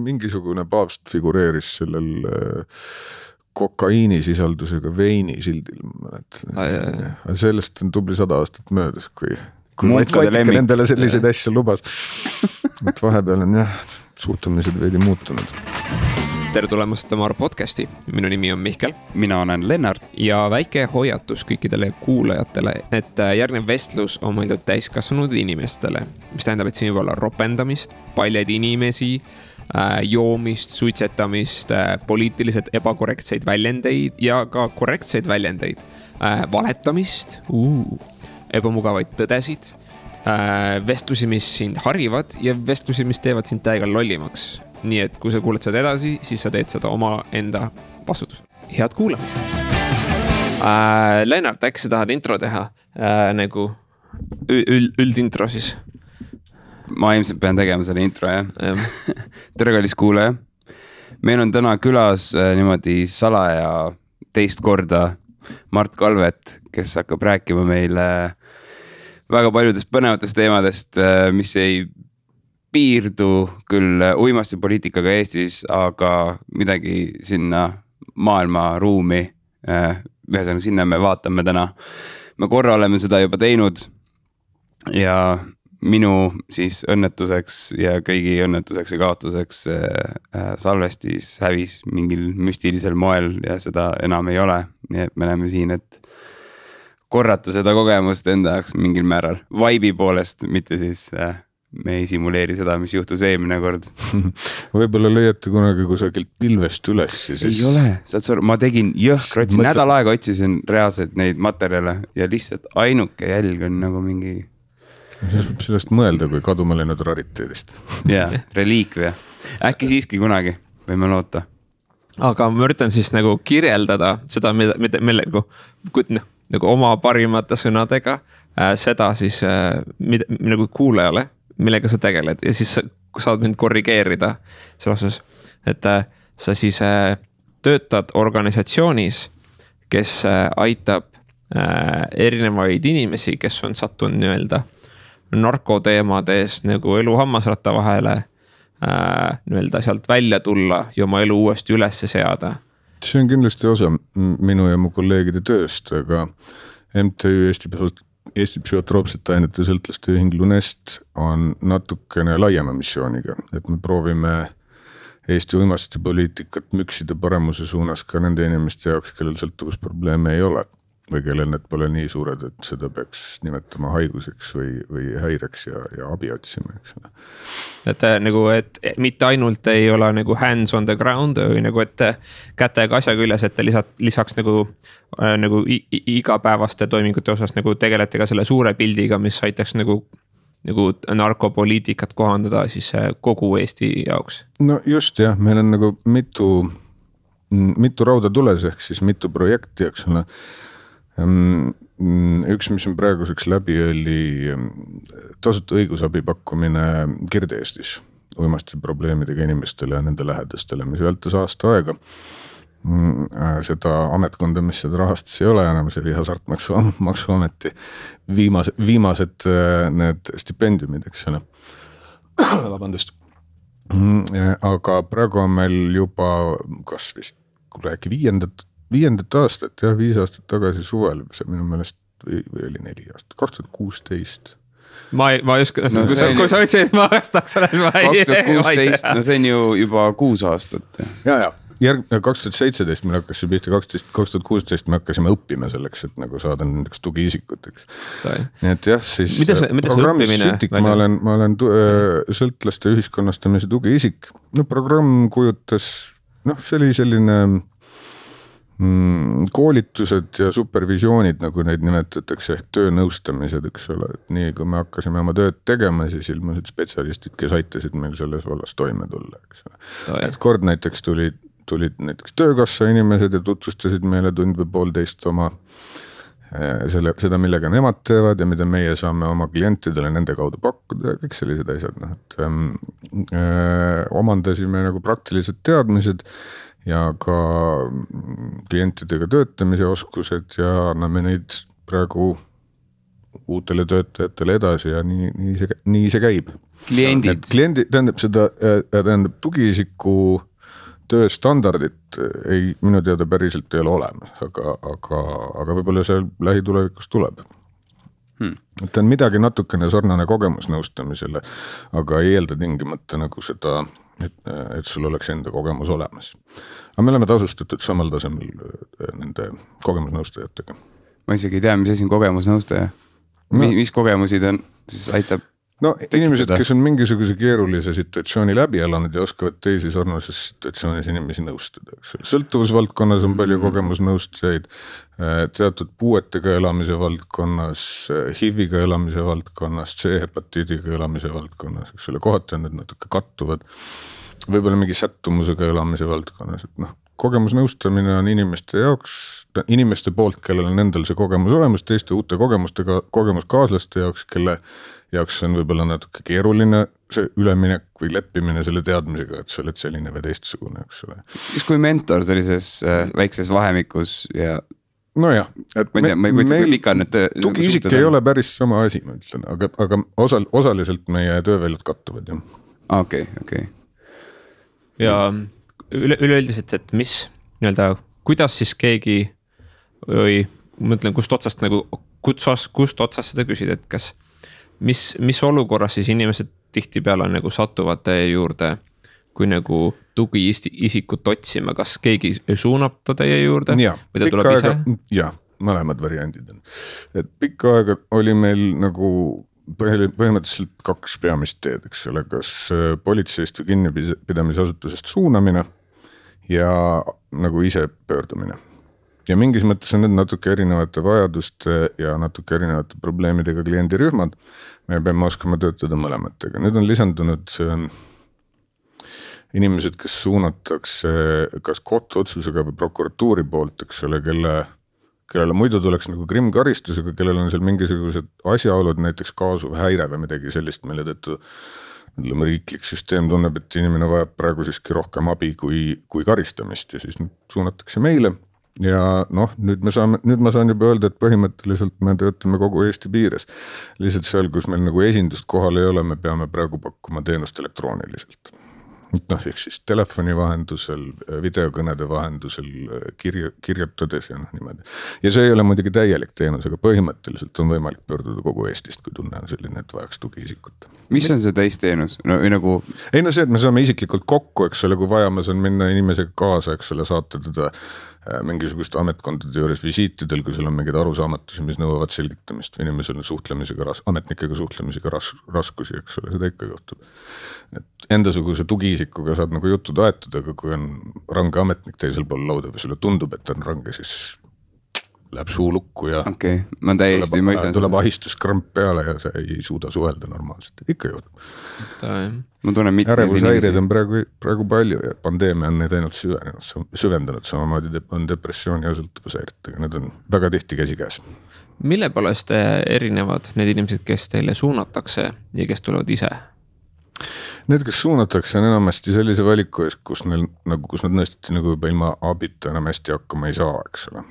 mingisugune paavst figureeris sellel kokaiinisisaldusega veini sildil. Sellest on tubli 100 aastat möödas, kui Vatikal endale selliseid asju lubas. Et vahepeal on suhtumised veidi muutunud. Tere tulemast Tamar podcasti. Minu nimi on Mihkel. Mina olen Lennart. Ja väike hoiatus kõikidele kuulajatele, et järgnev vestlus on mõeldud täiskasvanud inimestele, mis tähendab, et siin võib olla ropendamist, paljad inimesi, joomist, suitsetamist, poliitiliselt ebakorrektseid väljendeid ja ka korrektseid väljendeid, valetamist, ebamugavaid tõdesid, vestlusi, mis sind harivad ja vestlusi, mis teevad sind täiega lollimaks. Nii et kui sa kuuled seda edasi, siis sa teed seda oma enda vastutusel. Head kuulamist! Lennart, äkki sa tahad intro teha? Nagu üldintro siis? Ma ilmselt pean tegema selle intro, jah. Tere kallis kuulaja. Meil on täna külas niimoodi salaja teist korda Mart Kalvet, kes hakkab rääkima meile väga paljudest põnevatest teemadest, mis ei piirdu küll uimasti poliitikaga Eestis, aga midagi sinna maailma ruumi, ühesõnaga sinna me vaatame täna. Me korra oleme seda juba teinud ja minu siis õnnetuseks ja kõigi õnnetuseks ja kaotuseks salvestis hävis mingil müstilisel moel ja seda enam ei ole. Nii et me oleme siin, et korrata seda kogemust enda jaoks mingil määral. Vibe'i poolest, mitte siis me ei simuleeri seda, mis juhtus eelmine kord. Võib-olla leiate kunagi kusagilt pilvest üles. Siis... Ei ole, ma tegin jõhkrotsi, nädal aega otsisin reaalselt neid materjale ja lihtsalt ainuke jälg on nagu mingi... Sellest mõelda kui kaduma läinud rariteedist. Jah, reliikvia. Äkki siiski kunagi võime loota. Aga ma üritan siis nagu kirjeldada seda, nagu oma parimate sõnadega, seda siis nagu kuulajale, millega sa tegeled ja siis saad mind korrigeerida selles osas, et sa siis töötad organisatsioonis, kes aitab erinevaid inimesi, kes on sattunud nii-öelda narkoteemades nagu elu hammasratta vahele nii-öelda sealt välja tulla ja oma elu uuesti üles seada. See on kindlasti osa minu ja mu kolleegide tööst, aga MTÜ Eesti psühhotroopsete ainete sõltlaste ühing Lunest on natukene laiema missiooniga, et me proovime Eesti uimasti poliitikat müksida paremuse suunas ka nende inimeste jaoks, kellel sõltuvusprobleeme ei ole või kellel need pole nii suured, et seda peaks nimetama haiguseks või häireks ja abi otsima. Et nagu, et mitte ainult ei ole nagu hands on the ground või nagu, et kätega asja küljes, et lisaks nagu igapäevaste toimingute osas nagu tegelete ka selle suure pildiga, mis aitaks nagu narkopoliitikat kohandada siis kogu Eesti jaoks. No just jah, meil on nagu mitu rauda tules ehk siis mitu projekti, eks ole. Üks, mis on praeguseks läbi, oli tasuta õigusabi pakkumine Kirde-Eestis uimasti probleemidega inimestele ja nende lähedastele, mis vältas aasta aega. Seda ametkonda, mis seda rahastas ei ole enam, see oli Hasartmaksuameti viimased need stipendiumid, eks ole. Vabandust. Aga praegu on meil juba kas vist viiendat aastat, 5 aastat tagasi suvel, see minu meelest või oli 4 aastat, 2016. Ma ei oska, kui sa ütlesid, ma vastaks selles 2016, no see on ju juba 6 aastat. Ja. 2017 meil hakkas see pihta, 2016 me hakkasime õppima selleks, et nagu saada nendeks tugiisikuteks. Nii et jah, siis programmis Sütik, ma olen sõltlaste ühiskonnastamise tugiisik. No programm kujutas, see oli selline koolitused ja supervisioonid, nagu neid nimetatakse, ehk töönõustamised, eks ole. Et nii kui me hakkasime oma tööd tegema, siis ilmusid spetsialistid, kes aitasid meil selles vallas toime tulla. Eks ole. Et kord näiteks tulid näiteks töökassa inimesed ja tutvustasid meile tund või poolteist oma seda, millega nemad teevad ja mida meie saame oma klientidele nende kaudu pakkuda ja kõik sellised asjad. Omandasime nagu praktilised teadmised ja ka klientidega töötamise oskused ja anname neid praegu uutele töötajatele edasi ja nii see käib. Kliendid, tähendab tugiisiku tööstandardit minu teada päriselt ei ole olemas, aga võib-olla see lähitulevikus tuleb. Et on midagi natukene sarnane kogemusnõustamisele, aga ei eelda tingimata nagu seda, et sul oleks enda kogemus olemas. Aga me oleme tasustatud samal tasemel nende kogemusnõustajatega. Ma isegi ei tea, mis asi on kogemusnõustaja. Mis kogemusi ta siis aitab? No inimesed, kes on mingisuguse keerulise situatsiooni läbi elanud ja oskavad teisi sarnases situatsioonis inimesi nõustada. Sõltuvusvaldkonnas on palju kogemusnõustajaid, teatud puuetega elamise valdkonnas, HIV-iga elamise valdkonnas, C-hepatiidiga elamise valdkonnas, eks ole, kohati on need natuke kattuvad, võib-olla mingi sättumusega elamise valdkonnas, et noh, kogemusnõustamine on inimeste poolt, kellel on endal see kogemus olemas, teiste uute kogemuskaaslaste jaoks, kelle jaoks on võib-olla natuke keeruline see üleminek või leppimine selle teadmisega, et sa oled selline või teistsugune, eks ole. Mis kui mentor sellises väikses vahemikus ja... Nojah, et meil tugiisik ei ole päris sama asi, ma ütlen, aga osaliselt meie tööväljad kattuvad. Okei. Ja üleüldiselt, et mis nii-öelda, kuidas siis keegi või mõtlen, kust otsast seda küsida, et kas mis olukorras siis inimesed tihtipeale nagu satuvad teie juurde, kui nagu tugiisikut otsima, kas keegi suunab ta teie juurde või ta tuleb ise? Jah, mõlemad variandid on. Et pikka aega oli meil nagu põhimõtteliselt 2 peamist teed, eks ole, kas politseist või kinnipidamisasutusest suunamine ja nagu ise pöördumine. Ja mingis mõttes on need natuke erinevate vajaduste ja natuke erinevate probleemidega kliendirühmad. Me peame oskama töötada mõlematega. Nüüd on lisandunud inimesed, kes suunatakse kas kohtuotsusega või prokuratuuri poolt, eks ole, kellele muidu tuleks nagu krimkaristusega, kellel on seal mingisugused asjaolud, näiteks kaasuv häire või midagi sellist, mille tõttu riiklik süsteem tunneb, et inimene vajab praegu siiski rohkem abi kui karistamist ja siis suunatakse meile. Ja noh, nüüd ma saan juba öelda, et põhimõtteliselt me töötame kogu Eesti piires. Lihtsalt seal, kus meil nagu esindust kohal ei ole, me peame praegu pakkuma teenust elektrooniliselt. Noh, ehk siis telefoni vahendusel, videokõnede vahendusel, kirjutades ja niimoodi. Ja see ei ole muidugi täielik teenus, aga põhimõtteliselt on võimalik pöörduda kogu Eestist, kui tunne on selline, et vajaks tugiisikut. Mis on see täisteenus? Ei no see, et me saame isiklikult kokku, eks ole, kui vaja, ma saan minna inimesega kaasa, eks ole, saata teda mingisugust ametkondade juures visiitidel, kui sul on mingid arusaamatusi, mis nõuavad selgitamist või inimesel on ametnikega suhtlemisega raskusi, eks ole, seda ikka juhtub. Et endasuguse tugiisikuga saad nagu juttu taetud, aga kui on range ametnik teisel pool lauda või sulle tundub, et on range, siis läheb suu lukku ja ma täiesti mõistan. Tuleb ahistuskramp peale ja sa ei suuda suhelda normaalselt, ikka juhtub. Ärevushäired on praegu palju ja pandeemia on neid ainult süvendanud, samamoodi on depressioon ja sõltuvushäiretega, need on väga tihti käsikäes. Mille poolest erinevad need inimesed, kes teile suunatakse ja kes tulevad ise? Need, kes suunatakse, on enamasti sellise valiku ees, kus nad nõestati nagu juba ilma abita enam hästi hakkama ei saa, eks ole.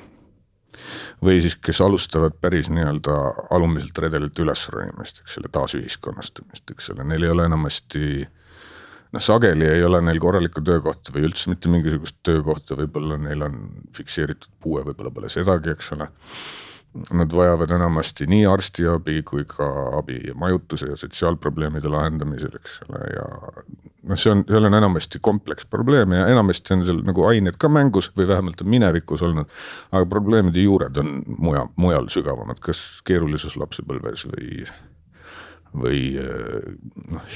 Või siis, kes alustavad päris nii-öelda alumiselt redelilt üles ronimist, eks selle taasühiskonnastumist, eks selle. Neil ei ole enamasti, sageli ei ole neil korralikku töökohta või üldse mitte mingisugust töökohta, võib-olla neil on fikseeritud puue, võib-olla pole sedagi, eks ole. Nad vajavad enamasti nii arstiabi kui ka abi majutuse ja sotsiaalprobleemide lahendamisel, eks ole, ja seal on enamasti kompleks probleeme ja enamasti on seal nagu ained ka mängus või vähemalt on minevikus olnud, aga probleemide juured on mujal sügavamad, kas keerulisus lapsepõlves või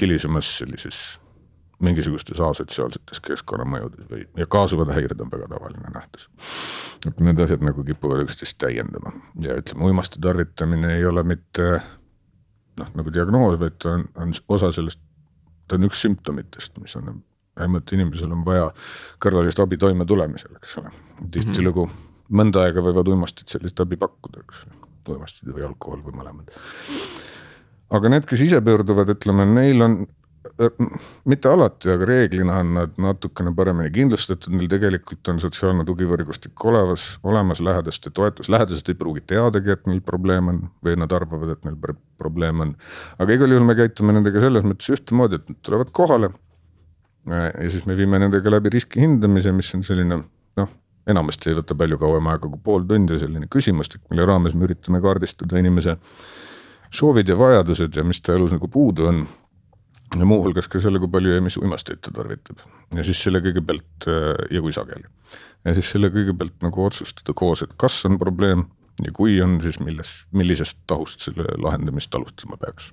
hilisemas sellises mingisugustes asotsiaalsetes keskkonnamõjudes ja kaasuvad häired on väga tavaline nähtus. Et need asjad nagu kipuvad üksteist täiendama ja ütleme, uimaste tarvitamine ei ole mitte nagu diagnoos, vaid ta on osa sellest, ta on üks symptomitest, mis on vähemalt inimesel on vaja kõrvalist abi toime tulemisel, eks ole. Tihtilugu mõnda aega võivad uimastid sellist abi pakkuda, eks ole. Uimastid või alkohol või mõlemad. Aga need, kes ise pöörduvad, ütleme, neil on mitte alati, aga reeglina on nad natukene paremini kindlustatud, neil tegelikult on sotsiaalne tugivõrgustik olemas lähedaste toetus, lähedased ei pruugi teadagi, et neil probleem on või nad arvavad, et neil probleem on. Aga igal juhul me käitume nendega selles mõttes ühtemoodi, et nad tulevad kohale ja siis me viime nendega läbi riski hindamise, mis on selline, enamasti ei võta palju kauem aega kui pool tundi, selline küsimustik, mille raames me üritame kaardistada inimese soovid ja vajadused ja mis ta elus nagu puudu on. Ja muuhulgas ka selle, kui palju ja mis uimasteid ta tarvitab. Ja siis selle kõigepealt, ja kui sageli. Ja siis selle kõigepealt nagu otsustada koos, et kas on probleem ja kui on, siis millisest tahust selle lahendamist alustama peaks.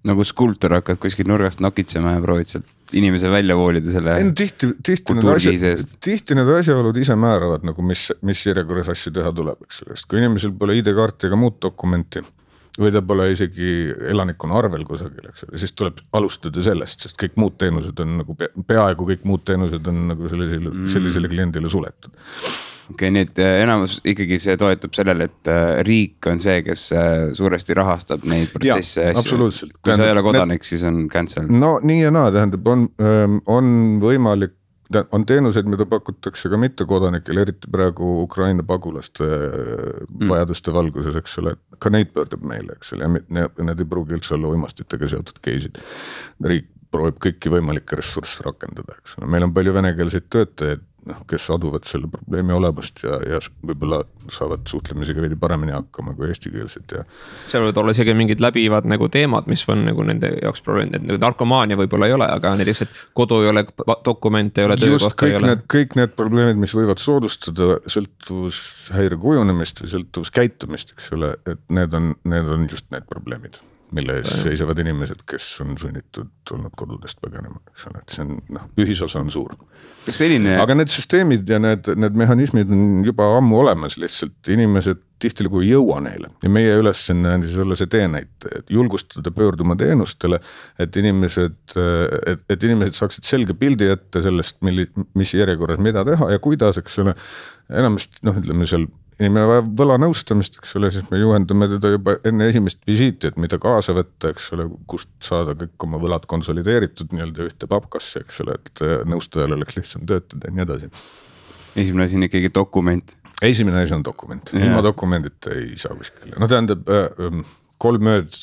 Nagu skulptor hakkad kuskil nurgast nokitsema ja proovid sealt inimese välja voolida selle tihti need asjaolud ise määravad, nagu mis järjekorras asju teha tuleb. Kui inimesel pole ID-kaarti ega muud dokumenti või ta pole isegi elanikuna arvel kusagil, siis tuleb alustada sellest, sest kõik muud teenused on nagu peaaegu kõik muud teenused on nagu sellisele kliendile suletud. Okei, nii et enamus ikkagi see toetub sellele, et riik on see, kes suuresti rahastab neid protsesse. Absoluutselt. Kui sa ei ole kodanik, siis on cancel. No nii ja naa, tähendab, on võimalik, on teenuseid, mida pakutakse ka mitte kodanikele, eriti praegu Ukraina pagulaste vajaduste valguses, eks ole, ka neid pöördub meile, eks ole, ja need ei pruugi üldse olla uimastitega seotud case'id. Riik proovib kõiki võimalikke ressursse rakendada, eks ole. Meil on palju venekeelseid töötajaid, kes aduvad selle probleemi olemust ja võib-olla saavad suhtlemisega veidi paremini hakkama kui eestikeelsed. Ja seal võivad olla isegi mingid läbivad nagu teemad, mis on nagu nende jaoks probleemid, et nagu narkomaania võib-olla ei ole, aga näiteks, et kodu ei ole, dokumente ei ole, töökohta ei ole. Kõik need probleemid, mis võivad soodustada sõltuvushäire kujunemist või sõltuvuskäitumist, eks ole, et need on just need probleemid, mille ees seisavad inimesed, kes on sunnitud olnud kodudest põgenema. Et see on, ühisosa on suur. Aga need süsteemid ja need mehhanismid on juba ammu olemas, lihtsalt inimesed tihtilugu ei jõua neile. Ja meie ülesanne on siis olla see teenäite, et julgustada pöörduma teenustele, et inimesed saaksid selge pildi ette sellest, mis järjekorras mida teha ja kuidas, eks ole, enamasti, ütleme seal inimene vajab võlanõustamist, eks ole, siis me juhendame teda juba enne esimest visiiti, et mida kaasa võtta, eks ole, kust saada kõik oma võlad konsolideeritud nii-öelda ühte papkasse, eks ole, et nõustajal oleks lihtsam töötada ja nii edasi. Esimene asi on ikkagi dokument. Esimene asi on dokument. Ilma dokumendita ei saa kuskil. Tähendab, 3 ööd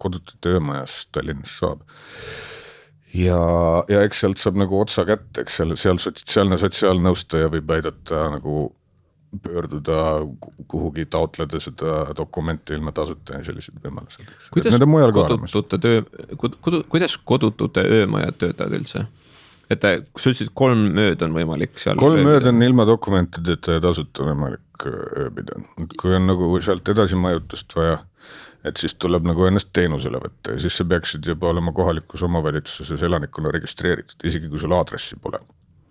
kodutute öömajas Tallinnas saab. Ja eks sealt saab nagu otsa kätte, eks seal sotsiaalnõustaja võib aidata nagu pöörduda kuhugi taotleda seda dokumenti ilma tasuta ja sellised võimalused. Kuidas kodutute öömajad töötavad üldse? Et sa ütlesid 3 ööd on võimalik seal 3 ööd on ilma dokumentideta ja tasuta võimalik ööbida. Kui on nagu sealt edasi majutust vaja, et siis tuleb nagu ennast teenusele võtta ja siis sa peaksid juba olema kohalikus omavalitsuses elanikuna registreeritud, isegi kui sul aadressi pole.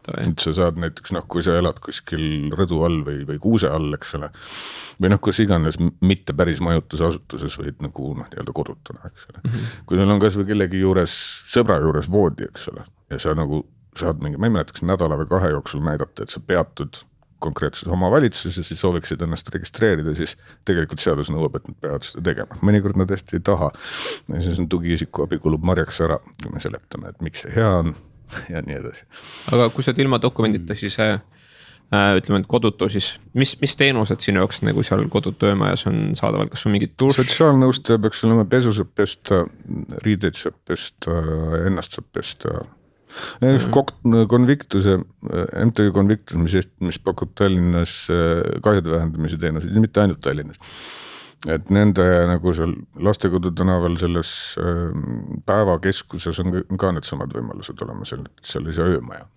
Et sa saad näiteks, kui sa elad kuskil rõdu all või kuuse all, eks ole, või kus iganes mitte päris majutusasutuses võid nagu nii-öelda kodutuna, eks ole. Kui sul on kas või kellegi juures, sõbra juures voodi, eks ole, ja sa nagu saad mingi, ma ei mäleta, kas nädala või 2 jooksul näidata, et sa peatud konkreetses omavalitsuses ja siis sooviksid ennast registreerida, siis tegelikult seadus nõuab, et nad peavad seda tegema. Mõnikord nad hästi ei taha. Ja siis on tugiisiku abi kulub marjaks ära, kui me seletame, et miks see hea on. Ja nii edasi. Aga kui sa enda dokumendita, siis ütleme, et kodutu, siis mis teenused sinu jaoks nagu seal kodutu öömajas on saadavalt, kas on mingid dušš? Sotsiaalnõustaja peaks olema pesu saab pesta, riideid saab pesta, ennast saab pesta. Konviktuse, MTÜ Konviktuse, mis pakub Tallinnas kahjude vähendamise teenuseid, mitte ainult Tallinnas. Et nende nagu seal Lastekodu tänaval selles päevakeskuses on ka need samad võimalused olema sellise öömaja.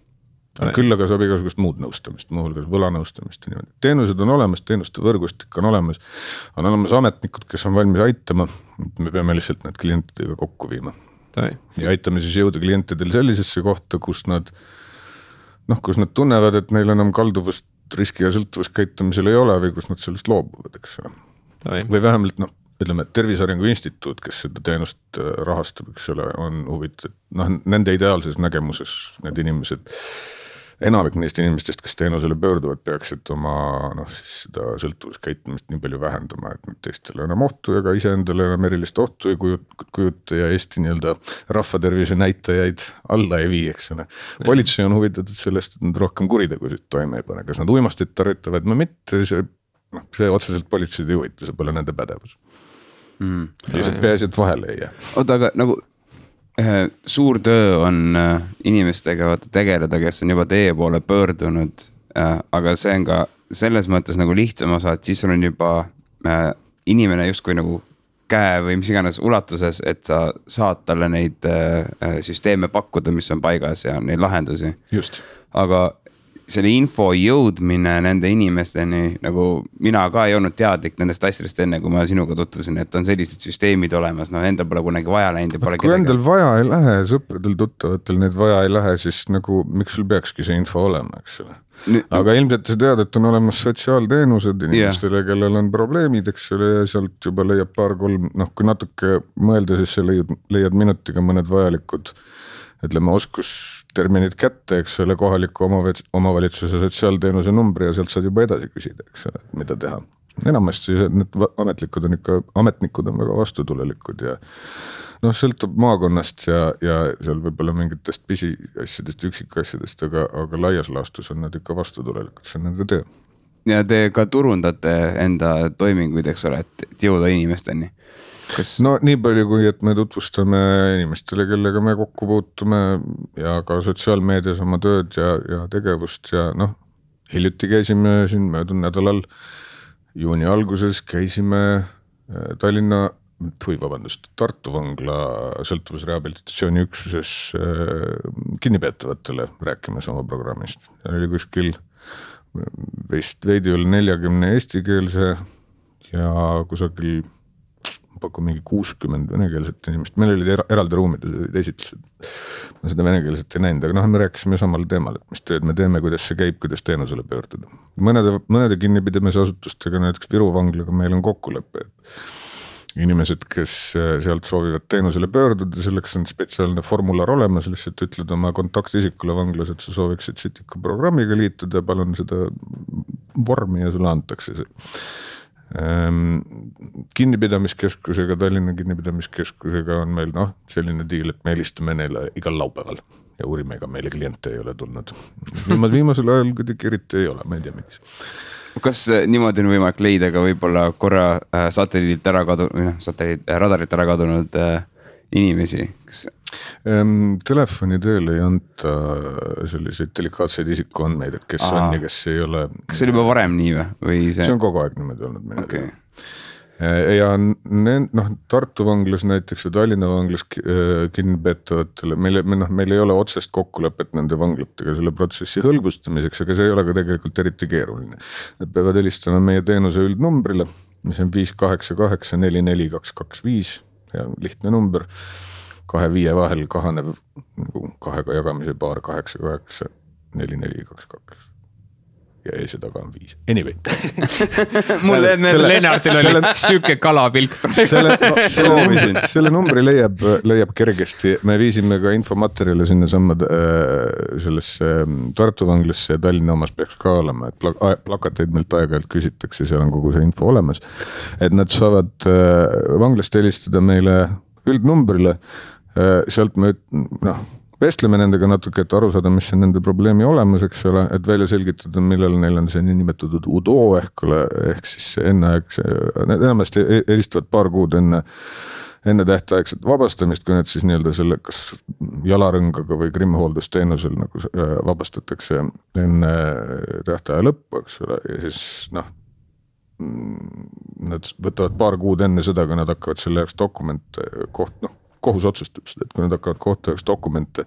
Küll aga saab igasugust muud nõustamist, muuhulgas võlanõustamist. Teenused on olemas, teenuste võrgustik on olemas ametnikud, kes on valmis aitama. Me peame lihtsalt need klientidega kokku viima. Ja aitame siis jõuda klientidel sellisesse kohta, kus nad tunnevad, et neil enam kalduvust riski ja sõltuvuskäitumisel ei ole või kus nad sellest loobuvad, eks ole. Või vähemalt, ütleme, Tervise Arengu Instituut, kes seda teenust rahastab, eks ole, on huvitatud, nende ideaalses nägemuses need inimesed enamik neist inimestest, kes teenusele pöörduvad, peaksid oma siis seda sõltuvuskäitumist nii palju vähendama, et nad teistele enam ohtu ega iseendale enam erilist ohtu ei kujuta ja Eesti nii-öelda rahvatervise näitajaid alla ei vii, eks ole. Politsei on huvitatud sellest, et nad rohkem kuritegusid toime ei pane, kas nad uimastid tarvitavad või mitte, see otseselt politseid ei huvita, see pole nende pädevus. Peaasi, et vahele ei jää. Oota, aga nagu suur töö on inimestega tegeleda, kes on juba teie poole pöördunud, aga see on ka selles mõttes nagu lihtsam osa, et siis sul on juba inimene justkui nagu käe või mis iganes ulatuses, et sa saad talle neid süsteeme pakkuda, mis on paigas ja neid lahendusi. Just. Aga selle info jõudmine nende inimesteni, nagu mina ka ei olnud teadlik nendest asjadest enne, kui ma sinuga tutvusin, et on sellised süsteemid olemas, endal pole kunagi vaja läinud. Kui endal vaja ei lähe, sõpradel tuttavatel need vaja ei lähe, siis nagu miks sul peakski see info olema, eks ole. Aga ilmselt sa tead, et on olemas sotsiaalteenused inimestele, kellel on probleemid, eks ole, ja sealt juba leiab paar-kolm, kui natuke mõelda, siis sa leiad minutiga mõned vajalikud ütleme oskusterminid kätte, eks ole, kohaliku omavalitsuse sotsiaalteenuse numbri ja sealt saad juba edasi küsida, eks ole, mida teha. Enamasti need ametnikud on väga vastutulelikud ja sõltub maakonnast ja seal võib-olla mingitest pisiasjadest, üksikasjadest, aga laias laastus on nad ikka vastutulelikud, see on nende töö. Ja te ka turundate enda toiminguid, eks ole, et jõuda inimesteni. Nii palju kui, et me tutvustame inimestele, kellega me kokku puutume ja ka sotsiaalmeedias oma tööd ja tegevust ja hiljuti käisime siin möödunud nädalal juuni alguses käisime Tartu vangla sõltuvusrehabilitatsiooni üksuses kinnipeetavatele rääkimas oma programmist. Ja oli kuskil veidi üle 40 eestikeelse ja kusagil pakku mingi 60 venekeelset inimest, meil olid eraldi ruumid esitlused, ma seda venekeelset ei näinud, aga me rääkisime samal teemal, et mis tööd me teeme, kuidas see käib, kuidas teenusele pöörduda. Mõnede kinnipidamise asutustega, näiteks Viru vanglaga meil on kokkulepe, et inimesed, kes sealt soovivad teenusele pöörduda, selleks on spetsiaalne formular olemas, lihtsalt ütled oma kontaktisikule vanglas, et sa sooviksid siit ikka programmiga liituda, palun seda vormi ja sulle antakse see. Kinnipidamiskeskusega, Tallinna kinnipidamiskeskusega on meil selline diil, et me helistame neile igal laupäeval ja uurime, ega meile kliente ei ole tulnud. Viimasel ajal kuidagi eriti ei ole, ma ei tea miks. Kas niimoodi on võimalik leida ka võib-olla korra radarit ära kadunud inimesi? Telefoni teel ei anta selliseid delikaatseid isikuandmeid, et kes on ja kes ei ole. Kas see oli juba varem nii või? See on kogu aeg niimoodi olnud. Okay. Ja Tartu vanglas näiteks või Tallinna vanglas kinnipeetavatele, meil ei ole otsest kokkulepet nende vanglatega selle protsessi hõlbustamiseks, aga see ei ole ka tegelikult eriti keeruline. Nad peavad helistama meie teenuse üldnumbrile, mis on 588 44225 ja lihtne number. 2-5 vahel kahanev kahega jagamise paar 8-8 4-4-2-2 ja ees ja taga on 5. Anyway. Mulle Lennartil oli süke kalapilk. Selle numbri leiab kergesti. Me viisime ka infomaterjale sinna sammad sellesse Tartu vanglasse ja Tallinna omas peaks ka olema, et plakateid meilt aeg-ajalt küsitakse, seal on kogu see info olemas, et nad saavad vanglast helistada meile üldnumbrile. Sealt me vestleme nendega natuke, et aru saada, mis on nende probleemi olemas, eks ole, et välja selgitada, millal neil on see niinimetatud UDO ehk siis need enamasti helistavad paar kuud enne tähtaegset vabastamist, kui need siis nii-öelda selle kas jalarõngaga või krimmihooldusteenusel nagu vabastatakse enne tähtaja lõppu, eks ole, ja siis nad võtavad paar kuud enne seda, kui nad hakkavad selle jaoks dokumente kohus otsustab seda, et kui nad hakkavad kohtu jaoks dokumente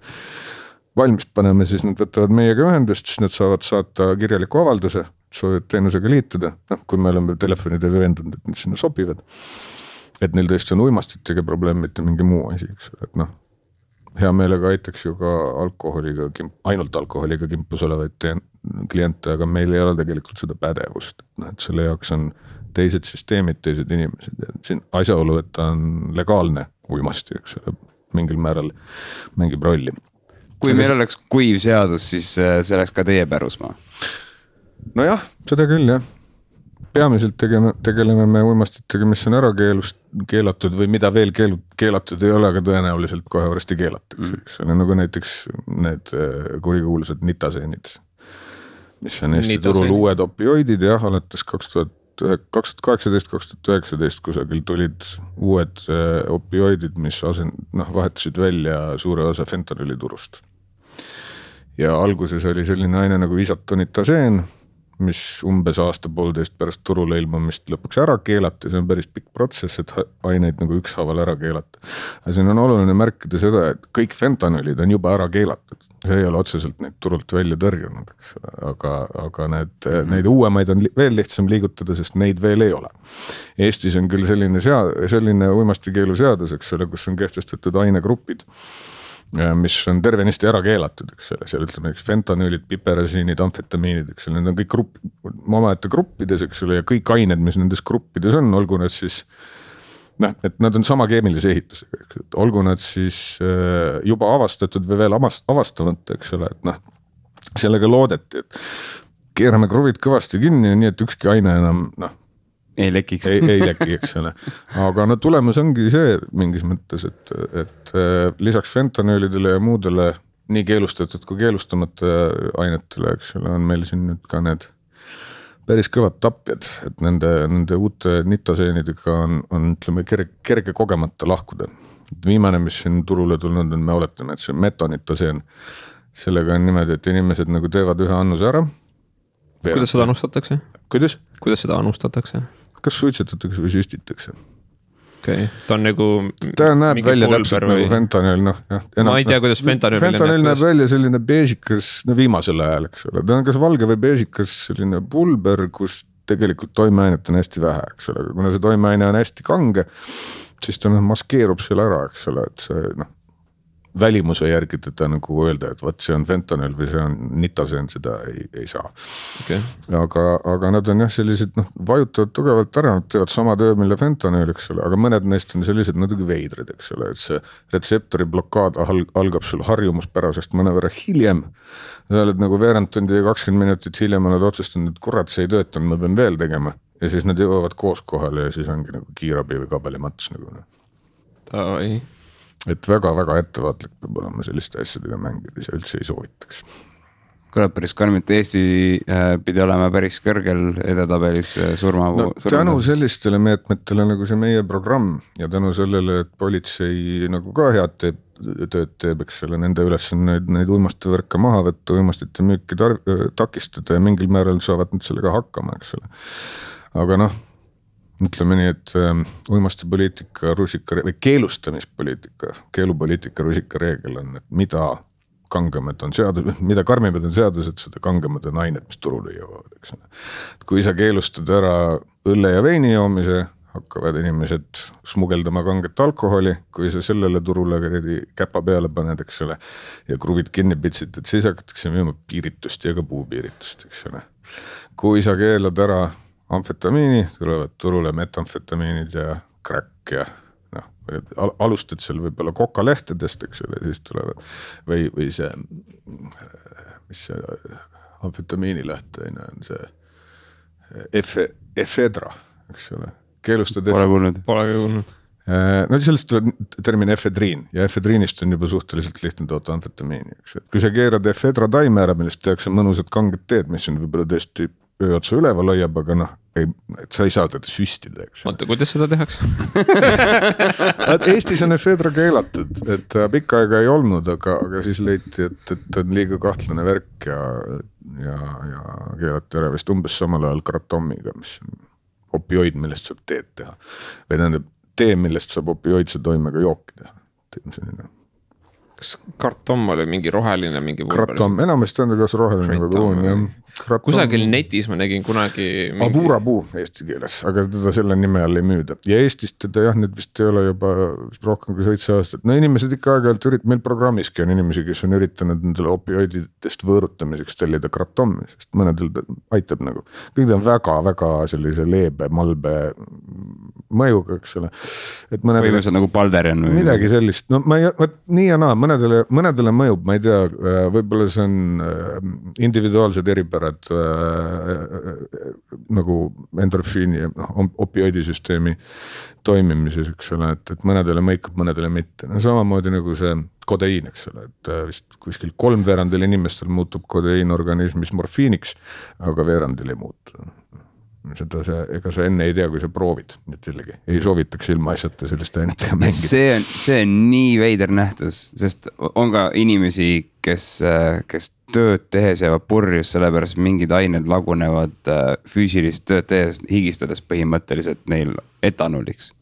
valmis panema, siis nad võtavad meiega ühendust, siis nad saavad saata kirjaliku avalduse, soovivad teenusega liituda, kui me oleme telefonide veendunud, et nad sinna sobivad, et neil tõesti on uimastitega probleem, mitte mingi muu asi, eks ole, et hea meelega aitaks ju ka ainult alkoholiga kimpus olevaid kliente, aga meil ei ole tegelikult seda pädevust, et selle jaoks on teised süsteemid, teised inimesed ja siin asjaolu, et ta on legaalne uimasti, eks ole, mingil määral mängib rolli. kui meil oleks kuiv seadus, siis see oleks ka teie pärusmaa. Nojah, seda küll jah. Peamiselt tegeleme me uimastitega, mis on ära keelatud või mida veel keelatud ei ole, aga tõenäoliselt kohe varsti keelatakse. See on nagu näiteks need kurikuulsad nitaseenid, mis on Eesti turul uued opioidid ja alates 2018-2019 kusagil tulid uued opioidid, mis vahetasid välja suure osa fentanüüli turust. Ja alguses oli selline aine nagu isotonitaseen, mis umbes aasta-poolteist pärast turule ilmumist lõpuks ära keelati, see on päris pikk protsess, et aineid nagu ükshaaval ära keelata. Ja siin on oluline märkida seda, et kõik fentanüülid on juba ära keelatud, see ei ole otseselt neid turult välja tõrjunud, aga neid uuemaid on veel lihtsam liigutada, sest neid veel ei ole. Eestis on küll selline uimastikeelu seadus, eks ole, kus on kehtestatud ainegrupid, mis on tervenisti ära keelatud, eks ole, seal ütleme fentanüülid, piperasiinid, amfetamiinid, eks ole, need on kõik omaette gruppides, eks ole, ja kõik ained, mis nendes gruppides on, olgu nad siis, et nad on sama keemilise ehitusega, olgu nad siis juba avastatud või veel avastamata, eks ole, et sellega loodeti, et keerame kruvid kõvasti kinni, nii et ükski aine enam, ei lekiks. Ei leki, eks ole. Aga tulemus ongi see mingis mõttes, et lisaks fentanüülidele ja muudele nii keelustatud kui keelustamata ainetele, eks ole, on meil siin nüüd ka need päris kõvad tapjad, et nende uute nitaseenidega on ütleme, kerge kogemata lahkuda. Viimane, mis siin turule tulnud on, me oletame, et see on metonitaseen. Sellega on niimoodi, et inimesed nagu teevad ühe annuse ära. Kuidas seda anustatakse? Kuidas seda anustatakse? Kas suitsetatakse või süstitakse? Okay. Ta on nagu ta näeb välja täpselt või... nagu fentanüül, ma ei tea, kuidas fentanüül näeb välja selline beežikas, viimasel ajal, eks ole, ta on kas valge või beežikas selline pulber, kus tegelikult toimeainet on hästi vähe, eks ole, kuna see toimeaine on hästi kange, siis ta maskeerub seal ära, eks ole, et see välimuse järgi teda nagu öelda, et võt see on fentanüül või see on nitaseen, seda ei saa. Okay. Aga nad on jah sellised, vajutavad tugevalt ära, nad teevad sama töö, mille fentanüül, eks ole, aga mõned neist on sellised natuke veidrid, eks ole, et see retseptori blokaad algab sul harjumuspärasest mõnevõrra hiljem. Sa oled nagu veerand tundi ja 20 minutit hiljem oled otsustanud, et kurat, see ei töötanud, ma pean veel tegema. Ja siis nad jõuavad koos kohale ja siis ongi nagu kiirabi või kabelimats nagu. Tavai. Et väga-väga ettevaatlik peab olema selliste asjadega mängides ja üldse ei soovitaks. Kõlab päris karmilt, Eesti pidi olema päris kõrgel edetabelis surma. Tänu sellistele meetmetele nagu see meie programm ja tänu sellele, et politsei nagu ka head tööd teeb, eks selle nende üles on neid uimastevõrke maha võtta, uimastite müüki takistada ja mingil määral saavad nad sellega hakkama, eks selle. Aga ütleme nii, et uimastipoliitika või keelustamispoliitika, keelupoliitika rusika reegel on, et mida kangemad on seadus, mida karmimad on seadused, seda kangemad on ained, mis turule jõuavad, eks. Kui sa keelustad ära õlle ja veini joomise, hakkavad inimesed smugeldama kanget alkoholi, kui sa sellele turule käpa peale paned, eks ole, ja kruvid kinni pitsid, et siis hakatakse müüma piiritust ja ka puupiiritust, eks ole. Kui sa keelad ära amfetamiini, tulevad turule metamfetamiinid ja crack ja alustad seal võib-olla kokalehtedest, eks ole, siis tulevad või see, mis see amfetamiini lähteaine on see efedra, eks ole, keelustad. Pole kuulnud. Sellest tuleb termin efedriin ja efedriinist on juba suhteliselt lihtne toota amfetamiini, eks. Kui sa keerad efedra taime ära, millest tehakse mõnusad kanged teed, mis on võib-olla tõesti ööotsa üleval hoiab, aga sa ei saa teda süstida, eks. Oota, kuidas seda tehakse? Eestis on efedra keelatud, et pikka aega ei olnud, aga siis leiti, et on liiga kahtlane värk ja keelati ära vist umbes samal ajal kratommiga, mis on opioid, millest saab teed teha. Või tähendab tee, millest saab opioidse toimega jooki teha. Kas kartom oli mingi roheline? Kratom, enamasti on ta kas roheline või pruun. Kusagil netis ma nägin kunagi Aburapuu eesti keeles, aga teda selle nime all ei müüda. Ja Eestist teda nüüd vist ei ole juba rohkem kui 7 aastat. Inimesed ikka aeg-ajalt meil programmiski on inimesi, kes on üritanud nendele opioididest võõrutamiseks tellida kratomi, sest mõnedel aitab nagu. Kõik on väga-väga sellise leebe, malbe mõjuga, eks ole. Või see on nagu Balderian või midagi sellist. Nii ja naa, mõnedele mõjub, ma ei tea, võib-olla see on individuaalsed eripärad nagu endorfiini ja opioidisüsteemi toimimises, eks ole, et mõnedele mõikab, mõnedele mitte. No samamoodi nagu see kodeiin, eks ole, et vist kuskil 3/4 inimestel muutub kodeiin organismis morfiiniks, aga veerandil ei muutu. Ega sa enne ei tea, kui sa proovid, nii et jällegi ei soovitaks ilma asjata selliste ainetega mängida. See on nii veider nähtus, sest on ka inimesi, kes tööd tehes jäävad purjus, sellepärast mingid ained lagunevad füüsilist tööd tehes, higistades põhimõtteliselt neil etanoliks.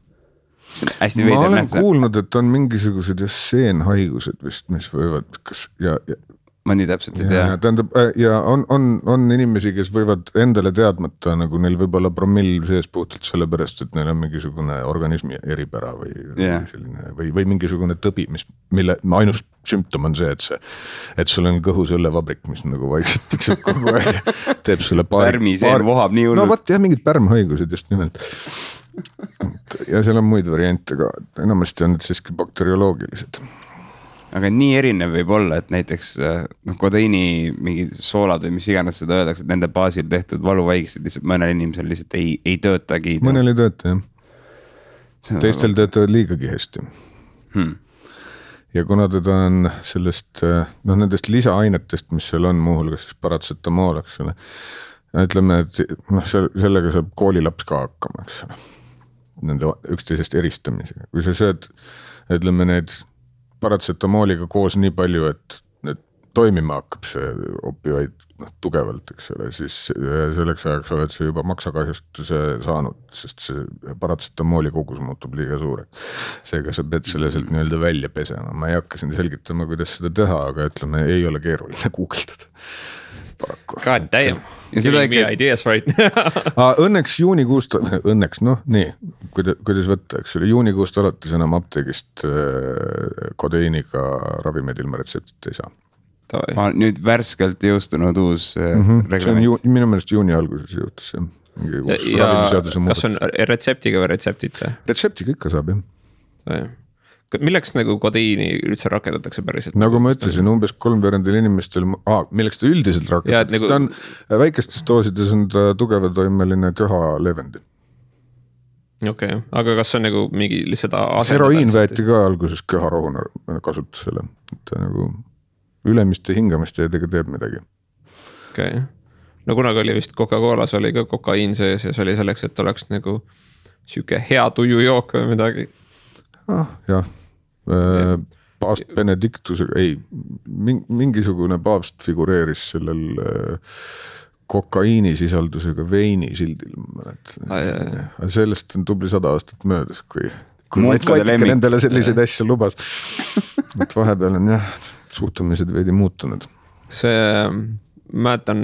See on hästi veider nähtus. Ma olen kuulnud, et on mingisugused seenhaigused vist, mis võivad ma nii täpselt ei tea. Tähendab, ja on inimesi, kes võivad endale teadmata, nagu neil võib olla promill sees puhtalt sellepärast, et neil on mingisugune organismi eripära või mingisugune tõbi, mille ainus sümptom on see, et sul on kõhus õllevabrik, mis nagu vaikselt tiksub kogu aeg, teeb sulle pärmiseen vohab nii hullult. No vaat jah, mingid pärmhaigused just nimelt. Ja seal on muid variante ka, enamasti on need siiski bakterioloogilised. Aga nii erinev võib olla, et näiteks kodeiini mingi soolad või mis iganes seda öeldakse, et nende baasil tehtud valuvaigised lihtsalt mõnel inimesel lihtsalt ei töötagi. Mõnel ei tööta, jah. Teistel töötavad liigagi hästi. Ja kuna teda on sellest, nendest lisaainetest, mis seal on muuhulgas siis paratsetamool, eks ole, ütleme, et sellega saab koolilaps ka hakkama, eks ole, nende üksteisest eristamisega. Kui sa sööd, ütleme need paratsetamooliga koos nii palju, et toimima hakkab see opioid tugevalt, eks ole, siis selleks ajaks oled sa juba maksakahjustuse saanud, sest see paratsetamooli kogus muutub liiga suureks. Seega sa pead selle sealt nii-öelda välja pesema. Ma ei hakka siin selgitama, kuidas seda teha, aga ütleme, ei ole keeruline guugeldada. God damn. Giving me ideas right now. Õnneks juunikuust, nii, kuidas võtta, eks ole, juunikuust alates enam apteegist kodeiiniga ravimid ilma retseptit ei saa. Nüüd värskelt jõustunud uus reglament. Minu meelest juuni alguses jõutus see. Ja kas on retseptiga või retseptita? Retseptiga ikka saab, jah. Milleks nagu kodeiini üldse rakendatakse päriselt? Nagu ma ütlesin, umbes 3/4 inimestel, milleks ta üldiselt rakendatakse, ta on väikestes doosides on ta tugevatoimeline köha leevendi. Okei, aga kas on nagu mingi lihtsalt asendada? Heroiin võeti ka alguses köharohuna kasutusele, et nagu ülemiste hingamiste edega teeb midagi. Okei, no kunagi oli vist Coca-Colas oli ka kokaiin sees ja see oli selleks, et oleks nagu siuke hea tujujook või midagi. Jah. Paavst Benedictusega, mingisugune paavst figureeris sellel kokaiini sisaldusega veini sildil. Sellest on tubli 100 aastat möödas, kui Vatikani nendele selliseid asju lubas. Et vahepeal on suhtumised veidi muutunud. Mäletan,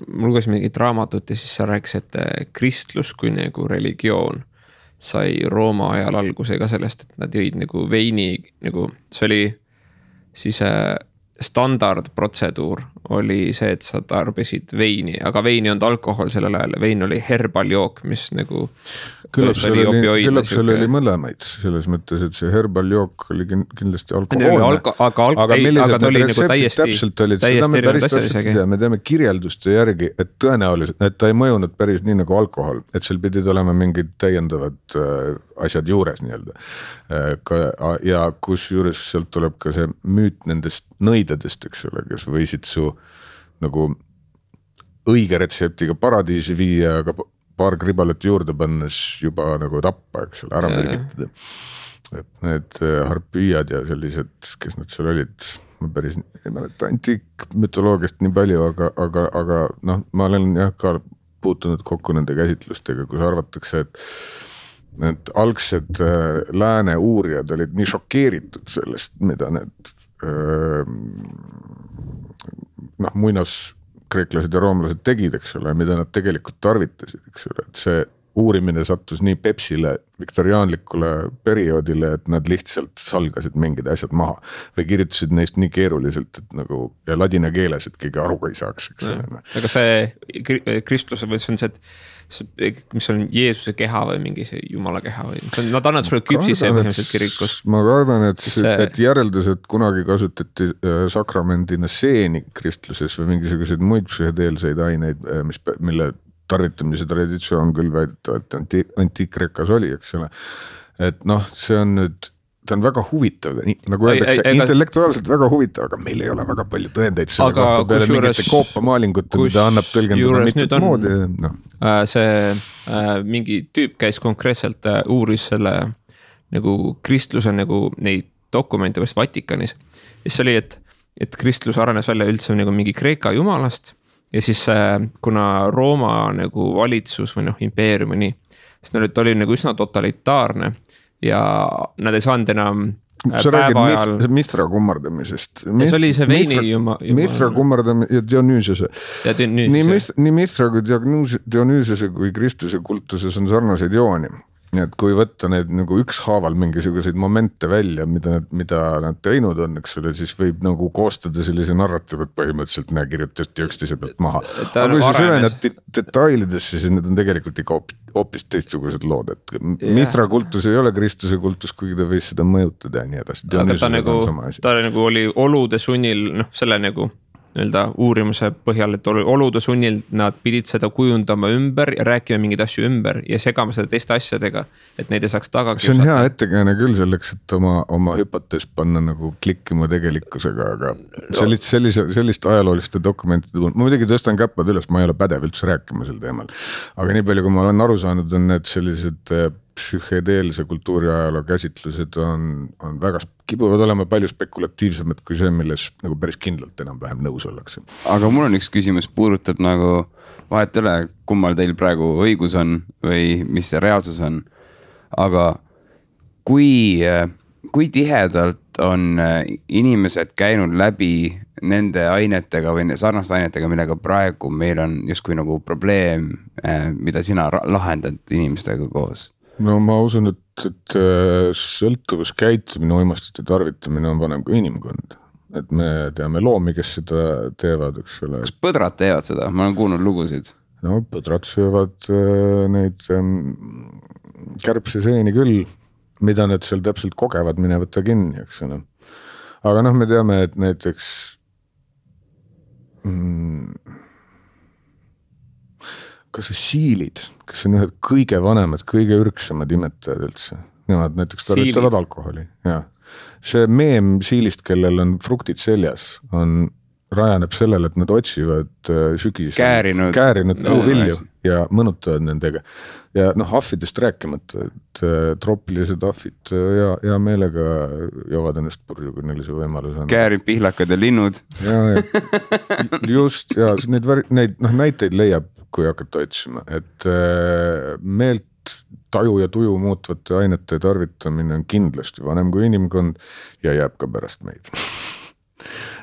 mul luges mingit raamatut ja siis sa rääkis, et kristlus kui nagu religioon sai Rooma ajal algusega sellest, et nad jõid nagu veini, nagu see oli siis standardprotseduur oli see, et sa tarbisid veini, aga veini on alkohol sellel ajal, vein oli herbaljook, mis nagu küllap seal oli mõlemaid selles mõttes, et see herbaljook oli kindlasti alkohoolne, aga millised need retseptid täpselt olid, seda me päris täpselt ei tea, me teame kirjelduste järgi, et tõenäoliselt, et ta ei mõjunud päris nii nagu alkohol, et seal pidid olema mingid täiendavad asjad juures nii-öelda. Ja kus juures sealt tuleb ka see müüt nendest nõidadest, eks ole, kes võisid su nagu õige retseptiga paradiisi viia, aga paar kribalet juurde pannes juba nagu tappa, eks ole, ära mürgitada. Et need harpüüjad ja sellised, kes nad seal olid, ma päris ei mäleta antiikmütoloogiast nii palju, aga ma olen ka puutunud kokku nende käsitlustega, kus arvatakse, et algsed lääne uurijad olid nii šokeeritud sellest, mida need muinas kreeklased ja roomlased tegid, eks ole, mida nad tegelikult tarvitasid, eks ole, et see uurimine sattus nii Pepsile viktoriaanlikule perioodile, et nad lihtsalt salgasid mingid asjad maha või kirjutasid neist nii keeruliselt, et nagu ja ladina keeles, et keegi aru ei saaks. Aga see kristluse või see on see, et mis on Jeesuse keha või mingi see Jumala keha või nad annavad sulle küpsise põhimõtteliselt kirikus. Ma kardan, et järeldused kunagi kasutati sakramendina seeni kristluses või mingisuguseid muid psühhedeelseid aineid, mille tarvitamise traditsioon küll väidetavalt antiikrekas oli, eks ole. Et noh, see on nüüd, ta on väga huvitav, nagu öeldakse, intellektuaalselt väga huvitav, aga meil ei ole väga palju tõendeid selle kohta peale mingite koopamaalingute, mida annab tõlgendada mitut moodi. No. See mingi tüüp käis konkreetselt uuris selle nagu kristluse nagu neid dokumente vast Vatikanis. Ja see oli, et kristlus arenes välja üldse nagu mingi Kreeka jumalast ja siis kuna Rooma nagu valitsus või impeerium või nii, siis ta oli nagu üsna totalitaarne ja nad ei saanud enam sa räägid Mithra kummardamisest. See oli see veini Mithra kummardamisest ja Dionüüsese. Nii Mithra kui Dionüüsese kui Kristuse kultuses on sarnaseid jooni. Nii et kui võtta need nagu ükshaaval mingisuguseid momente välja, mida nad teinud on, eks ole, siis võib nagu koostada sellise narratiivat põhimõtteliselt kirjutati üksteise pealt maha. Aga kui sa süvened detailidesse, siis need on tegelikult ikka hoopis teistsugused lood, et Mithra kultus ei ole Kristuse kultus, kuigi ta võis seda mõjutada ja nii edasi. Aga ta nagu oli olude sunnil, selle nagu uurimuse põhjal, et olude sunnil nad pidid seda kujundama ümber ja rääkima mingeid asju ümber ja segama seda teiste asjadega, et neid ei saaks taga kiusata. See on hea ettekääne küll selleks, et oma hüpotees panna nagu klikkima tegelikkusega, aga sellist ajalooliste dokumentide ma muidugi tõstan käppad üles, ma ei ole pädev üldse rääkima sel teemal, aga nii palju, kui ma olen aru saanud, on need sellised psühhedeelse kultuuriajaloo käsitlused on väga, kipuvad olema palju spekulatiivsemad kui see, milles nagu päris kindlalt enam-vähem nõus ollakse. Aga mul on üks küsimus, puudutab nagu vahet üle, kummal teil praegu õigus on või mis see reaalsus on. Aga kui tihedalt on inimesed käinud läbi nende ainetega või sarnaste ainetega, millega praegu meil on justkui nagu probleem, mida sina lahendad inimestega koos? No ma usun, et sõltuvuskäitumine, uimastite tarvitamine on vanem kui inimkond. Et me teame loomi, kes seda teevad, eks ole. Kas põdrad teevad seda? Ma olen kuulnud lugusid. No põdrad söövad neid kärbseseeni küll, mida nad seal täpselt kogevad, mine võtta kinni, eks ole. Aga me teame, et näiteks kas see siilid, kes on ühed kõige vanemad, kõige ürksamad imetajad üldse. Nemad näiteks tarvitavad alkoholi. Ja. See meem siilist, kellel on fruktid seljas, rajaneb sellele, et nad otsivad sügis käärinud puuvilju ja mõnutavad nendega. Ja ahvidest rääkimata, et troopilised ahvid ja meelega joovad ennast purju, kui neil see võimalus on. Käärid, pihlakad ja linnud. Just, ja neid näiteid leiab, kui hakata otsima, et meelt, taju ja tuju muutvate ainete tarvitamine on kindlasti vanem kui inimkond ja jääb ka pärast meid.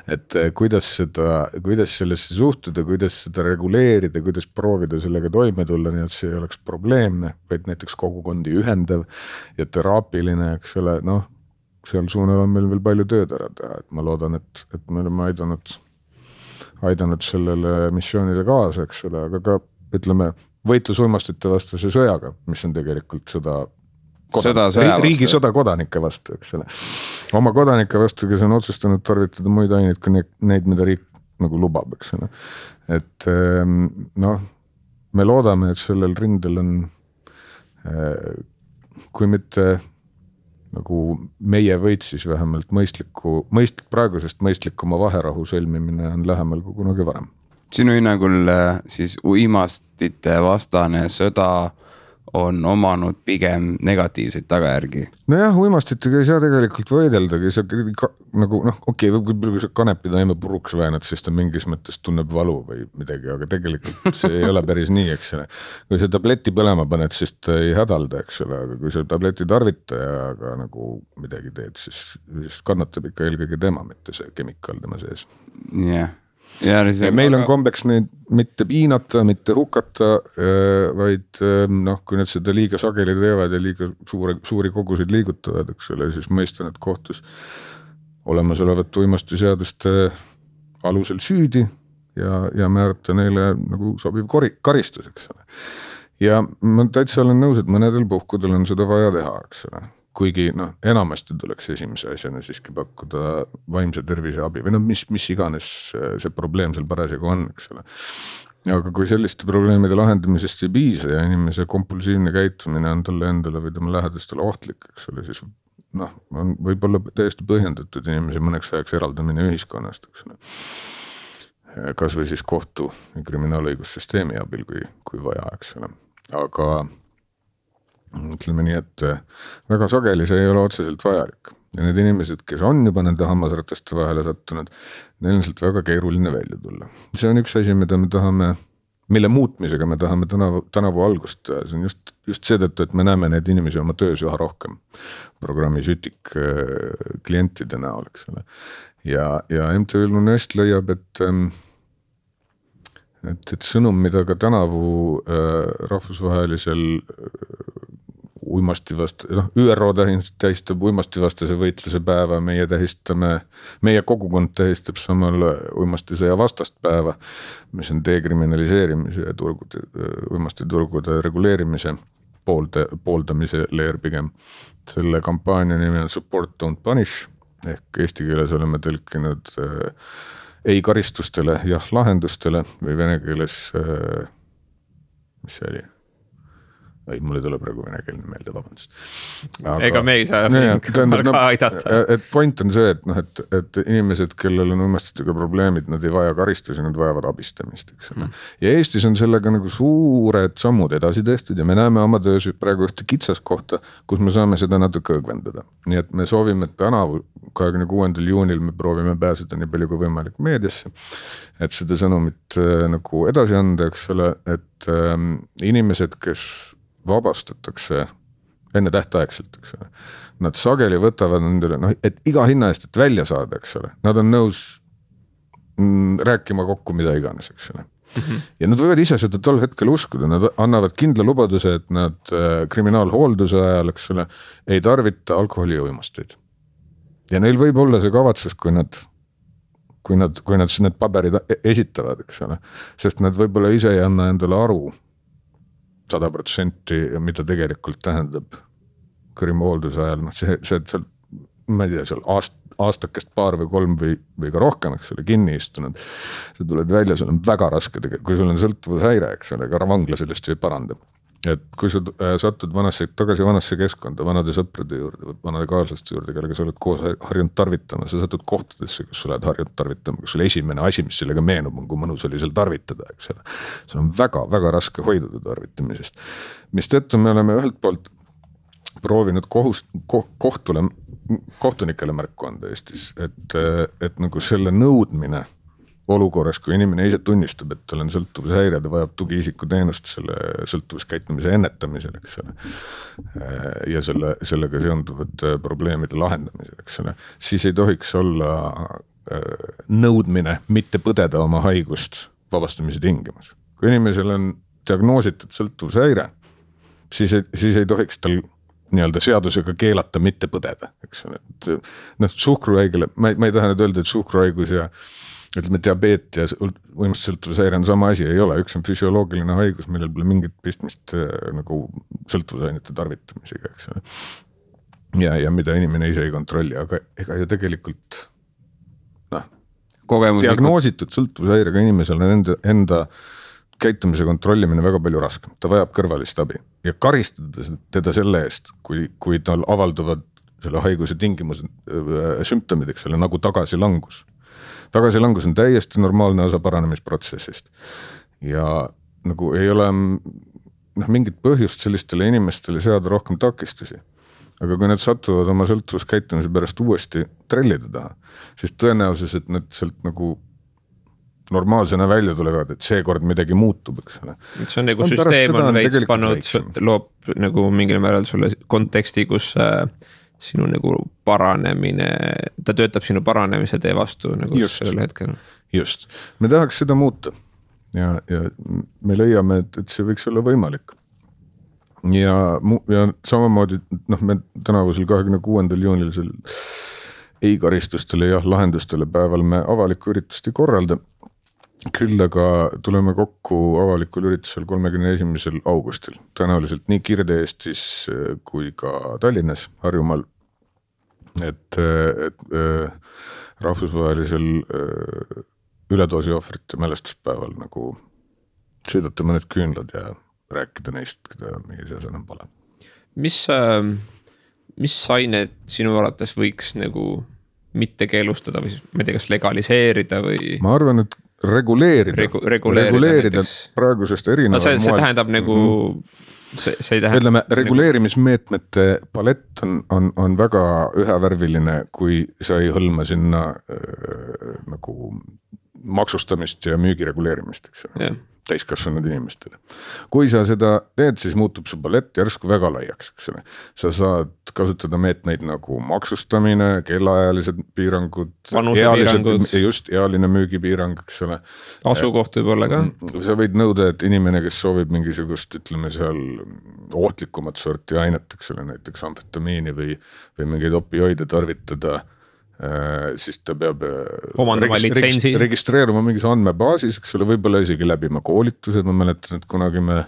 Et kuidas sellesse suhtuda, kuidas seda reguleerida, kuidas proovida sellega toime tulla, nii et see ei oleks probleemne, vaid näiteks kogukondi ühendav ja teraapiline, eks ole, seal suunal on meil veel palju tööd ära teha, et ma loodan, et me oleme aidanud sellele missioonile kaasa, eks ole, aga ka ütleme võitlus uimastite vastase sõjaga, mis on tegelikult riigi sõda kodanike vastu, eks ole. Oma kodanike vastu, kes on otsustanud tarvitada muid aineid kui neid, mida riik nagu lubab, eks ole. Et me loodame, et sellel rindel on kui mitte nagu meie võit, siis vähemalt praegusest mõistlikuma vaherahu sõlmimine on lähemal kui kunagi varem. Sinu hinnangul siis uimastite vastane sõda on omanud pigem negatiivseid tagajärgi? Nojah, uimastitega ei saa tegelikult võideldagi, kui sa kanepi taime puruks väänad, siis ta mingis mõttes tunneb valu või midagi, aga tegelikult see ei ole päris nii, eks ole. Kui sa tableti põlema paned, siis ta ei hädalda, eks ole, aga kui sa tableti tarvitajaga nagu midagi teed, siis kannatab ikka eelkõige tema, mitte see kemikaal tema sees. Jah. ja meil on kombeks neid mitte piinata, mitte hukata, vaid noh, kui nad seda liiga sageli teevad ja liiga suuri kogusid liigutavad, eks ole, siis mõistan, et kohtus olemasolevat uimastiseaduste alusel süüdi ja määrata neile nagu sobiv karistus, eks ole. Ja ma täitsa olen nõus, et mõnedel puhkudel on seda vaja teha, eks ole. Kuigi enamasti tuleks esimese asjana siiski pakkuda vaimse tervise abi või mis iganes see probleem seal parasjagu on, eks ole. Aga kui selliste probleemide lahendamisest ei piisa ja inimese kompulsiivne käitumine on talle endale või tema lähedastele ohtlik, eks ole, siis on võib-olla täiesti põhjendatud inimese mõneks ajaks eraldamine ühiskonnast, eks ole. Kas või siis kohtu ja kriminaalõigussüsteemi abil, kui vaja, eks ole. Aga ütleme nii, et väga sageli see ei ole otseselt vajalik. Ja need inimesed, kes on juba nende hammasrataste vahele sattunud, neil on sealt väga keeruline välja tulla. See on üks asi, mida me tahame, mille muutmisega me tahame tänavu algust teha. See on just seetõttu, et me näeme neid inimesi oma töös üha rohkem programmi Sütik klientide näol, eks ole. Ja MTÜ Lunest leiab, et sõnum, mida ka tänavu rahvusvahelisel ÜRO tähistab uimastivastase võitluse päeva, meie kogukond tähistab samal uimastisõja vastast päeva, mis on dekriminaliseerimise ja uimastiturgude reguleerimise pooldamise leer pigem. Selle kampaania nimi on Support Don't Punish ehk eesti keeles oleme tõlkinud ei karistustele, jah lahendustele või vene keeles, mis see oli? Mul ei tule praegu venekeelne meelde, vabandust. Ega me ei saa ka aidata. Et point on see, et inimesed, kellel on uimastitega probleemid, nad ei vaja karistusi, nad vajavad abistamist. Ja Eestis on sellega nagu suured sammud edasi tehtud ja me näeme oma töös praegu ühte kitsas kohta, kus me saame seda natuke õgvendada. Nii et me soovime, et tänavu 26. juunil me proovime pääseda nii palju kui võimalik meediasse, et seda sõnumit nagu edasi anda, eks ole, et inimesed, kes vabastatakse enne tähtaegselt, eks ole. Nad sageli võtavad nendele, et iga hinna eest, et välja saada, eks ole. Nad on nõus rääkima kokku mida iganes, eks ole. Ja nad võivad ise seda tol hetkel uskuda, nad annavad kindla lubaduse, et nad kriminaalhoolduse ajal, eks ole, ei tarvita alkoholi ja uimasteid. Ja neil võib olla see kavatsus, kui nad need paberid esitavad, eks ole. Sest nad võib-olla ise ei anna endale aru 100%, mida tegelikult tähendab kriminaalhoolduse ajal, see ma ei tea, seal aastakest paar või 3 või ka rohkem, eks ole, kinni istunud. See tuled välja, sul on väga raske, kui sul on sõltuvushäire, eks ole, ka vangla sellest ei paranda. Et kui sa satud tagasi vanasse keskkonda, vanade sõprade juurde, vanade kaaslaste juurde, kellega sa oled koos harjunud tarvitama, sa satud kohtadesse, kus sa oled harjunud tarvitama, kus sul esimene asi, mis sellega meenub, on kui mõnus oli seal tarvitada, eks ole. See on väga, väga raske hoiduda tarvitamisest. Mis tõttu me oleme ühelt poolt proovinud kohtunikele märku anda Eestis, et nagu selle nõudmine olukorras, kui inimene ise tunnistab, et tal on sõltuvushäire, ta vajab tugiisiku teenust selle sõltuvuskäitumise ennetamisel, eks ole. Ja sellega seonduvate probleemide lahendamisel, eks ole. Siis ei tohiks olla nõudmine mitte põdeda oma haigust vabastamise tingimus. Kui inimesel on diagnoositud sõltuvushäire, siis ei tohiks tal nii-öelda seadusega keelata mitte põdeda, eks ole. Suhkruhaigele, ma ei taha nüüd öelda, et suhkruhaigus ja ütleme, diabeet ja uimastisõltuvushäire on sama asi, ei ole. Üks on füsioloogiline haigus, millel pole mingit pistmist nagu sõltuvusainete tarvitamisega, eks ole. Ja mida inimene ise ei kontrolli, aga ega ju tegelikult diagnoositud sõltuvushäirega inimesel on enda käitumise kontrollimine väga palju raskem. Ta vajab kõrvalist abi ja karistada teda selle eest, kui tal avalduvad selle haiguse tingimused, sümptomid, eks ole, nagu tagasilangus. Tagasilangus on täiesti normaalne osa paranemisprotsessist ja nagu ei ole mingit põhjust sellistele inimestele seada rohkem takistusi. Aga kui nad satuvad oma sõltuvuskäitumise pärast uuesti trellide taha, siis tõenäosus, et nad sealt nagu normaalsena välja tulevad, et seekord midagi muutub, eks ole. See on nagu süsteem on veits pannud, loob nagu mingil määral sulle konteksti, kus sinu nagu paranemine, ta töötab sinu paranemise tee vastu nagu sellel hetkel. just, me tahaks seda muuta ja me leiame, et see võiks olla võimalik. Ja samamoodi, me tänavusel 26. juunil ei karistustele ja lahendustele päeval me avalikku üritust ei korralda. Küll aga tuleme kokku avalikul üritusel 31. augustil. Tõenäoliselt nii Kirde-Eestis kui ka Tallinnas, Harjumaal. Et rahvusvahelisel üledoosi ohvrite mälestuspäeval nagu sõidata mõned küünlad ja rääkida neist, keda meie seas enam pole. Mis ained sinu arvates võiks nagu mitte keelustada või ma ei tea, kas legaliseerida või? Ma arvan, et reguleerida praegusest erinevad moel. See tähendab nagu, see tähendab. Ütleme, reguleerimismeetmete palett on väga ühevärviline, kui sa ei hõlma sinna nagu maksustamist ja müügi reguleerimist, eks ole. Täiskasvanud inimestele. Kui sa seda teed, siis muutub su palett järsku väga laiaks, eks ole. Sa saad kasutada meetmeid nagu maksustamine, kellaajalised piirangud, just ealine müügipiirang, eks ole. Asukoht võib olla ka. Sa võid nõuda, et inimene, kes soovib mingisugust, ütleme seal ohtlikumat sorti ainet, eks ole, näiteks amfetamiini või mingeid opioide tarvitada, siis ta peab registreeruma mingis andmebaasis, eks ole, võib-olla isegi läbima koolitused. Ma mäletan, et kunagi me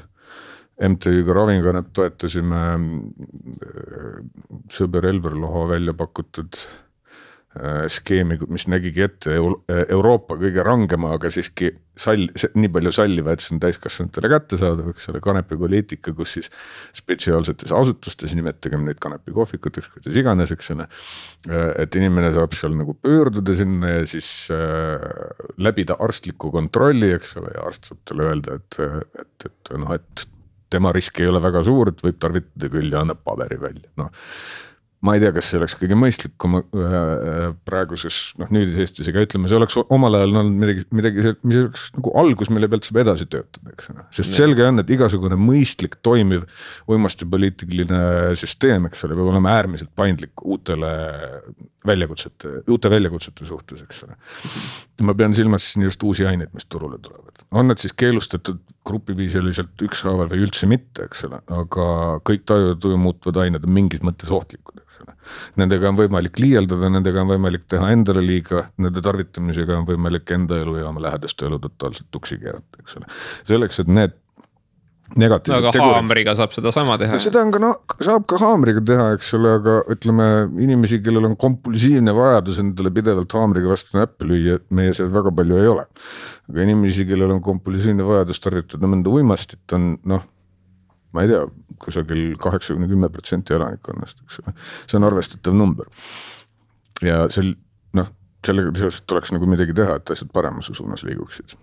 MTÜ-ga Ravinkanep toetasime sõber Elver Loho välja pakutud skeemi, mis nägigi ette Euroopa kõige rangema, aga siiski nii palju salliva, et see on täiskasvanutele kättesaadav, eks ole, kanepipoliitika, kus siis spetsiaalsetes asutustes, nimetagem neid kanepikohvikuteks, kuidas iganes, eks ole, et inimene saab seal nagu pöörduda sinna ja siis läbida arstliku kontrolli, eks ole, ja arst saab talle öelda, et tema risk ei ole väga suur, et võib tarvitada küll ja annab paberi välja, ma ei tea, kas see oleks kõige mõistlikum praeguses, nüüdis Eestis, ega ütleme, see oleks omal ajal olnud midagi, mis oleks nagu algus, mille pealt saab edasi töötada, eks ole. Sest selge on, et igasugune mõistlik toimiv uimastipoliitiline süsteem, eks ole, peab olema äärmiselt paindlik uute väljakutsete suhtes, eks ole. Ma pean silmas siin just uusi aineid, mis turule tulevad. On need siis keelustatud grupiviisiliselt ükshaaval või üldse mitte, eks ole, aga kõik tajutuju muutvad ained on mingis mõttes ohtlikud. Nendega on võimalik liialdada, nendega on võimalik teha endale liiga, nende tarvitamisega on võimalik enda elu ja oma lähedaste elu totaalselt tuksi keerata, eks ole. Selleks, et need negatiivsed tegurid. Aga haamriga saab seda sama teha. Seda on ka, saab ka haamriga teha, eks ole, aga ütleme inimesi, kellel on kompulsiivne vajadus endale pidevalt haamriga vastu näppe lüüa, meie seal väga palju ei ole. Aga inimesi, kellel on kompulsiivne vajadus tarvitada mõnda uimastit on, ma ei tea, kusagil 80-10% elanikkonnast, eks ole. See on arvestatav number. Ja sellega tuleks nagu midagi teha, et asjad paremuse suunas liiguksid.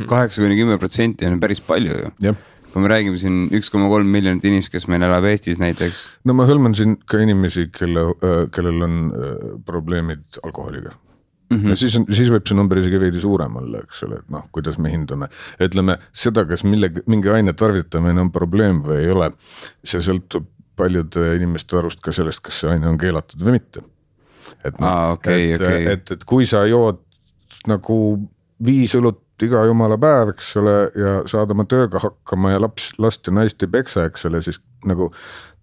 80-10% on päris palju ju. Jah. Kui me räägime siin 1,3 miljonit inimest, kes meil elab Eestis näiteks. Ma hõlman siin ka inimesi, kellel on probleemid alkoholiga. Ja siis võib see number isegi veidi suurem olla, eks ole, et kuidas me hindame. Ütleme, seda, kas mingi aine tarvitamine on probleem või ei ole, see sõltub paljude inimeste arust ka sellest, kas see aine on keelatud või mitte. Et kui sa jood nagu 5 õlut iga jumala päev, eks ole, ja saad oma tööga hakkama ja last ja naist ei peksa, eks ole, siis nagu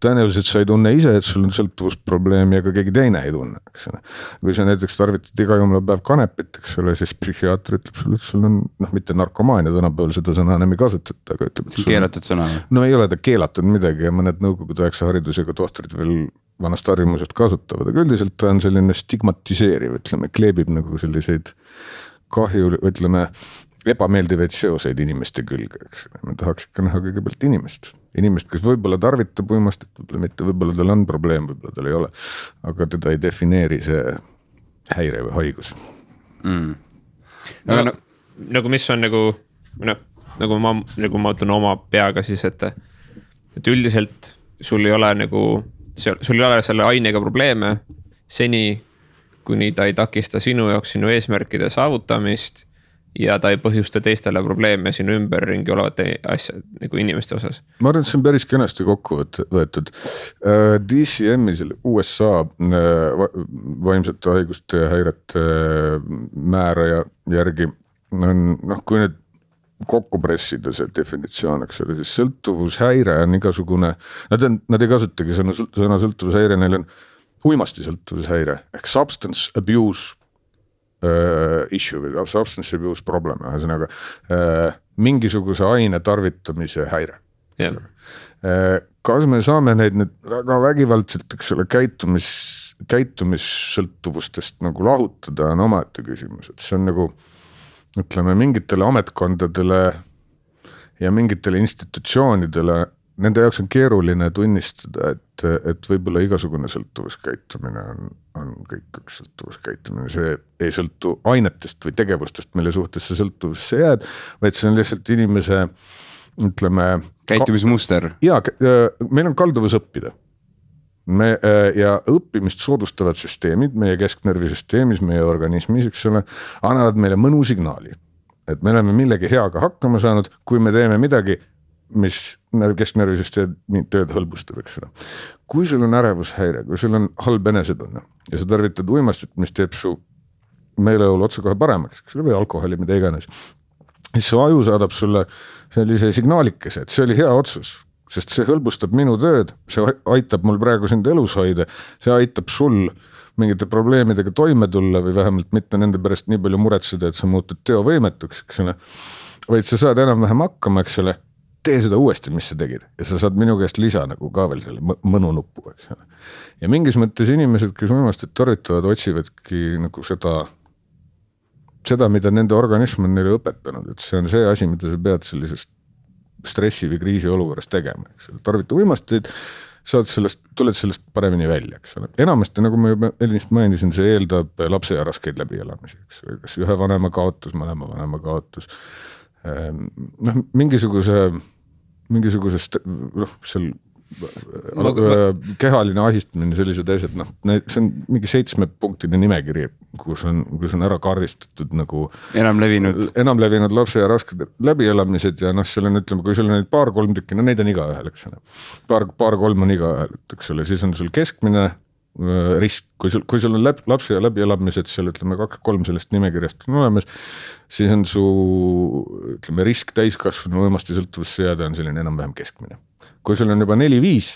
tõenäoliselt sa ei tunne ise, et sul on sõltuvusprobleemi, aga keegi teine ei tunne, eks ole. Kui sa näiteks tarvitad iga jumala päev kanepit, eks ole, siis psühhiaater ütleb sulle, et sul on mitte narkomaania, tänapäeval seda sõna enam ei kasutata, aga ütleb, et see on keelatud sõna. No ei ole ta keelatud midagi ja mõned nõukogude aegse haridusega tohtrid veel vanast harjumusest kasutavad, aga üldiselt ta on selline stigmatiseeriv, ütleme, kleebib nagu selliseid kahju, ütleme, ebameeldivaid seoseid inimeste külge, eks. Me tahaks ikka näha kõigepealt inimest, kes võib-olla tarvitab uimastit, võib-olla mitte, võib-olla tal on probleem, võib-olla tal ei ole, aga teda ei defineeri see häire või haigus. Nagu mis on nagu ma ütlen oma peaga siis, et üldiselt sul ei ole selle ainega probleeme seni, kuni ta ei takista sinu jaoks sinu eesmärkide saavutamist ja ta ei põhjusta teistele probleeme sinu ümberringi olevate asja nagu inimeste osas. Ma arvan, et see on päris kenasti kokku võetud. DCM-i selle USA vaimsete haiguste ja häirete määraja järgi kui nüüd kokku pressida see definitsioon, eks ole, siis sõltuvushäire on igasugune, nad ei kasutagi sõna sõltuvushäire, neil on uimasti sõltuvushäire ehk substance abuse issue või substance abuse problem, ühesõnaga mingisuguse aine tarvitamise häire. Yeah. Kas me saame neid nüüd väga vägivaldselt, eks ole, käitumissõltuvustest nagu lahutada on omaette küsimus, et see on nagu ütleme mingitele ametkondadele ja mingitele institutsioonidele, nende jaoks on keeruline tunnistada, et võib-olla igasugune sõltuvuskäitumine on kõik üks sõltuvuskäitumine, see ei sõltu ainetest või tegevustest, mille suhtes see sõltuvusse jääd, vaid see on lihtsalt inimese, ütleme käitumismuster. Jaa, meil on kalduvus õppida. Ja õppimist soodustavad süsteemid meie kesknärvisüsteemis, meie organismis, eks ole, annavad meile mõnu signaali, et me oleme millegi heaga hakkama saanud, kui me teeme midagi, mis kesknärvisüsteemi tööd hõlbustab, eks ole. Kui sul on ärevushäire, kui sul on halb enesetunne ja sa tarvitad uimastit, mis teeb su meeleolu otsa kohe paremaks, eks ole, või alkoholi, mida iganes, siis su aju saadab sulle sellise signaalikese, et see oli hea otsus, sest see hõlbustab minu tööd, see aitab mul praegu sind elus hoida, see aitab sul mingite probleemidega toime tulla või vähemalt mitte nende pärast nii palju muretseda, et sa muutud teovõimetuks, eks ole. Vaid sa saad enam-vähem hakkama, eks ole, tee seda uuesti, mis sa tegid ja sa saad minu käest lisa nagu ka veel selle mõnu nuppu, eks ole. Ja mingis mõttes inimesed, kes uimastit tarvitavad, otsivadki nagu seda, mida nende organism on neile õpetanud, et see on see asi, mida sa pead sellisest stressi või kriisi olukorras tegema, eks ole. Tarvita uimasteid, tuled sellest paremini välja, eks ole. Enamasti, nagu ma juba eelnist mainisin, see eeldab lapse ja raskeid läbielamisi, eks ole. Kas ühe vanema kaotus, mõlema vanema kaotus, mingisugusest seal kehaline ahistamine, sellised asjad, see on mingi 7-punktine nimekiri, kus on ära karristatud nagu enamlevinud lapse ja rasked läbielamised ja seal on, ütleme, kui sul on neid 2-3 tükki, neid on iga ühel, eks ole. 2-3 on iga ühel, eks ole, siis on sul keskmine risk, kui sul on lapse ja läbielamised, seal ütleme 2-3 sellest nimekirjast on olemas, siis on su, ütleme, risk täiskasvanu uimasti sõltuvusse jääda on selline enam-vähem keskmine. Kui sul on juba 4-5,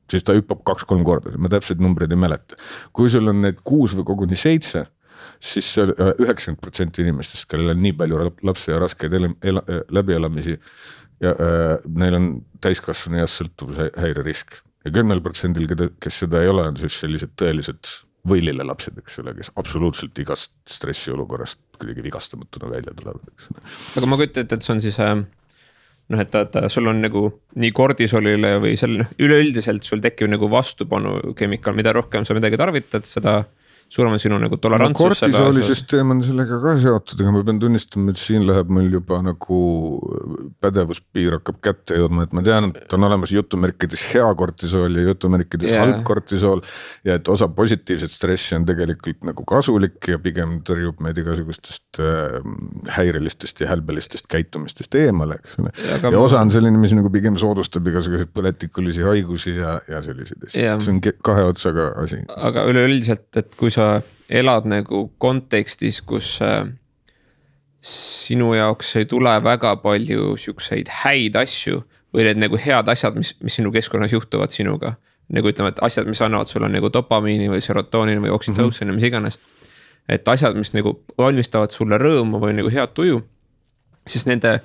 siis ta hüppab 2-3 korda, ma täpselt numbreid ei mäleta. Kui sul on need 6 või koguni 7, siis 90% inimestest, kellel on nii palju lapse ja raskeid läbielamisi ja neil on täiskasvanu ja sõltuvushäire risk. Ja 10%, kes seda ei ole, on siis sellised tõelised võilile lapsed, eks ole, kes absoluutselt igast stressi olukorrast kuidagi vigastamatuna välja tulevad. Aga ma kujutan, et see on siis et sul on nagu nii kordisolile või üleüldiselt sul tekib nagu vastupanu kemikaal, mida rohkem sa midagi tarvitad, seda suurem on sinu nagu tolerantsus. Kortisoolisüsteem on sellega ka seotud, aga ma pean tunnistama, et siin läheb meil juba nagu pädevuspiir hakkab kätte jõudma, et ma tean, et on olemas jutumärkides hea kortisool ja jutumärkides halb kortisool ja et osa positiivset stressi on tegelikult nagu kasulik ja pigem tõrjub meid igasugustest häirelistest ja hälbelistest käitumistest eemale, eks ole. Ja osa on selline, mis nagu pigem soodustab igasuguseid põletikulisi haigusi ja selliseid. See on kahe otsaga asi. Aga üleüldiselt, et kui sa elad nagu kontekstis, kus sinu jaoks ei tule väga palju siukseid häid asju või need nagu head asjad, mis sinu keskkonnas juhtuvad sinuga. Nagu ütleme, et asjad, mis annavad sulle nagu dopamiini või serotoonini või oksütootsini, mis iganes. Et asjad, mis nagu valmistavad sulle rõõmu või nagu head tuju, siis nende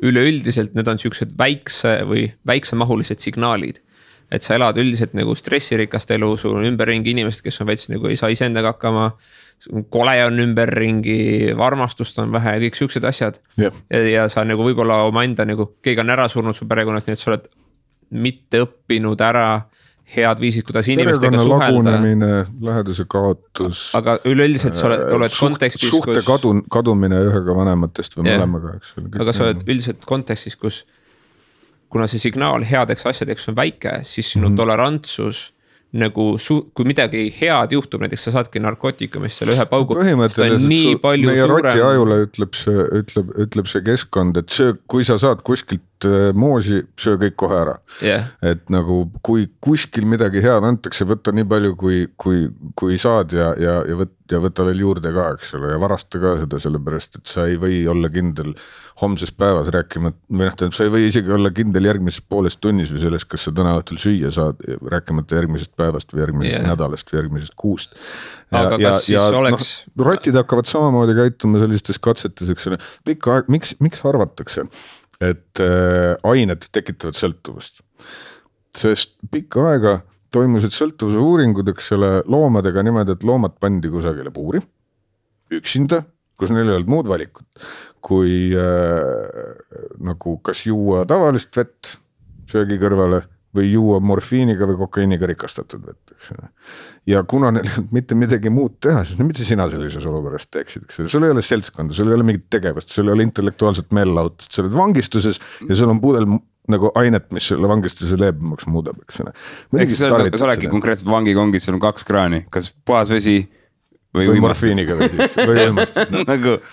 üleüldiselt need on siuksed väiksemahulised signaalid. Et sa elad üldiselt nagu stressirikast elu, sul on ümberringi inimesed, kes on veits nagu ei saa iseendaga hakkama, kole on ümberringi, varmastust on vähe, kõik siuksed asjad. Ja sa nagu võib-olla oma enda nagu, keegi on ära surnud su perekonnast, nii et sa oled mitte õppinud ära head viisid, kuidas inimestega suhelda. Perekonna lagunemine, läheduse kaotus. Aga üleüldiselt sa oled kontekstis, suhte kadumine ühega vanematest või mõlemaga. Aga sa oled üldiselt kontekstis, kus kuna see signaal headeks asjadeks on väike, siis sinu tolerantsus nagu kui midagi head juhtub, näiteks sa saadki narkootikumist selle ühe paugu, seda on nii palju meie suurem. Meie roti ajule ütleb see keskkond, et kui sa saad kuskilt moosi, söö kõik kohe ära Et nagu kui kuskil midagi head antakse, võtta nii palju kui saad ja võtta veel juurde ka, eks ole, ja varasta ka seda, sellepärast, et sa ei või olla kindel homses päevas rääkima, või sa ei või isegi olla kindel järgmises pooles tunnis või selles, kas sa täna õhtul süüa saad, rääkimata järgmisest päevast või järgmisest nädalast või järgmisest kuust. Aga kas siis oleks... Rotid hakkavad samamoodi käituma sellistes katsetes, eks ole, pikka aeg, miks arvatakse, et ained tekitavad sõltuvust? Sest pikka aega toimusid sõltuvuse uuringud, eks ole, loomadega niimoodi, et loomad pandi kusagile puuri, üksinda, kus neil ei olnud muud valikut, kui nagu kas juua tavalist vett söögi kõrvale või juua morfiiniga või kokaiiniga rikastatud vett, eks ole. Ja kuna neil mitte midagi muud teha, siis mitte sina sellises olukorras teeksid, eks ole, sul ei ole seltskonda, sul ei ole mingit tegevust, sul ei ole intellektuaalset meelelahutust, sa oled vangistuses ja sul on pudel nagu ainet, mis selle vangistuse leebemaks muudab, eks ole. Eks sa oledki konkreetselt vangikongis, sul on 2 kraani, kas puhas vesi või morfiiniga või uimastud.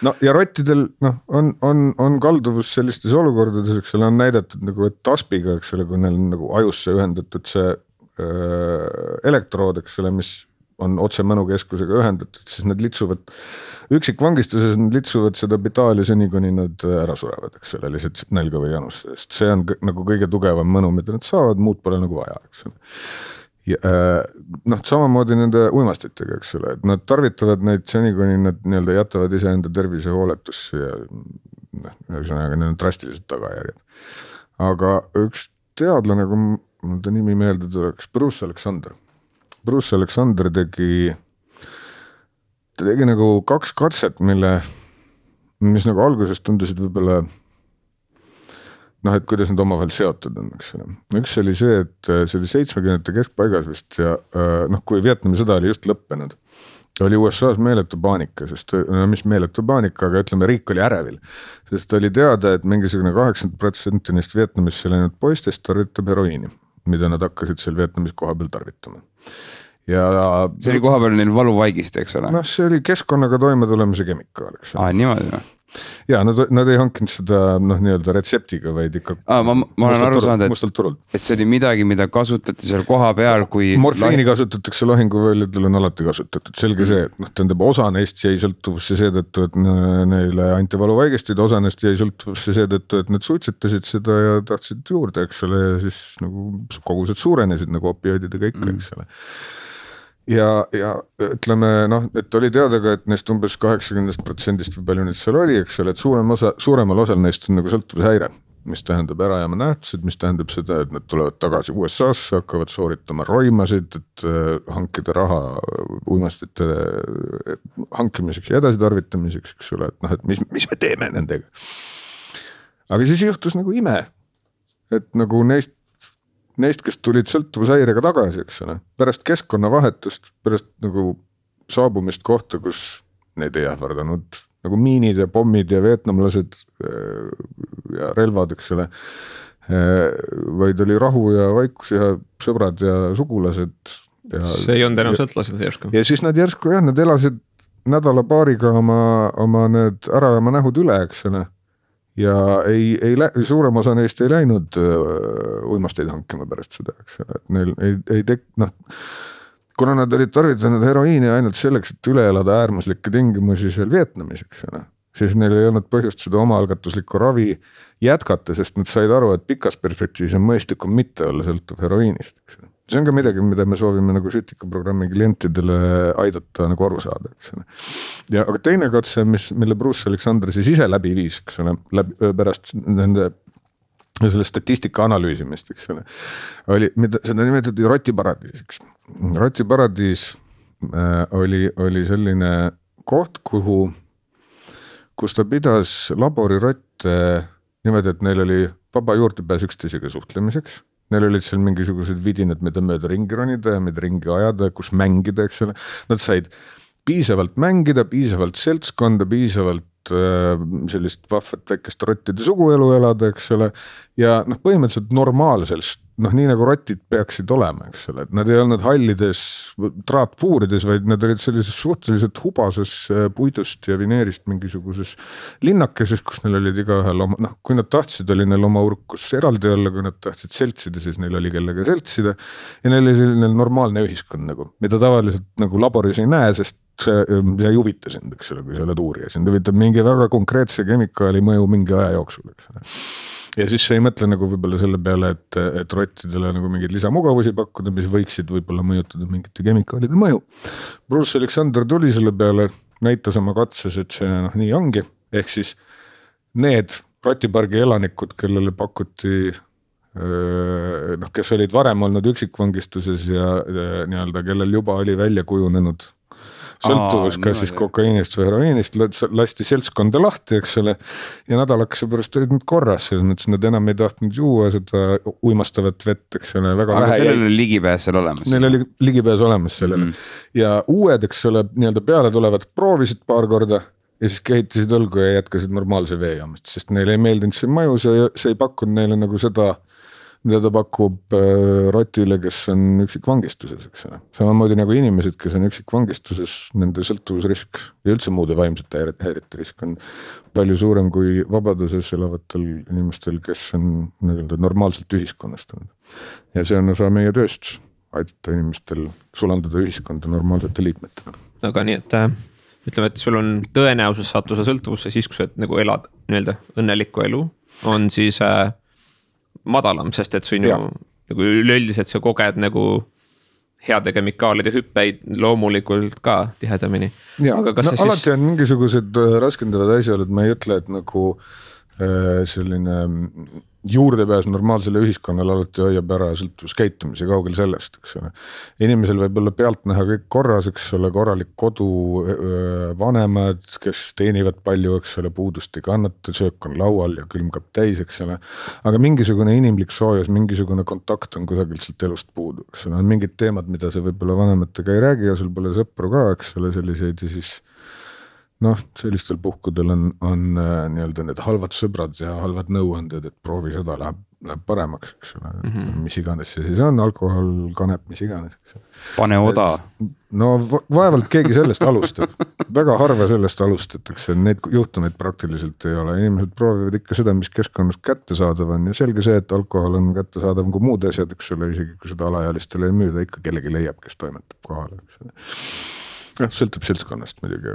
No ja rottidel on kalduvus sellistes olukordades, eks ole, on näidatud nagu, et taspiga, eks ole, kui neil on nagu ajusse ühendatud see elektrood, eks ole, mis on otse mõnukeskusega ühendatud, siis nad litsuvad, üksikvangistuses nad litsuvad seda bitaali seni, kuni nad ära surevad, eks ole, lihtsalt nälga või janus, sest see on nagu kõige tugevam mõnu, mida nad saavad, muud pole nagu vaja, eks ole. Ja, samamoodi nende uimastitega, eks ole, et nad tarvitavad neid seni, kuni nad nii-öelda jätavad iseenda tervise hooletusse ja ühesõnaga need on drastilised tagajärjed. Aga üks teadlane, kui mul ta nimi meelde tuleks, Bruce Alexander tegi nagu 2 katset, mis nagu alguses tundusid võib-olla et kuidas need omavahel seotud on, eks ole. Üks oli see, et see oli 70 keskpaigas vist ja kui Vietnami sõda oli just lõppenud, oli USA-s meeletu paanika, sest mis meeletu paanika, aga ütleme, riik oli ärevil, sest oli teada, et mingisugune 80% neist Vietnamisse läinud poistest tarvitab heroiini, mida nad hakkasid seal Vietnamis koha peal tarvitama. Ja see oli koha peal neil valuvaigist, eks ole? See oli keskkonnaga toime tulemise kemikaal, eks ole. Niimoodi. Ja nad ei hankinud seda nii-öelda retseptiga, vaid ikka ma olen aru saanud, et see oli midagi, mida kasutati seal koha peal, kui morfiini kasutatakse lahinguvõljadel on alati kasutatud, selge see, et tähendab osa neist jäi sõltuvusse seetõttu, et neile anti valuvaigistid, osa neist jäi sõltuvusse seetõttu, et nad suitsetasid seda ja tahtsid juurde, eks ole, ja siis nagu kogused suurenesid nagu opioididega ikka, eks ole. Ja ütleme, et oli teada ka, et neist umbes 80% või palju neid seal oli, eks ole, et suuremal osal neist on nagu sõltuvushäire, mis tähendab ärajääma nähtused, mis tähendab seda, et nad tulevad tagasi USA-sse, hakkavad sooritama roimasid, et hankida raha uimastite hankimiseks ja edasitarvitamiseks, eks ole, et mis me teeme nendega. Aga siis juhtus nagu ime, et nagu neist, kes tulid sõltuvushäirega tagasi, eks ole, pärast keskkonnavahetust, pärast nagu saabumist kohta, kus neid ei ähvardanud nagu miinid ja pommid ja vietnamlased ja relvad, eks ole, vaid oli rahu ja vaikus ja sõbrad ja sugulased. See ei olnud enam sõltlased järsku. Ja siis nad järsku, nad elasid nädala-paariga oma need ärajääma nähud üle, eks ole. Ja suurem osa neist ei läinud uimasteid hankima pärast seda, eks ole, et neil ei kuna nad olid tarvitanud heroiini ainult selleks, et üle elada äärmuslikke tingimusi seal Vietnamis, eks ole, siis neil ei olnud põhjust seda omaalgatuslikku ravi jätkata, sest nad said aru, et pikas perspektiivis on mõistlikum mitte olla sõltuv heroiinist, eks ole. See on ka midagi, mida me soovime nagu Sütikaprogrammi klientidele aidata nagu aru saada, eks ole. Ja aga teine katse, mille Bruce Alexander siis ise läbi viis, eks ole, pärast nende selle statistika analüüsimist, eks ole, seda nimetati rotiparadiisiks. Rotiparadiis oli selline koht, kus ta pidas laborirotte niimoodi, et neil oli vaba juurdepääs üksteisega suhtlemiseks. Neil olid seal mingisugused vidinad, mida mööda ringi ronida ja mida ringi ajada, kus mängida, eks ole. Nad said piisavalt mängida, piisavalt seltskonda, piisavalt sellist vahvat väikest rottide suguelu elada, eks ole. Ja põhimõtteliselt normaalsest nii nagu rotid peaksid olema, eks ole, et nad ei olnud hallides traatpuurides, vaid nad olid sellises suhteliselt hubases puidust ja vineerist mingisuguses linnakeses, kus neil olid igaühel oma, kui nad tahtsid, oli neil oma urkus eraldi olla, kui nad tahtsid seltsida, siis neil oli kellega seltsida ja neil oli selline normaalne ühiskond nagu, mida tavaliselt nagu laboris ei näe, sest see ei huvita sind, eks ole, kui sa oled uurija, sind huvitab mingi väga konkreetse kemikaali mõju mingi aja jooksul, eks ole. Ja siis sa ei mõtle nagu võib-olla selle peale, et rottidele nagu mingeid lisamugavusi pakkuda, mis võiksid võib-olla mõjutada mingite kemikaalide mõju. Bruce Alexander tuli selle peale, näitas oma katses, et see nii ongi, ehk siis need rotipargi elanikud, kellele pakuti, kes olid varem olnud üksikvangistuses ja nii-öelda, kellel juba oli välja kujunenud sõltuvus, kas siis kokaiinist või heroiinist, lasti seltskonda lahti, eks ole, ja nädalakese pärast olid nad korras, selles mõttes nad enam ei tahtnud juua seda uimastavat vett, eks ole, väga aga vähe. sellel oli ligipääs seal olemas? Neil oli ligipääs olemas sellele. Ja uued, eks ole, nii-öelda peale tulevad proovisid paar korda ja siis kehitasid õlgu ja jätkasid normaalse veejaamist, sest neile ei meeldinud see mõju, see ei pakkunud neile nagu seda, mida ta pakub rotile, kes on üksikvangistuses, eks ole. Samamoodi nagu inimesed, kes on üksikvangistuses, nende sõltuvusrisk ja üldse muude vaimsete häirete risk on palju suurem kui vabaduses elavatel inimestel, kes on normaalselt ühiskonnastunud. Ja see on osa meie tööst, aidata inimestel sulanduda ühiskonda normaalsete liikmetena. Aga nii, et ütleme, et sul on tõenäosus sattuda sõltuvusse siis, kui sa nagu elad nii-öelda õnnelikku elu, on siis madalam, sest et sinu nagu üleüldiselt sa koged nagu heade kemikaalide hüppeid loomulikult ka tihedamini. Aga kas alati on mingisugused raskendavad asjad, et ma ei ütle, et nagu selline juurdepääs normaalsele ühiskonnale alati hoiab ära sõltuvuskäitumise kaugel sellest, eks ole. Inimesel võib olla pealt näha kõik korras, eks ole, korralik kodu, vanemad, kes teenivad palju, eks ole, puudust ei kannata, söök on laual ja külmkap täis, eks ole. Aga mingisugune inimlik soojus, mingisugune kontakt on kusagilt sealt elust puudu, eks ole. On mingid teemad, mida sa võib-olla vanematega ei räägi ja sul pole sõpru ka, eks ole, selliseid ja siis sellistel puhkudel on nii-öelda need halvad sõbrad ja halvad nõuanded, et proovi seda läheb paremaks, eks ole, mis iganes see siis on, alkohol, kanep, mis iganes. Pane oda. Vaevalt keegi sellest alustab, väga harva sellest alustatakse, need juhtumeid praktiliselt ei ole, inimesed proovivad ikka seda, mis keskkonnast kättesaadav on ja selge see, et alkohol on kättesaadav kui muud asjad, eks ole, isegi kui seda alaealistele ei müüda, ikka kellegi leiab, kes toimetab kohale, eks ole. Sõltub seltskonnast muidugi,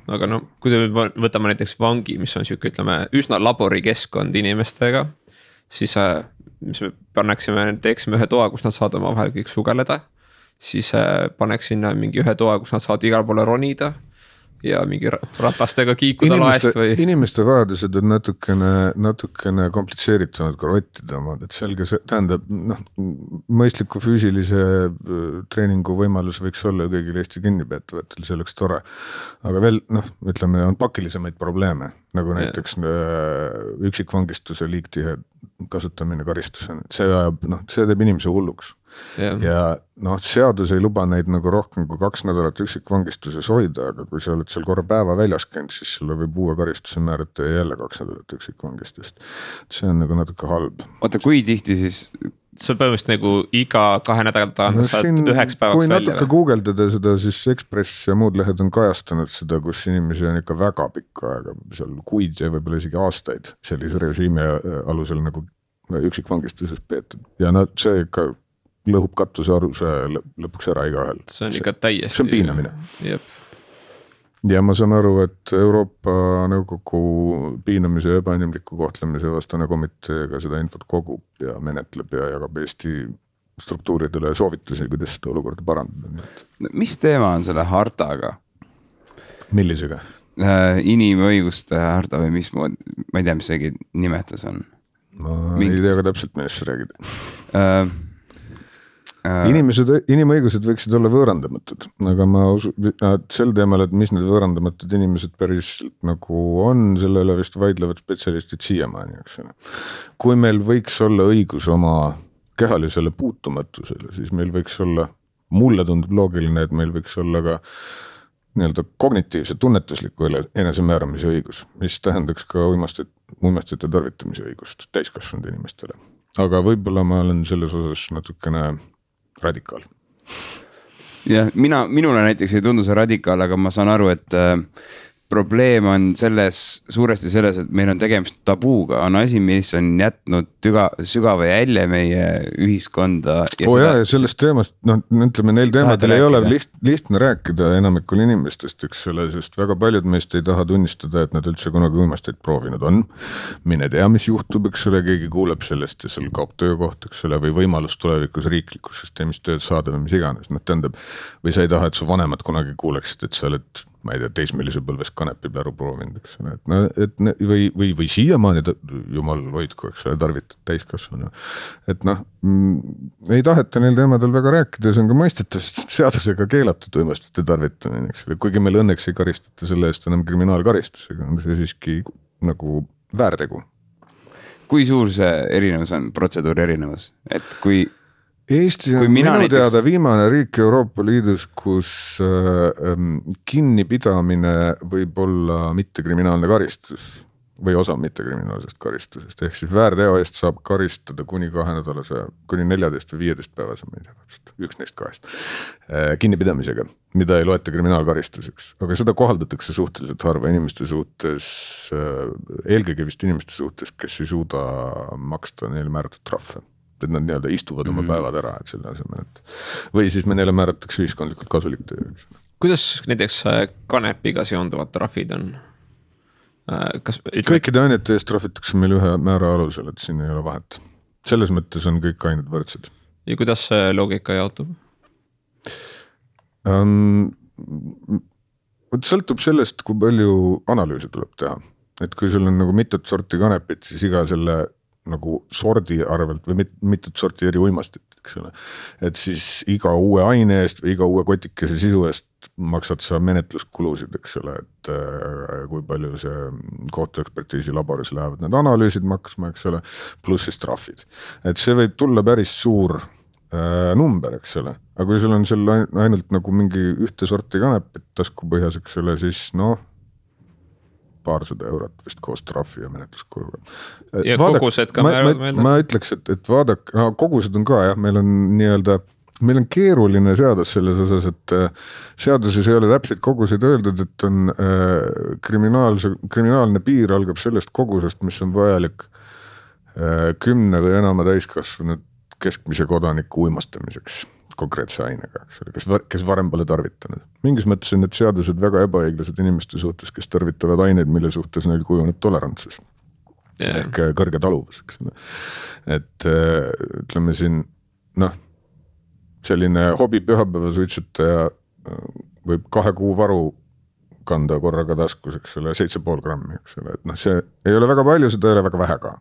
aga kui me võtame näiteks vangi, mis on siuke, ütleme, üsna laborikeskkond inimestega, siis mis me teeksime ühe toa, kus nad saavad oma vahel kõik sugeleda, siis paneks sinna mingi ühe toa, kus nad saavad igal poole ronida ja mingi ratastega kiikuda laest või. Inimeste vajadused on natukene komplitseeritumad kui rottide omad, et selge see tähendab, mõistliku füüsilise treeningu võimalus võiks olla kõigil Eesti kinnipeetavatel, see oleks tore. Aga veel, ütleme, on pakilisemaid probleeme, nagu näiteks üksikvangistuse liigtihe kasutamine karistusena, see teeb inimese hulluks. Ja seadus ei luba neid nagu rohkem kui 2 nädalat üksikvangistuses hoida, aga kui sa oled seal korra päeva väljas käinud, siis sulle võib uue karistuse määrata ja jälle 2 nädalat üksikvangistust. See on nagu natuke halb. Oota, kui tihti siis? See põhimõtteliselt nagu iga 2 nädalat saad 9 päevaks välja. Kui natuke guugeldada seda, siis Ekspress ja muud lehed on kajastanud seda, kus inimesi on ikka väga pikka aega, seal kuid ja võib-olla isegi aastaid sellise režiimi alusel nagu üksikvangistuses peetud. Ja see ikka lõhub katuse arvuse lõpuks ära igaühel. See on ikka täiesti. See on piinamine. Jep. Ja ma saan aru, et Euroopa Nõukogu piinamise ja ebainimliku kohtlemise vastane komiteega seda infot kogub ja menetleb ja jagab Eesti struktuuridele soovitusi, kuidas seda olukorda parandada. Mis teema on selle hartaga? Millisega? Inimõiguste harta või mis mood, ma ei tea, mis seegi nimetus on. Ma ei tea ka täpselt, millest sa räägid. Inimõigused võiksid olla võõrandamatud, aga ma sel teemal, et mis need võõrandamatud inimesed päris nagu on, selle üle vist vaidlevad spetsialistid siiamaani, eks ole. Kui meil võiks olla õigus oma kehalisele puutumatusele, siis meil võiks olla, mulle tundub loogiline, et meil võiks olla ka nii-öelda kognitiivse tunnetusliku enesemääramise õigus, mis tähendaks ka uimastite tarvitamise õigust täiskasvanud inimestele. aga võib-olla ma olen selles osas natukene radikaal. jah, minule näiteks ei tundu see radikaal, aga ma saan aru, et probleem on suuresti selles, et meil on tegemist tabuuga, on asi, mis on jätnud sügava jälje meie ühiskonda. Ja sellest teemast, ütleme, neil teemadel ei ole lihtne rääkida enamikul inimestest, eks ole, sest väga paljud meist ei taha tunnistada, et nad üldse kunagi uimasteid proovinud on. Mine tea, mis juhtub, eks ole, keegi kuuleb sellest ja seal kaob töökoht, eks ole, või võimalus tulevikus riiklikus süsteemis tööd saada või mis iganes. Tähendab, või sa ei taha, et su vanemad kunagi kuuleksid, et sa oled, ma ei tea, teismelise põlves kanepipläru proovinud, eks ole, või siiamaani, jumal hoidku, eks ole, tarvitad täiskasvanu. Et ei taheta neil teemadel väga rääkida ja see on ka mõistetav, sest seadusega keelatud uimastite tarvitamine, eks ole, kuigi meil õnneks ei karistata selle eest enam kriminaalkaristusega, on see siiski nagu väärtegu. Kui suur see erinevus on, protseduuri erinevus, et kui Eesti on minu teada viimane riik Euroopa Liidus, kus kinnipidamine võib olla mittekriminaalne karistus või osa mittekriminaalsest karistusest. Ehk siis väärteo eest saab karistada kuni 2 nädalase, kuni 14 või 15 päevase, ma ei tea, üks neist 2 kinnipidamisega, mida ei loeta kriminaalkaristuseks. Aga seda kohaldatakse suhteliselt harva inimeste suhtes, eelkõige vist inimeste suhtes, kes ei suuda maksta neile määratud trahve. Et nad nii-öelda istuvad oma päevad ära, et selle asemel, või siis me neile määratakse ühiskondlikult kasulik töö. Kuidas näiteks kanepiga seonduvad trahvid on? Kõikide ainete eest trahvitakse meil ühe määra alusel, et siin ei ole vahet. Selles mõttes on kõik ained võrdsed. Ja kuidas see loogika jaotub? Sõltub sellest, kui palju analüüse tuleb teha. Et kui sul on nagu mitut sorti kanepit, siis iga selle nagu sordi arvelt või mitut sorti eri uimastit, eks ole. Et siis iga uue aine eest või iga uue kotikese sisu eest maksad sa menetluskulusid, eks ole, et kui palju see kohtuekspertiisi laboris lähevad need analüüsid maksma, eks ole, pluss siis trahvid. Et see võib tulla päris suur number, eks ole, aga kui sul on seal ainult nagu mingi ühte sorti kanepit taskupõhjas, eks ole, siis paarsada eurot vist koos trahvi ja menetluskuluga. Ja kogused ka ma ütleks, et vaadake, kogused on ka jah, meil on keeruline seadus selles osas, et seaduses ei ole täpselt koguseid öeldud, et on kriminaalne piir algab sellest kogusest, mis on vajalik 10 või enama täiskasvanud keskmise kodaniku uimastamiseks konkreetse ainega, kes varem pole tarvitanud. Mingis mõttes on need seadused väga ebaõiglased inimeste suhtes, kes tarvitavad aineid, mille suhtes neil kujuneb tolerantsus. Ehk kõrge taluvus. Et ütleme siin, selline hobi pühapäeva suitsetaja võib 2 kuu varu kanda korraga taskus, eks ole, 7,5 grammi, eks ole, et see ei ole väga palju, seda ei ole väga vähe ka.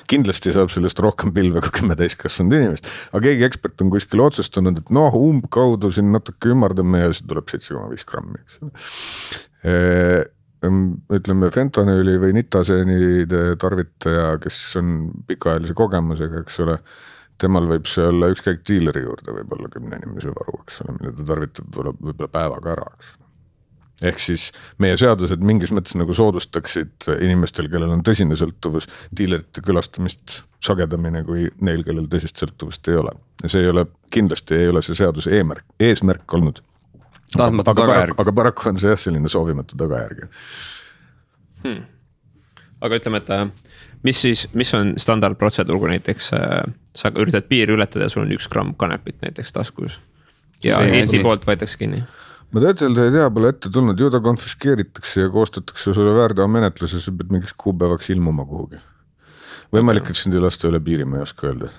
Kindlasti saab sellest rohkem pilve kui 10 täiskasvanud inimest, aga keegi ekspert on kuskil otsustanud, et umbkaudu siin natuke ümardame ja see tuleb 7,5 grammi, eks ole. Ütleme, fentanüüli või nitaseenide tarvitaja, kes on pikaajalise kogemusega, eks ole, temal võib see olla ükskõik diileri juurde, võib olla 10 inimese varu, eks ole, mille ta tarvitab võib-olla päevaga ära, eks ole. Ehk siis meie seadused mingis mõttes nagu soodustaksid inimestel, kellel on tõsine sõltuvus, diilerite külastamist sagedamini kui neil, kellel tõsist sõltuvust ei ole. Ja see ei ole, kindlasti ei ole see seaduse eesmärk olnud. Aga paraku on see selline soovimatu tagajärg. Aga ütleme, et mis on standardprotseduur, kui näiteks sa üritad piiri ületada ja sul on 1 gramm kanepit näiteks taskus ja Eesti poolt võetakse kinni? Ma täitselt ei tea, pole ette tulnud, ju ta konfiskeeritakse ja koostatakse sulle väärteo menetluses, sa pead mingiks kuupäevaks ilmuma kuhugi. Võimalik, et sind ei lasta üle piiri, ma ei oska öelda.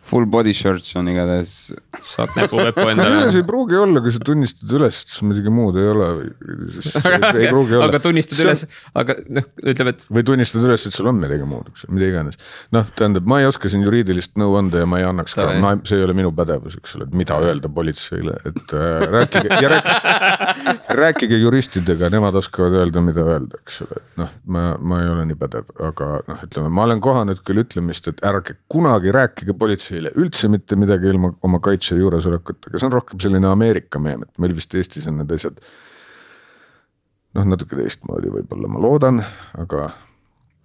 Full body shirts on igatahes. Saad näpuvepu endale. See ei pruugi olla, kui sa tunnistad üles, et sul midagi muud ei ole. Ei pruugi olla. Aga tunnistad üles, aga ütleb, et... Või tunnistad üles, et sul on midagi muud, mida iganes. Tähendab, ma ei oska siin juriidilist nõu anda ja ma ei annaks ka, see ei ole minu pädevus, eks ole, et mida öelda politseile, et rääkige juristidega, nemad oskavad öelda, mida öelda, eks ole. Ma ei ole nii pädev, aga ütleme, ma olen kohanud küll ütlemist, et ärge kunagi rääkige politseile üldse mitte midagi ilma oma kaitse juuresolekut, aga see on rohkem selline Ameerika meem, et meil vist Eestis on need asjad natuke teistmoodi võib-olla, ma loodan, aga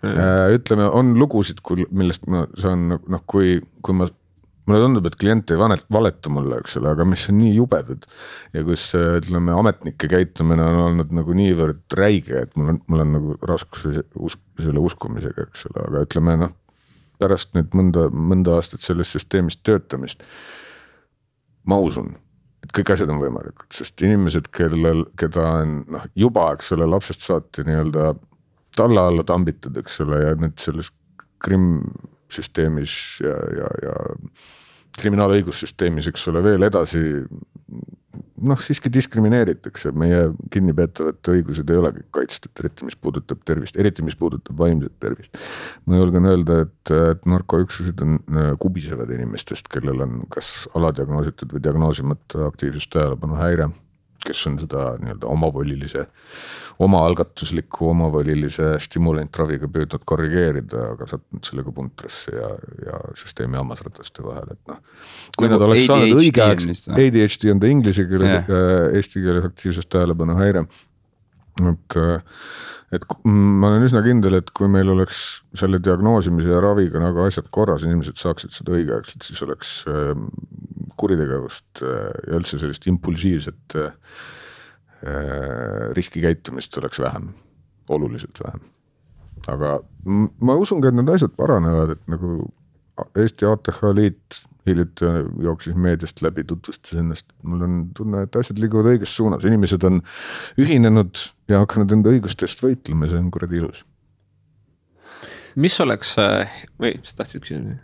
Ütleme, on lugusid, millest ma saan, noh, kui mulle tundub, et klient ei valeta mulle, eks ole, aga mis on nii jubedad ja kus, ütleme, ametnike käitumine on olnud nagu niivõrd räige, et mul on nagu raskus selle uskumisega, eks ole, aga ütleme, noh, pärast nüüd mõnda aastat sellest süsteemist töötamist ma usun, et kõik asjad on võimalikud, sest inimesed, keda on juba, eks ole, lapsest saati nii-öelda talla alla tambitud, eks ole, ja nüüd selles süsteemis ja kriminaalõigussüsteemis, eks ole, veel edasi, noh, siiski diskrimineeritakse, meie kinnipeetavate õigused ei olegi kaitstud, eriti mis puudutab tervist, eriti mis puudutab vaimset tervist. Ma julgen öelda, et narkoüksused on kubisevad inimestest, kellel on kas aladiagnoositud või diagnoosimata aktiivsust tähelepanu häire, kes on seda nii-öelda omaalgatusliku omavolilise stimulantraviga püüdnud korrigeerida, aga sattunud sellega puntrasse ja süsteemi hammasrataste vahel, et noh. Kui nad oleks saanud õigeaegselt, ADHD on ta inglise keeles, eesti keeles aktiivsust tähelepanu häire. Et ma olen üsna kindel, et kui meil oleks selle diagnoosimise ja raviga nagu asjad korras, inimesed saaksid seda õigeaegselt, siis oleks kuritegevust ja üldse sellist impulsiivset riskikäitumist oleks vähem, oluliselt vähem. Aga ma usun ka, et need asjad paranevad, et nagu Eesti ATH liit hiljuti jooksis meediast läbi, tutvustas ennast. Mul on tunne, et asjad liiguvad õiges suunas. Inimesed on ühinenud ja hakanud enda õigustest võitlema, see on kuradi ilus. Mis oleks, või sa tahtsid küsida?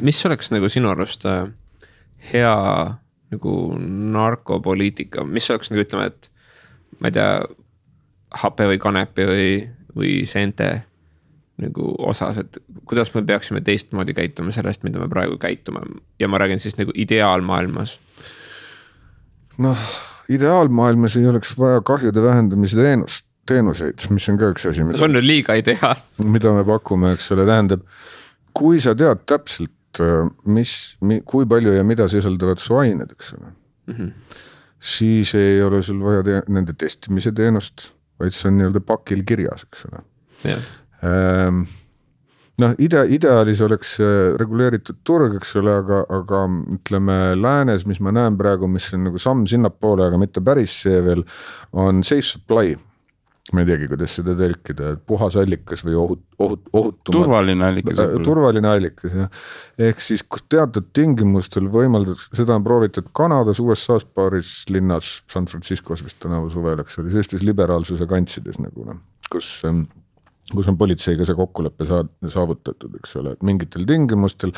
Mis oleks nagu sinu arust hea nagu narkopoliitika? Mis oleks nagu ütleme, et ma ei tea, hape või kanepi või seente nagu osas, et kuidas me peaksime teistmoodi käituma sellest, mida me praegu käitume ja ma räägin siis nagu ideaalmaailmas. Noh, ideaalmaailmas ei oleks vaja kahjude vähendamise teenuseid, mis on ka üks asi. See on nüüd liiga ideaal. Mida me pakume, eks ole, tähendab, kui sa tead täpselt, kui palju ja mida sisaldavad su ained, eks ole, siis ei ole sul vaja nende testimise teenust, vaid see on nii-öelda pakil kirjas, eks ole. Jah. Noh, ideaalis oleks reguleeritud turg, eks ole, aga ütleme läänes, mis ma näen praegu, mis on nagu samm sinnapoole, aga mitte päris see veel, on safe supply. Ma ei teagi, kuidas seda tõlkida, puhas allikas või ohutumad. Turvaline allikas. Turvaline allikas, jah. Ehk siis, kus teatud tingimustel võimaldab, seda on proovitud Kanadas, USA's paaris linnas, San Franciscos vist tänavu suvel, eks oli, sellistes liberaalsuse kantsides nagu, kus on politseiga see kokkuleppe saavutatud, eks ole, et mingitel tingimustel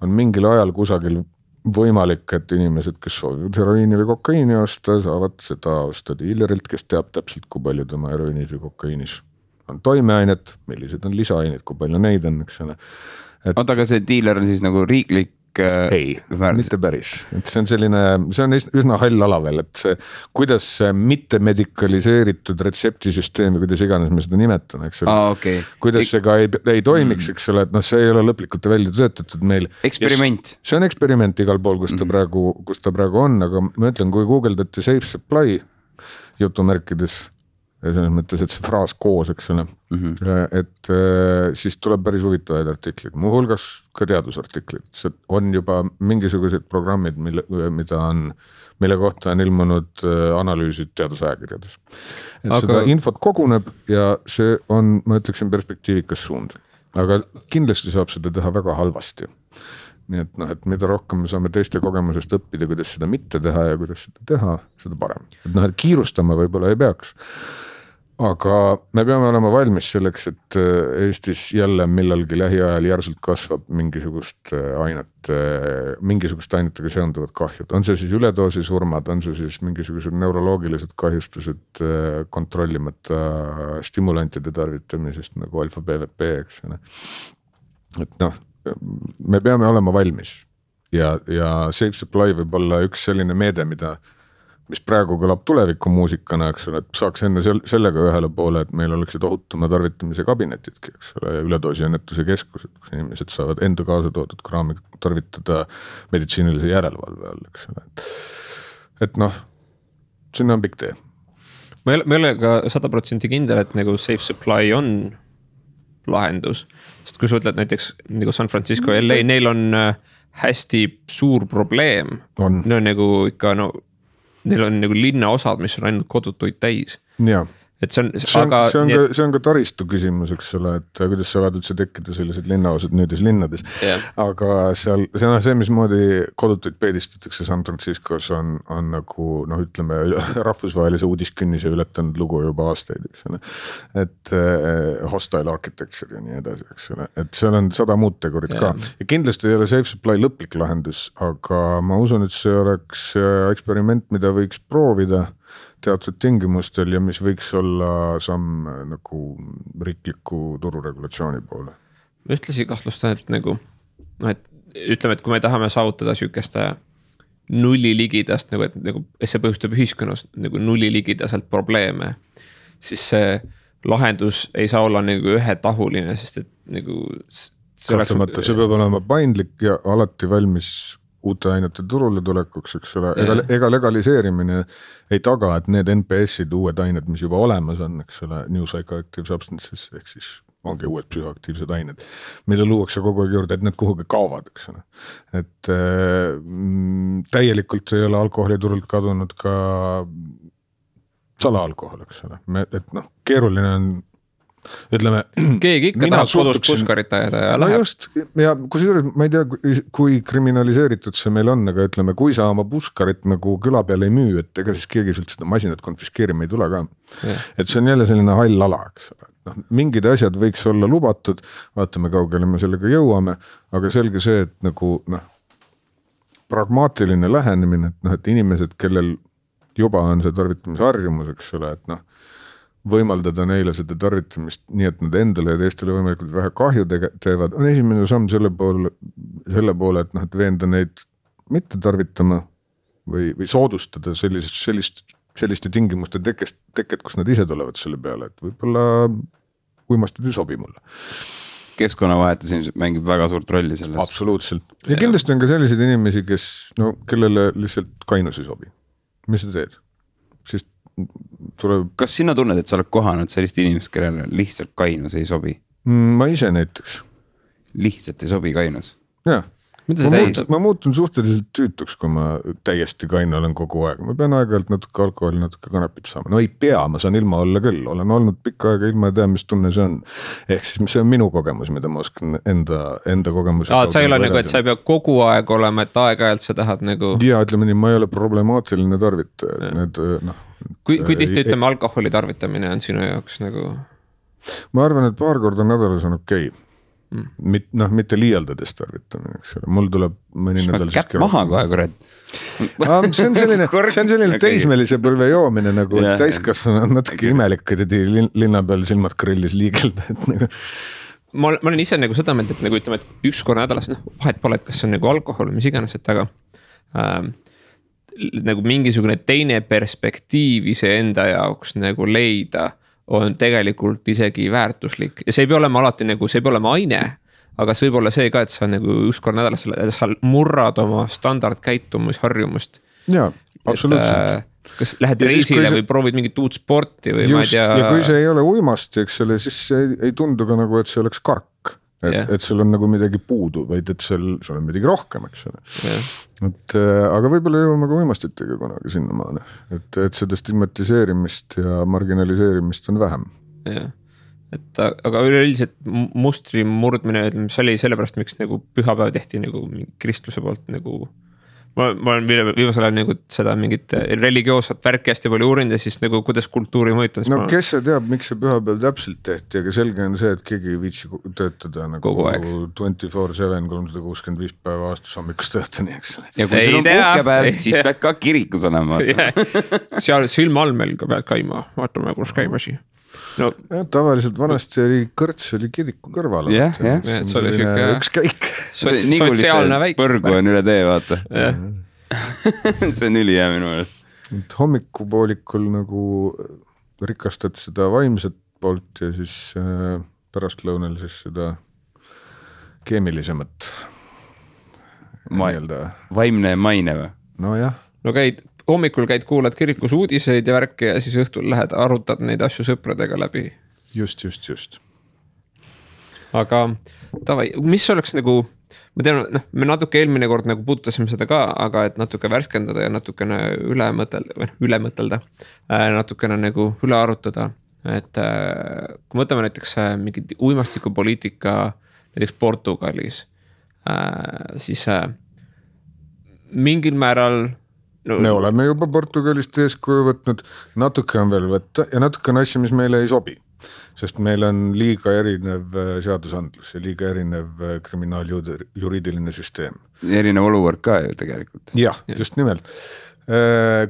on mingil ajal kusagil võimalik, et inimesed, kes soovivad heroiini või kokaiini osta, saavad seda osta diilerilt, kes teab täpselt, kui palju tema heroiinis või kokaiinis on toimeainet, millised on lisaained, kui palju neid on, eks ole. Oota, aga see diiler on siis nagu riiklik? Ei, mitte päris. Et see on üsna hall ala veel, et see, kuidas see mitte medikaliseeritud retseptisüsteemi, kuidas iganes me seda nimetan, eks ole. Okay. Kuidas see ka ei toimiks, eks ole, et see ei ole lõplikult välja töötatud meil. Eksperiment. See on eksperiment igal pool, kus ta praegu on, aga ma ütlen, kui googeldate safe supply jutumärkides, ja selles mõttes, et see fraas koos, eks ole, et siis tuleb päris huvitavaid artiklid, muu hulgas ka teadusartiklid, see on juba mingisugused programmid, mille kohta on ilmunud analüüsid teadusajakirjades. Et seda infot koguneb ja see on, ma ütleksin, perspektiivikas suund, aga kindlasti saab seda teha väga halvasti. Nii et, et mida rohkem me saame teiste kogemusest õppida, kuidas seda mitte teha ja kuidas seda teha, seda parem. Et kiirustama võib-olla ei peaks. Aga me peame olema valmis selleks, et Eestis jälle millalgi lähiajal järsult kasvab mingisugust ainetega seonduvad kahjud. On see siis üledoosi surmad, on see siis mingisugused neuroloogilised kahjustused kontrollimata stimulantide tarvitamisest nagu alfa-BVP, eks ole. Et me peame olema valmis ja safe supply võib olla üks selline meede, mis praegu kõlab tulevikumuusikana, eks ole, et saaks enne sellega ühele poole, et meil oleksid ohutuma tarvitamise kabinetidki, eks ole, ja üledoosi ennetuse keskused, kus inimesed saavad enda kaasa toodud kraami tarvitada meditsiinilise järelevalve all, eks ole. Et sinna on pikk tee. Ma ei ole ka 100% kindel, et nagu safe supply on lahendus. Sest kui sa ütled näiteks nagu San Francisco ja LA, neil on hästi suur probleem. Neil on nagu ikka, neil on nagu linnaosad, mis on ainult kodutuid täis. Jaa. Et see on ka taristu küsimus, eks ole, et kuidas saavad üldse tekkida sellised linnaosad nüüdes linnades. Aga see, mismoodi kodutuid peedistatakse San Franciscos on nagu, ütleme, rahvusvahelise uudiskünnise ületanud lugu juba aastaid, eks ole. Et hostile architecture ja nii edasi, eks ole. Et seal on 100 muud tegurit ka. Ja kindlasti ei ole safe supply lõplik lahendus, aga ma usun, et see oleks eksperiment, mida võiks proovida teatud tingimustel ja mis võiks olla samm nagu riikliku tururegulatsiooni poole. Ma ühtlasi kahtlustan, et nagu, et ütleme, et kui me tahame saavutada sükeste nulli ligidast, nagu, et nagu, see põhjustab ühiskonnas nagu nulli ligidaselt probleeme, siis see lahendus ei saa olla nagu ühetahuline, sest et nagu see peab olema paindlik ja alati valmis uute ainete turule tulekuks, eks ole, ega legaliseerimine ei taga, et need NPS-id, uued ained, mis juba olemas on, eks ole, New Psychoactive Substances, ehk siis ongi uued psühhoaktiivsed ained, mida luuakse kogu aeg juurde, et need kuhugi kaovad, eks ole. Et täielikult ei ole alkoholiturult kadunud ka salaalkohol, eks ole, et keeruline on ütleme, keegi ikka tahab kodus puskarit ajada ja läheb. Just, ja kusjuures ma ei tea, kui kriminaliseeritud see meil on, aga ütleme, kui sa oma puskarit nagu küla peal ei müü, et ega siis keegi sult seda masinat konfiskeerima ei tule ka. Et see on jälle selline hall ala, eks ole. Mingid asjad võiks olla lubatud, vaatame kaugele me sellega jõuame, aga selge see, et nagu pragmaatiline lähenemine, et inimesed, kellel juba on see tarvitamise harjumus, eks ole, et võimaldada neile seda tarvitamist nii, et nad endale ja teistele võimalikult vähe kahju teevad, on esimene samm selle poole, et veenda neid mitte tarvitama või soodustada selliste tingimuste teket, kus nad ise tulevad selle peale, et võib-olla uimastid ei sobi mulle. Keskkonnavahetus ilmselt mängib väga suurt rolli selles. Absoluutselt. Ja kindlasti on ka selliseid inimesi, kes, kellele lihtsalt kainus ei sobi. Mis sa teed? Siis Kas sina tunned, et sa oled kohanud sellist inimest, kellele lihtsalt kainus ei sobi? Ma ise näiteks. Lihtsalt ei sobi kainus? Jah. Ma muutun suhteliselt tüütuks, kui ma täiesti kaine olen kogu aeg. Ma pean aeg-ajalt natuke alkoholi, natuke kanepit saama. No ei pea, ma saan ilma olla küll. Olen olnud pikka aega ilma ja tean, mis tunne see on. Ehk siis see on minu kogemus, mida ma oskan enda kogemus. Sa ei ole nagu, et sa ei pea kogu aeg olema, et aeg-ajalt sa tahad nagu... Ja ütleme nii, ma ei ole problemaatiline tarvitaja. Need, kui tihti ütleme alkoholi tarvitamine on sinu jaoks nagu... Ma arvan, et paar korda nädalas on okei. Mitte liialdades tarvitamine, eks ole. Mul tuleb mõni nädal... Käpp maha kohe, kurat. See on selline teismelise põlve joomine, nagu täiskasvanu on natuke imelik, et linna peal silmad grillis liigelda. Ma olen ise nagu seda meelt, et nagu ütleme, et üks korra nädalas, vahet pole, et kas on nagu alkohol, mis iganes, et aga nagu mingisugune teine perspektiiv ise enda jaoks nagu leida on tegelikult isegi väärtuslik ja see ei pea olema alati nagu, see ei pea olema aine, aga see võib olla see ka, et sa nagu üks kord nädalas sa murrad oma standardkäitumisharjumust. Jaa, absoluutselt. Kas lähed reisile või proovid mingit uut sporti või just, ma ei tea. Ja kui see ei ole uimasti, eks selle, siis see ei tundu ka nagu, et see oleks kark. Et sul on nagu midagi puudu, vaid et sul on midagi rohkem, eks ole. Aga võib-olla jõuame ka uimastitega kunagi sinna maale. Et seda stigmatiseerimist ja marginaliseerimist on vähem. Aga üleüldiselt mustri murdmine, see oli sellepärast, miks nagu pühapäev tehti nagu kristluse poolt nagu... Ma olen viimasel ajal nagu seda mingit religioosat värki hästi palju uurinud ja siis nagu kuidas kultuuri mõjutas. No kes see teab, miks see pühapäev täpselt tehti, aga selge on see, et keegi ei viitsi töötada nagu 24/7, 365 päeva aastas hommikust õhtuni, eks. Ja kui sul on puhkepäev, siis pead ka kirikus olema. Seal silma all meil ka pead käima, vaatame, kus käimasi. No, tavaliselt vanasti oli kõrts oli kiriku kõrval. See oli siuke üks käik. Sotsiaalne väik. Põrgu on üle tee, vaata. See on ülihea minu meelest. Hommikupoolikul nagu rikastad seda vaimset poolt ja siis pärastlõunal siis seda keemilisemat. Vaimne maine või? No jah. No hommikul käid, kuulad kirikus uudiseid ja värki ja siis õhtul lähed, arutad neid asju sõpradega läbi. Just. aga tavai, mis oleks nagu, ma tean, me natuke eelmine kord nagu puudutasime seda ka, aga et natuke värskendada ja natukene üle mõtelda, natukene nagu üle arutada, et kui võtame näiteks mingi uimastikupoliitika näiteks Portugalis, siis mingil määral me oleme juba Portugalist eeskuju võtnud, natuke on veel võtta ja natuke on asja, mis meile ei sobi, sest meil on liiga erinev seadusandlus ja liiga erinev kriminaaljuriidiline süsteem. Erinev olukord ka ju tegelikult. Jah, just nimelt.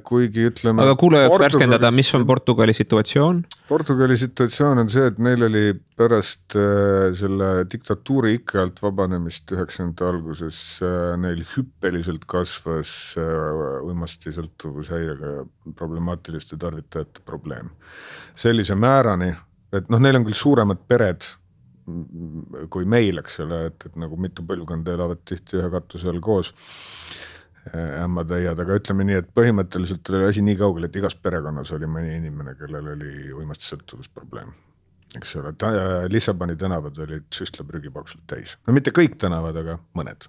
Kuigi ütleme... Aga kuule jaoks värskendada, mis on Portugali situatsioon? Portugali situatsioon on see, et neil oli pärast selle diktatuuri ikke alt vabanemist 90. alguses neil hüppeliselt kasvas uimasti sõltuvushäirega ja problemaatiliste tarvitajate probleem. Sellise määrani, et neil on küll suuremad pered kui meil, eks ole, et nagu mitu põlvkonda elavad tihti ühe katuse all koos ämmatäiad, aga ütleme nii, et põhimõtteliselt oli asi nii kaugel, et igas perekonnas oli mõni inimene, kellel oli uimasti sõltuvusprobleem. Eks ole, Lissaboni tänavad olid süstlaprügipaksult täis. No mitte kõik tänavad, aga mõned,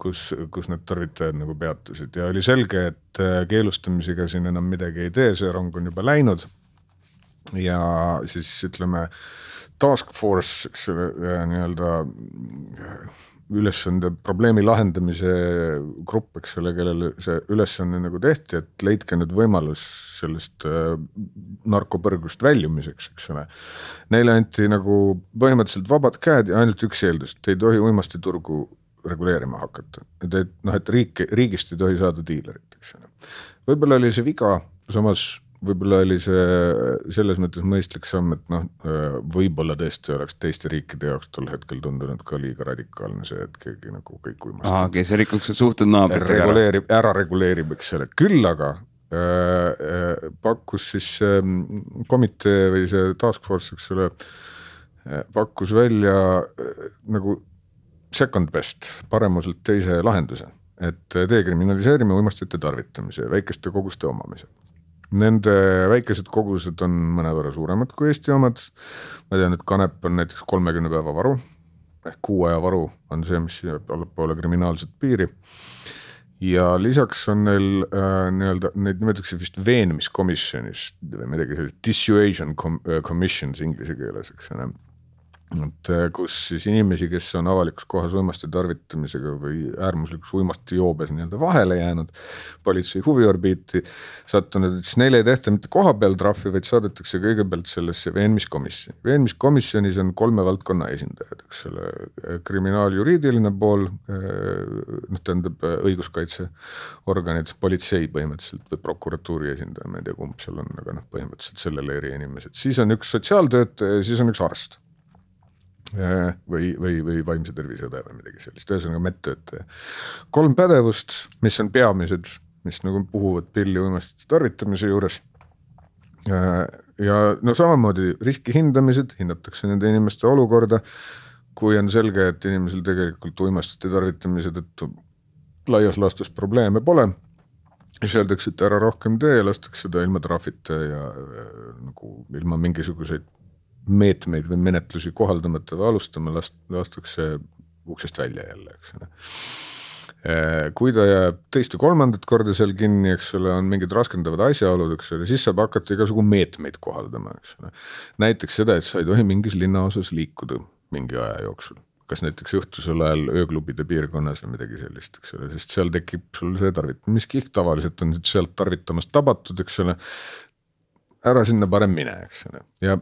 kus need tarvitajad nagu peatusid ja oli selge, et keelustamisega siin enam midagi ei tee, see rong on juba läinud ja siis ütleme task force, eks ole, nii-öelda ülesande probleemi lahendamise grupp, eks ole, kellele see ülesanne nagu tehti, et leidke nüüd võimalus sellest narkopõrgust väljumiseks, eks ole. Neile anti nagu põhimõtteliselt vabad käed ja ainult üks eeldus, et ei tohi uimasti turgu reguleerima hakata. Et riigist ei tohi saada diilerit, eks ole. Võib-olla oli see viga, samas võib-olla oli see selles mõttes mõistlik samm, et võib-olla tõesti oleks teiste riikide jaoks tol hetkel tundunud ka liiga radikaalne see, et keegi nagu kõik uimasti. See rikuks suhtud naabritega ära reguleerib, eks selle. Küll aga pakkus siis komitee või see task force, eks selle, pakkus välja nagu second best, paremuselt teise lahenduse, et dekriminaliseerime uimastite tarvitamise ja väikeste koguste omamise. Nende väikesed kogused on mõnevõrra suuremad kui Eesti omad. Ma tean, et kanep on näiteks 30 päeva varu, ehk 6 aja varu on see, mis jääb allapoole kriminaalset piiri. Ja lisaks on neil nii-öelda, neid nimetatakse vist veenmiskomisjonis või midagi sellist, dissuasion commissions inglise keeles, eks ole. Et kus siis inimesi, kes on avalikus kohas uimasti tarvitamisega või äärmuslikus uimasti joobes nii-öelda vahele jäänud politsei huviorbiiti sattunud, et siis neile ei tehta mitte koha peal trahvi, vaid saadetakse kõigepealt sellesse veenmiskomisjoni. Veenmiskomisjonis on 3 valdkonna esindajad, eks ole, kriminaaljuriidiline pool, tähendab õiguskaitseorganid, politsei põhimõtteliselt või prokuratuuri esindaja, ma ei tea kumb seal on, aga põhimõtteliselt selle leeri inimesed. Siis on üks sotsiaaltöötaja ja siis on üks arst. Või vaimse terviseõde või midagi sellist, ühesõnaga medtöötaja. 3 pädevust, mis on peamised, mis nagu puhuvad pilli uimastite tarvitamise juures. Ja samamoodi riski hindamised, hinnatakse nende inimeste olukorda, kui on selge, et inimesel tegelikult uimastite tarvitamise tõttu laias laastus probleeme pole. Siis öeldakse, et ära rohkem tee ja lastakse seda ilma trahvita ja nagu ilma mingisuguseid meetmeid või menetlusi kohaldamata või alustama lastakse uksest välja jälle, eks ole. Kui ta jääb teist ja 3. korda seal kinni, eks ole, on mingid raskendavad asjaolud, eks ole, siis saab hakata igasugu meetmeid kohaldama, eks ole. Näiteks seda, et sa ei tohi mingis linnaosas liikuda mingi aja jooksul. Kas näiteks õhtusel ajal ööklubide piirkonnas või midagi sellist, eks ole, sest seal tekib sul see tarvitamiskihk, tavaliselt on sealt tarvitamast tabatud, eks ole, ära sinna parem mine, eks ole. Ja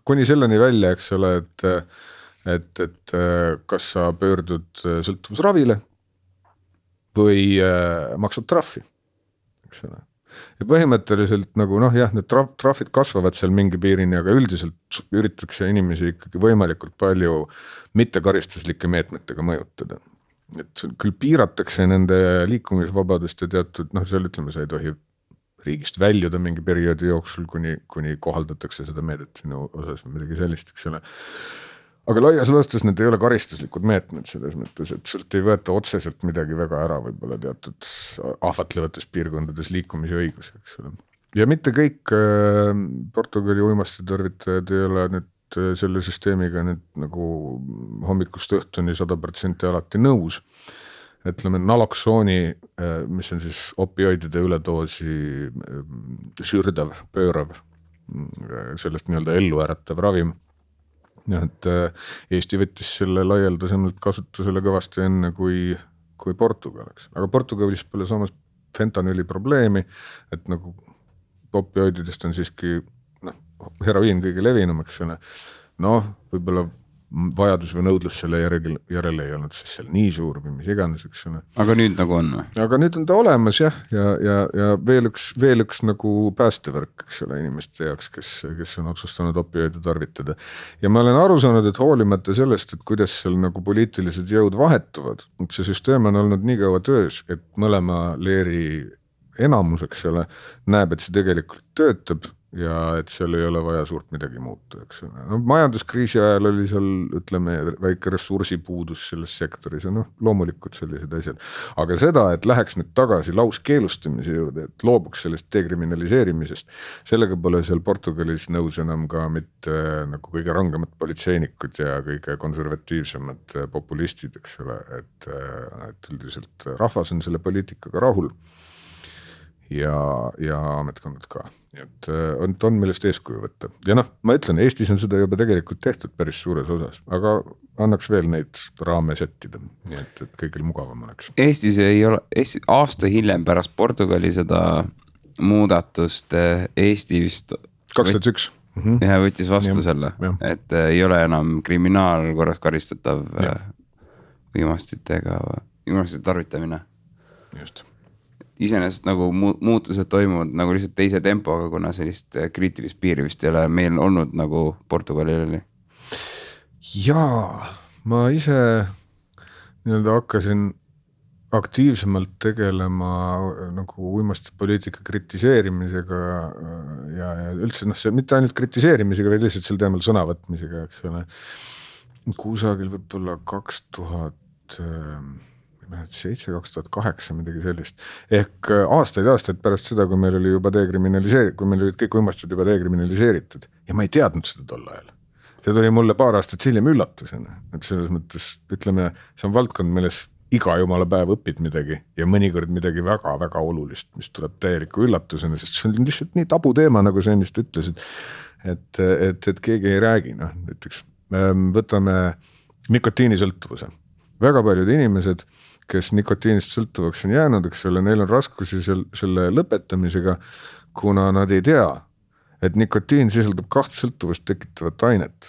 kuni selleni välja, eks ole, et kas sa pöördud sõltuvusravile või maksad trahvi, eks ole. Ja põhimõtteliselt nagu need trahvid kasvavad seal mingi piirini, aga üldiselt üritatakse inimesi ikkagi võimalikult palju mittekaristuslikke meetmetega mõjutada. Et küll piiratakse nende liikumisvabadust ja teatud, seal ütleme, sa ei tohi riigist väljuda mingi perioodi jooksul, kuni kohaldatakse seda meedet sinu osas või midagi sellist, eks ole. Aga laias laastus need ei ole karistuslikud meetmed selles mõttes, et sult ei võeta otseselt midagi väga ära võib-olla teatud ahvatlevates piirkondades liikumise õigus, eks ole. Ja mitte kõik Portugali uimasti tarvitajad ei ole nüüd selle süsteemiga nüüd nagu hommikust õhtuni 100% alati nõus. Ütleme naloksooni, mis on siis opioidide üledoosi sürdav, pöörav, sellest nii-öelda ellu äratav ravim. Et Eesti võttis selle laialdasemalt kasutusele kõvasti enne kui Portugal, eks. Aga Portugalis pole samas fentanüüli probleemi, et nagu opioididest on siiski heroiin kõige levinum, eks ole. Võib-olla vajadus või nõudlus selle järele ei olnud siis seal nii suur või mis iganes, eks ole. Aga nüüd nagu on või? Aga nüüd on ta olemas jah, ja veel üks nagu päästevõrk, eks ole, inimeste jaoks, kes on otsustanud opioide tarvitada. Ja ma olen aru saanud, et hoolimata sellest, et kuidas seal nagu poliitilised jõud vahetuvad, see süsteem on olnud nii kaua töös, et mõlema leeri enamus, eks ole, näeb, et see tegelikult töötab ja et seal ei ole vaja suurt midagi muuta, eks ole. Majanduskriisi ajal oli seal, ütleme, väike ressursipuudus selles sektoris ja loomulikult sellised asjad. Aga seda, et läheks nüüd tagasi lauskeelustamise juurde, et loobuks sellest dekriminaliseerimisest, sellega pole seal Portugalis nõus enam ka mitte nagu kõige rangemad politseinikud ja kõige konservatiivsemad populistid, eks ole, et üldiselt rahvas on selle poliitikaga rahul. Ja ametkonnad ka. Et on millest eeskuju võtta. Ja ma ütlen, Eestis on seda juba tegelikult tehtud päris suures osas, aga annaks veel neid raame settida, nii et kõigil mugavam oleks. Eestis ei ole, aasta hiljem pärast Portugali seda muudatust Eesti vist 2001. Ja võttis vastu selle, et ei ole enam kriminaalkorras karistatav uimastite tarvitamine. Just. Iseenesest nagu muutused toimuvad nagu lihtsalt teise tempoga, kuna sellist kriitilist piiri vist ei ole meil olnud nagu Portugalil oli. Jaa, ma ise nii-öelda hakkasin aktiivsemalt tegelema nagu uimastipoliitika kritiseerimisega ja üldse see mitte ainult kritiseerimisega, vaid lihtsalt sel teemal sõnavõtmisega, eks ole. Kusagil võib-olla 2007-2008 midagi sellist. Ehk aastaid pärast seda, kui meil oli juba kui meil olid kõik uimastid juba dekriminaliseeritud ja ma ei teadnud seda tol ajal. See tuli mulle paar aastat hiljem üllatusena, et selles mõttes, ütleme, see on valdkond, milles iga jumala päev õpid midagi ja mõnikord midagi väga-väga olulist, mis tuleb täieliku üllatusena, sest see on lihtsalt nii tabu teema, nagu sa ennist ütlesid, et keegi ei räägi. Näiteks võtame nikotiinisõltuvuse. Väga paljud inimesed, kes nikotiinist sõltuvaks on jäänud, eks ole, neil on raskusi selle lõpetamisega, kuna nad ei tea, et nikotiin sisaldab 2 sõltuvust tekitavat ainet,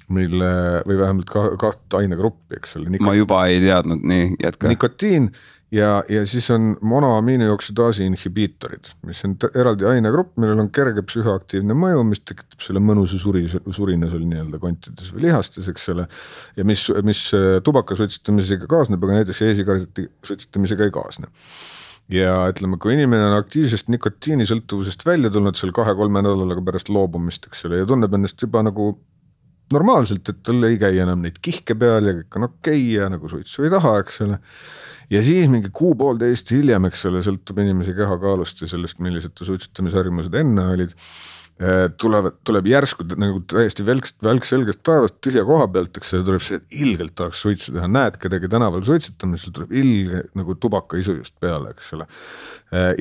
või vähemalt 2 ainegruppi, eks ole. Ma juba ei teadnud, nii jätka. Nikotiin ja siis on monoamiinioksidaasi inhibiitorid, mis on eraldi ainegrupp, millel on kerge psühhoaktiivne mõju, mis tekitab selle mõnusa surina seal nii-öelda kontides või lihastes, eks ole, ja mis tubaka suitsitamisega kaasneb, aga näiteks e-sigareti suitsitamisega ei kaasne. Ja ütleme, kui inimene on aktiivsest nikotiinisõltuvusest välja tulnud seal 2-3 nädalaga pärast loobumist, eks ole, ja tunneb ennast juba nagu normaalselt, et tal ei käi enam neid kihke peal ja kõik on okei ja nagu suitsu ei taha, eks ole. Ja siis mingi 1,5 hiljem, eks ole, sõltub inimese kehakaalust ja sellest, millised suitsutamisharjumused enne olid, tuleb järsku nagu täiesti välkselgest taevast tühja koha pealt, eks see tuleb see, et ilgelt tahaks suitsu teha, näed kedagi tänaval suitsutamisel, tuleb ilge nagu tubaka isu just peale, eks ole.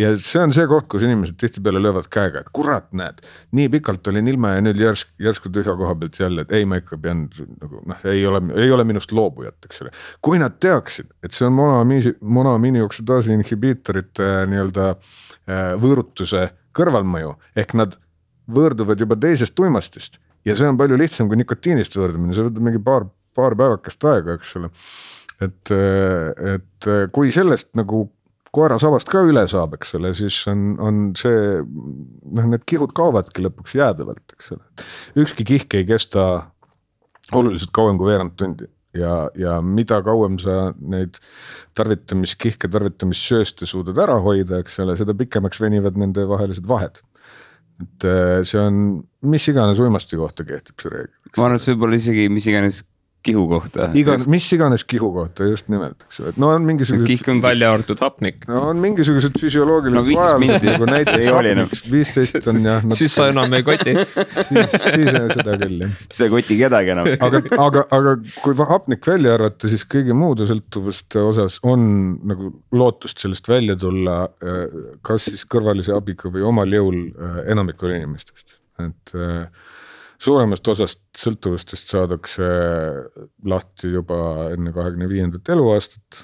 Ja see on see koht, kus inimesed tihtipeale löövad käega, et kurat, näed, nii pikalt olin ilma ja nüüd järsku tühja koha pealt jälle, et ei, ma ikka pean nagu, ei ole minust loobujat, eks ole. Kui nad teaksid, et see on monoamiinioksidaasi inhibiitorite nii-öelda võõrutuse kõrvalmõju, ehk nad võõrduvad juba teisest uimastist ja see on palju lihtsam kui nikotiinist võõrdumine, see võtab mingi paar päevakest aega, eks ole. Et kui sellest nagu koera sabast ka üle saab, eks ole, siis on see, need kihud kaovadki lõpuks jäädavalt, eks ole. Ükski kihk ei kesta oluliselt kauem kui veerand tundi ja mida kauem sa neid tarvitamissööste suudad ära hoida, eks ole, seda pikemaks venivad nende vahelised vahed. Et see on, mis iganes uimasti kohta kehtib see reegel. Ma arvan, et see võib olla isegi mis iganes kihu kohta. Mis iganes kihu kohta just nimelt, eks ole. No on mingisugused välja arvatud hapnik. No on mingisugused füsioloogilised vajadused, nagu näiteks hapnik 15 on jah. Siis sa enam ei koti. Siis seda küll jah. See koti kedagi enam. Aga kui hapnik välja arvata, siis kõigi muude sõltuvuste osas on nagu lootust sellest välja tulla, kas siis kõrvalise abiga või omal jõul enamikul inimestest. Et suuremast osast sõltuvustest saadakse lahti juba enne 25. eluaastat.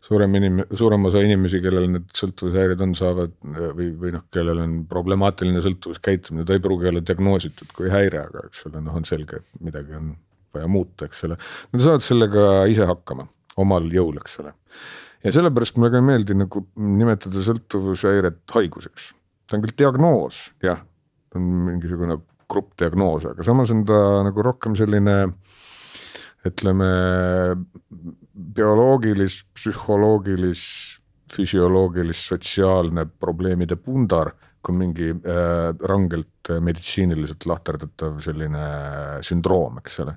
Suurem osa inimesi, kellel need sõltuvushäired on, saavad või kellel on problemaatiline sõltuvuskäitumine, ta ei pruugi olla diagnoositud kui häire, aga eks ole, on selge, et midagi on vaja muuta, eks ole. Nad saavad sellega ise hakkama, omal jõul, eks ole. Ja sellepärast mulle ka ei meeldi nagu nimetada sõltuvushäiret haiguseks. Ta on küll diagnoos, jah, on mingisugune gruppdiagnoos, aga samas on ta nagu rohkem selline, ütleme, bioloogilis, psühholoogilis, füsioloogilis, sotsiaalne probleemide pundar, kui mingi rangelt meditsiiniliselt lahterdatav selline sündroom, eks ole.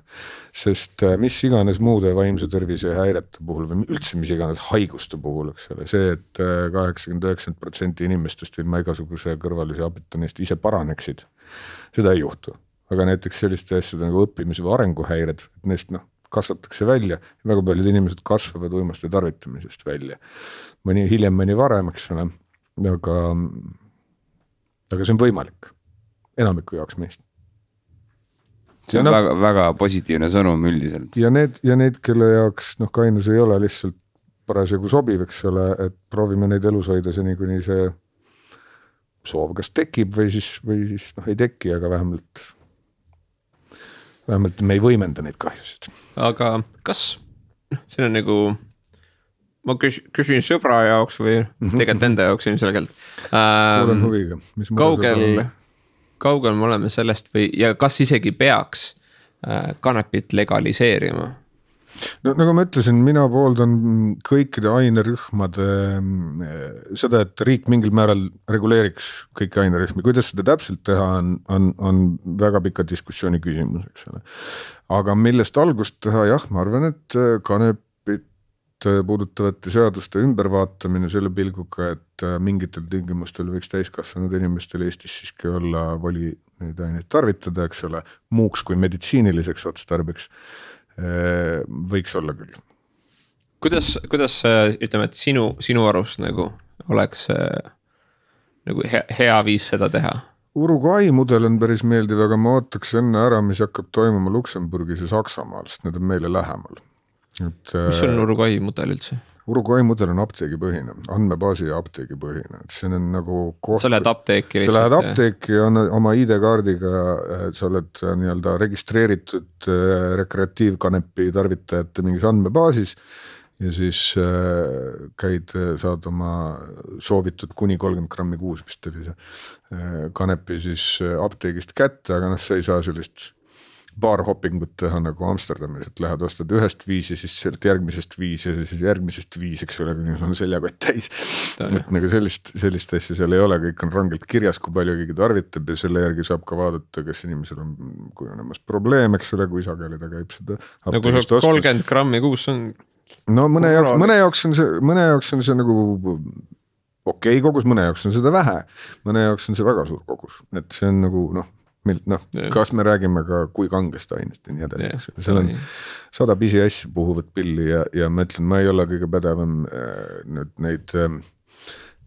Sest mis iganes muude vaimse tervise häirete puhul või üldse mis iganes haiguste puhul, eks ole, see, et 80-90% inimestest ilma igasuguse kõrvalise abita neist ise paraneksid, seda ei juhtu. Aga näiteks selliste asjade nagu õppimise või arenguhäired, et neist kasvatakse välja ja väga paljud inimesed kasvavad uimaste tarvitamisest välja. Mõni hiljem, mõni varem, eks ole, aga see on võimalik enamiku jaoks meist. See on väga, väga positiivne sõnum üldiselt. Ja need, kelle jaoks kainus ei ole lihtsalt parasjagu sobiv, eks ole, et proovime neid elus hoida seni, kuni see soov kas tekib või siis ei teki, aga vähemalt me ei võimenda neid kahjusid. Aga kas see on nagu, ma küsin sõbra jaoks või tegelikult enda jaoks ilmselgelt. Kuulen huviga. Kaugel me oleme sellest või, ja kas isegi peaks kanepit legaliseerima? No nagu ma ütlesin, mina pooldan kõikide ainerühmade seda, et riik mingil määral reguleeriks kõiki ainerühmi. Kuidas seda täpselt teha on väga pika diskussiooni küsimus, eks ole. Aga millest algust teha, jah, ma arvan, et kanepit puudutavate seaduste ümbervaatamine selle pilguga, et mingitel tingimustel võiks täiskasvanud inimestel Eestis siiski olla voli neid aineid tarvitada, eks ole, muuks kui meditsiiniliseks otstarbeks. Võiks olla küll. Kuidas ütleme, et sinu arust nagu oleks nagu hea viis seda teha? Uruguay mudel on päris meeldiv, aga ma ootaks enne ära, mis hakkab toimuma Luksemburgis ja Saksamaal, sest need on meile lähemal. Mis on Uruguay mudel üldse? Uruguay mudel on apteegipõhine, andmebaasi ja apteegipõhine. See on nagu sa lähed apteeki lihtsalt? Sa lähed apteeki ja oma ID-kaardiga, sa oled nii-öelda registreeritud rekreatiivkanepi tarvitajate mingis andmebaasis ja siis saad oma soovitud kuni 30 grammi kuus vist oli see kanepi siis apteegist kätte, aga sa ei saa sellist baarhoppingut teha nagu Amsterdamis, et lähed ostad ühest viis ja siis järgmisest viis ja siis järgmisest viis, eks ole, kui on seljakott täis. Et nagu sellist asja seal ei ole, kõik on rangelt kirjas, kui palju keegi tarvitab ja selle järgi saab ka vaadata, kas inimesel on kujunemas probleem, eks ole, kui sageli ta käib seda. Nagu 30 grammi kuus on. No mõne jaoks on see nagu okei kogus, mõne jaoks on seda vähe, mõne jaoks on see väga suur kogus, et see on nagu kas me räägime ka kui kangest ainest ja nii edasi. Seal on 100 pisiassi puhuvat pilli ja ma ütlen, ma ei ole kõige pädevam neid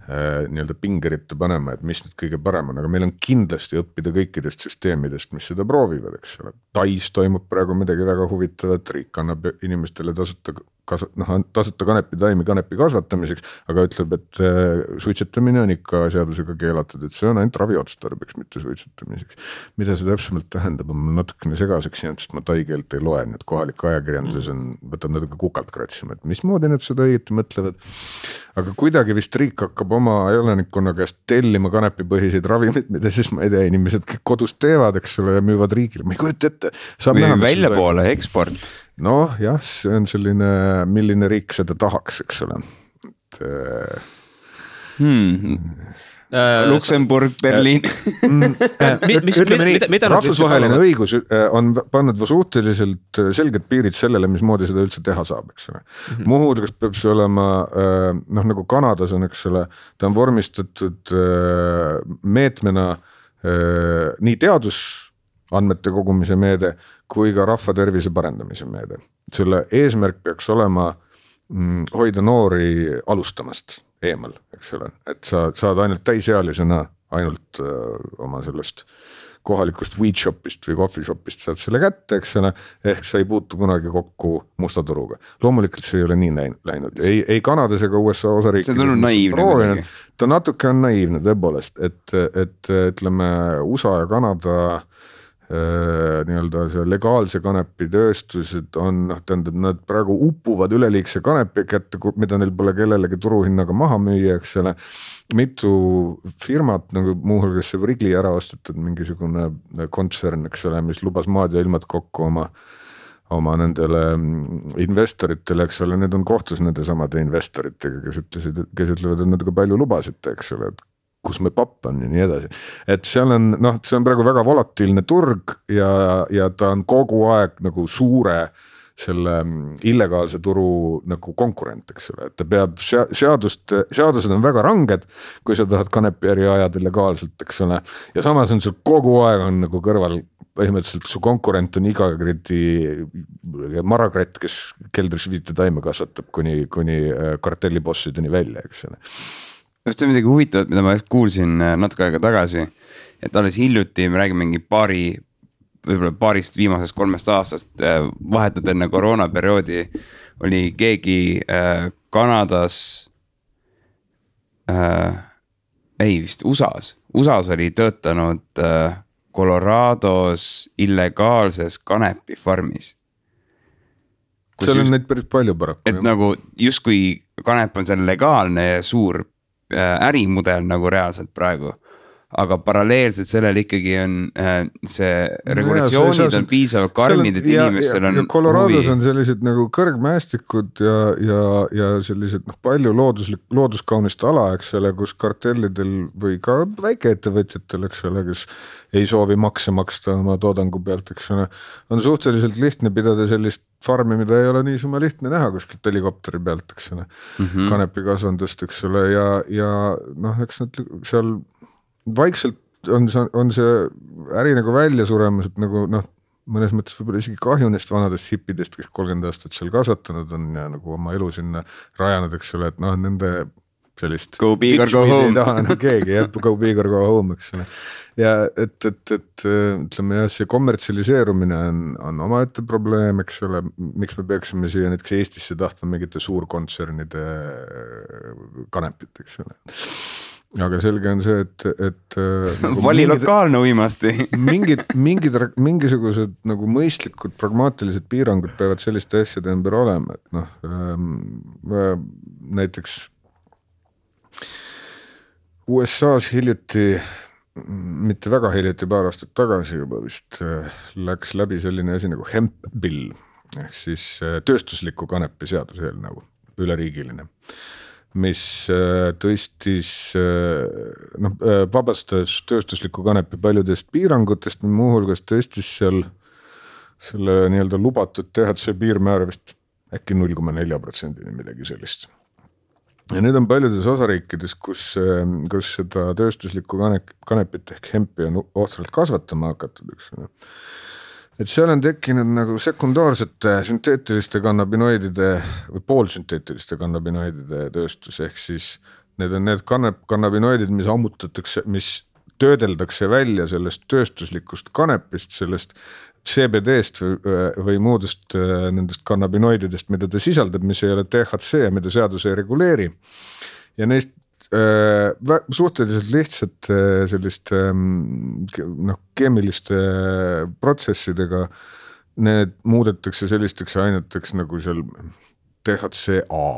nii-öelda pingeritte panema, et mis nüüd kõige parem on, aga meil on kindlasti õppida kõikidest süsteemidest, mis seda proovivad, eks ole. Tais toimub praegu midagi väga huvitavat, riik annab inimestele tasuta kanepitaimi kanepi kasvatamiseks, aga ütleb, et suitsetamine on ikka seadusega keelatud, et see on ainult raviotstarbeks, mitte suitsetamiseks. Mida see täpsemalt tähendab, on mul natukene segaseks jäänud, sest ma taikeelt ei loe, nüüd kohalik ajakirjandus võtab natuke kukalt kratsima, et mismoodi nad seda õieti mõtlevad. Aga kuidagi vist riik hakkab oma elanikkonna käest tellima kanepipõhiseid ravimid, mida siis ma ei tea, inimesed kõik kodus teevad, eks ole, ja müüvad riigile, ma ei kujuta ette. Või välja poole eksport. Noh, jah, see on selline, milline riik seda tahaks, eks ole. Luksemburg, Berliin. Ütleme nii, rahvusvaheline õigus on pannud suhteliselt selged piirid sellele, mismoodi seda üldse teha saab, eks ole. Muuhulgas peab see olema, nagu Kanadas on, eks ole, ta on vormistatud meetmena nii teadusandmete kogumise meede kui ka rahva tervise parendamise meede. Selle eesmärk peaks olema hoida noori alustamast eemal, eks ole, et sa saad ainult täisealisena ainult oma sellest kohalikust weed shopist või coffee shopist saad selle kätte, eks ole, ehk sa ei puutu kunagi kokku musta turuga. Loomulikult see ei ole nii läinud, ei Kanadas ega USA osariikides. See on tulnud naiivne. Ta natuke on naiivne tõepoolest, et ütleme USA ja Kanada nii-öelda see legaalse kanepi tööstused on, tähendab, nad praegu upuvad üleliigse kanepi kätte, mida neil pole kellelegi turuhinnaga maha müüa, eks ole. Mitu firmat, nagu muuhulgas see Wrigley ära ostetud mingisugune kontsern, eks ole, mis lubas maad ja ilmad kokku oma nendele investoritele, eks ole, need on kohtus nende samade investoritega, kes ütlevad, et nad ka palju lubasite, eks ole, et kus me papp on ja nii edasi. Et seal on, see on praegu väga volatiilne turg ja ta on kogu aeg nagu suure selle illegaalse turu nagu konkurent, eks ole, et ta peab seadused on väga ranged, kui sa tahad kanepiäri ajada legaalselt, eks ole, ja samas on sul kogu aeg on nagu kõrval põhimõtteliselt su konkurent on iga marakratt, kes keldris 5 taime kasvatab kuni kartellibossideni välja, eks ole. See on midagi huvitavat, mida ma kuulsin natuke aega tagasi, et alles hiljuti me räägime mingi võib-olla paarist viimasest 3 aastast vahetud enne koroonaperioodi oli keegi Kanadas, vist USAs oli töötanud Colorados illegaalses kanepifarmis. Seal on neid päris palju paraku. Et nagu justkui kanep on seal legaalne ja suur ärimudel nagu reaalselt praegu, aga paralleelselt sellel ikkagi on see regulatsioonid on piisavalt karmid, et inimestel on Colorados on sellised nagu kõrgmäestikud ja sellised palju looduskaunist ala, eks ole, kus kartellidel või ka väikeettevõtjatel, eks ole, kes ei soovi makse maksta oma toodangu pealt, eks ole, on suhteliselt lihtne pidada sellist farmi, mida ei ole niisama lihtne näha kuskilt helikopteri pealt, eks ole, kanepikasvandust, eks ole, ja eks nad seal vaikselt on see äri nagu välja suremas, et nagu mõnes mõttes võib-olla isegi kahju neist vanadest hippidest, kes 30 aastat seal kasvatanud on ja nagu oma elu sinna rajanud, eks ole, et nende sellist go big or go home ei taha keegi, go big or go home, eks ole. Ja et ütleme jah, see kommertsialiseerumine on omaette probleem, eks ole, miks me peaksime siia näiteks Eestisse tahtma mingite suurkontsernide kanepit, eks ole. Aga selge on see, et vali lokaalne uimasti. mingisugused nagu mõistlikud pragmaatilised piirangud peavad selliste asjade ümber olema, et näiteks USA-s hiljuti, mitte väga hiljuti, paar aastat tagasi juba vist läks läbi selline asi nagu hemp bill, ehk siis tööstusliku kanepi seaduseelnõu, üleriigiline, mis tõstis, vabastas tööstusliku kanepi paljudest piirangutest, muuhulgas tõstis seal selle nii-öelda lubatud THC piirmäär vist äkki 0,4% midagi sellist. Ja need on paljudes osariikides, kus seda tööstuslikku kanepit ehk hempi on ohtralt kasvatama hakatud, eks. Et seal on tekkinud nagu sekundaarsete sünteetiliste kannabinoidide või poolsünteetiliste kannabinoidide tööstus, ehk siis need on need kannabinoidid, mis ammutatakse, mis töödeldakse välja sellest tööstuslikust kanepist, sellest CBD-st või muudest nendest kannabinoididest, mida ta sisaldab, mis ei ole THC, mida seadus ei reguleeri. Ja neist suhteliselt lihtsalt selliste keemiliste protsessidega need muudetakse sellisteks aineteks nagu seal THCA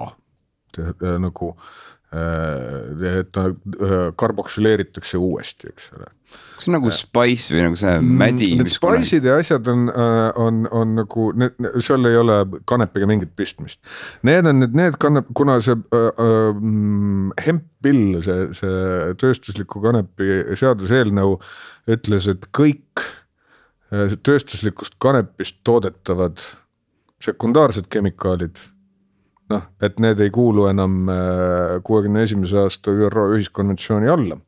nagu et ta karboksüleeritakse uuesti, eks ole. See on nagu spice või nagu see mädi? Need spice'id ja asjad on nagu, seal ei ole kanepiga mingit pistmist. Need on need kuna see hemp-bill, see tööstusliku kanepi seaduseelnõu ütles, et kõik tööstuslikust kanepist toodetavad sekundaarsed kemikaalid, noh, et need ei kuulu enam 61. aasta ÜRO ühiskonventsiooni alla.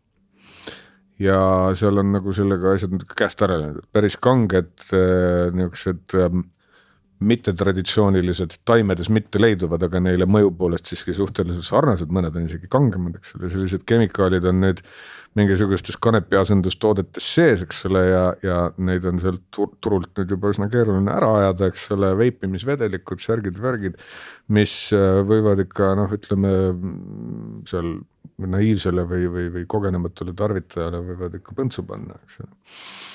Ja seal on nagu sellega asjad käest ära läinud, päris kanged niisugused mittetraditsioonilised taimedes mitte leiduvad, aga neile mõju poolest siiski suhteliselt sarnased, mõned on isegi kangemad, eks ole, sellised kemikaalid on nüüd mingisugustes kanepi asendustoodetes sees, eks ole, ja neid on sealt turult nüüd juba üsna keeruline ära ajada, eks ole, veipimisvedelikud, särgid, mis võivad ikka, noh, ütleme seal naiivsele või kogenematule tarvitajale võivad ikka põntsu panna, eks ole.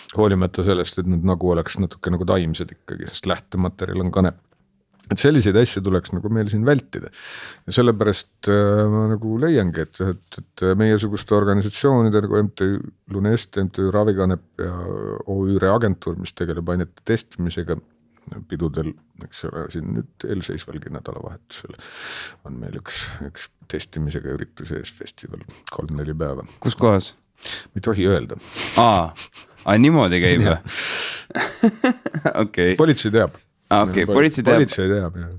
Hoolimata sellest, et need nagu oleks natuke nagu taimsed ikkagi, sest lähtematerjal on kanep. Et selliseid asju tuleks nagu meil siin vältida. Ja sellepärast ma nagu leiangi, et meiesuguste organisatsioonide nagu MTÜ Lunest, MTÜ Ravikanep ja OÜ Reagentuur, mis tegeleb ainete testimisega pidudel, eks ole, siin nüüd eelseisvalgi nädalavahetusel on meil üks testimisega üritus ees festival 3-4 päeva. Kus kohas? Me ei tohi öelda. Niimoodi käib või? Okay. Politsei teab. Okay, politsei teab, jah.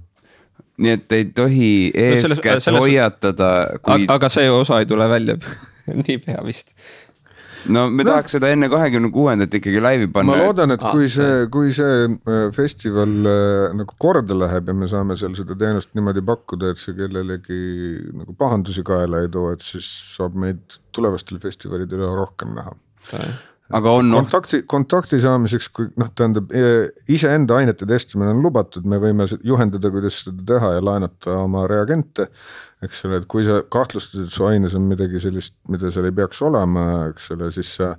Nii et ei tohi eeskätt hoiatada kui... Aga see osa ei tule välja nii pea vist. No me tahaks seda enne 26. ikkagi laivi panna. Ma loodan, et kui see festival nagu korda läheb ja me saame seal seda teenust niimoodi pakkuda, et see kellelegi nagu pahandusi kaela ei too, et siis saab meid tulevastel festivalidel rohkem näha. Aga on kontakti saamiseks, kui tähendab, iseenda ainete testimine on lubatud, me võime juhendada, kuidas seda teha ja laenata oma reagente, eks ole, et kui sa kahtlustad, et su aines on midagi sellist, mida seal ei peaks olema, eks ole, siis sa,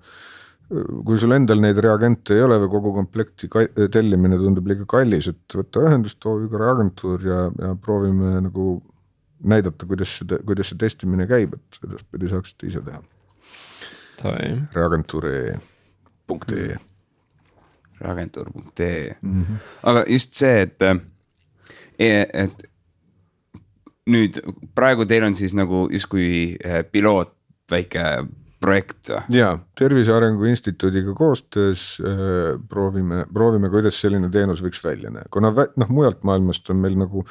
kui sul endal neid reagente ei ole või kogu komplekti tellimine tundub liiga kallis, et võtta ühendust OÜ Reagentuur ja proovime nagu näidata, kuidas see testimine käib, et edaspidi saaksite ise teha. Reagentuur.ee Reagentuur.ee Aga just see, et nüüd praegu teil on siis nagu justkui piloot väike projekt või? Jaa, Tervise Arengu Instituudiga koostöös proovime, kuidas selline teenus võiks välja näha. Kuna mujalt maailmast on meil nagu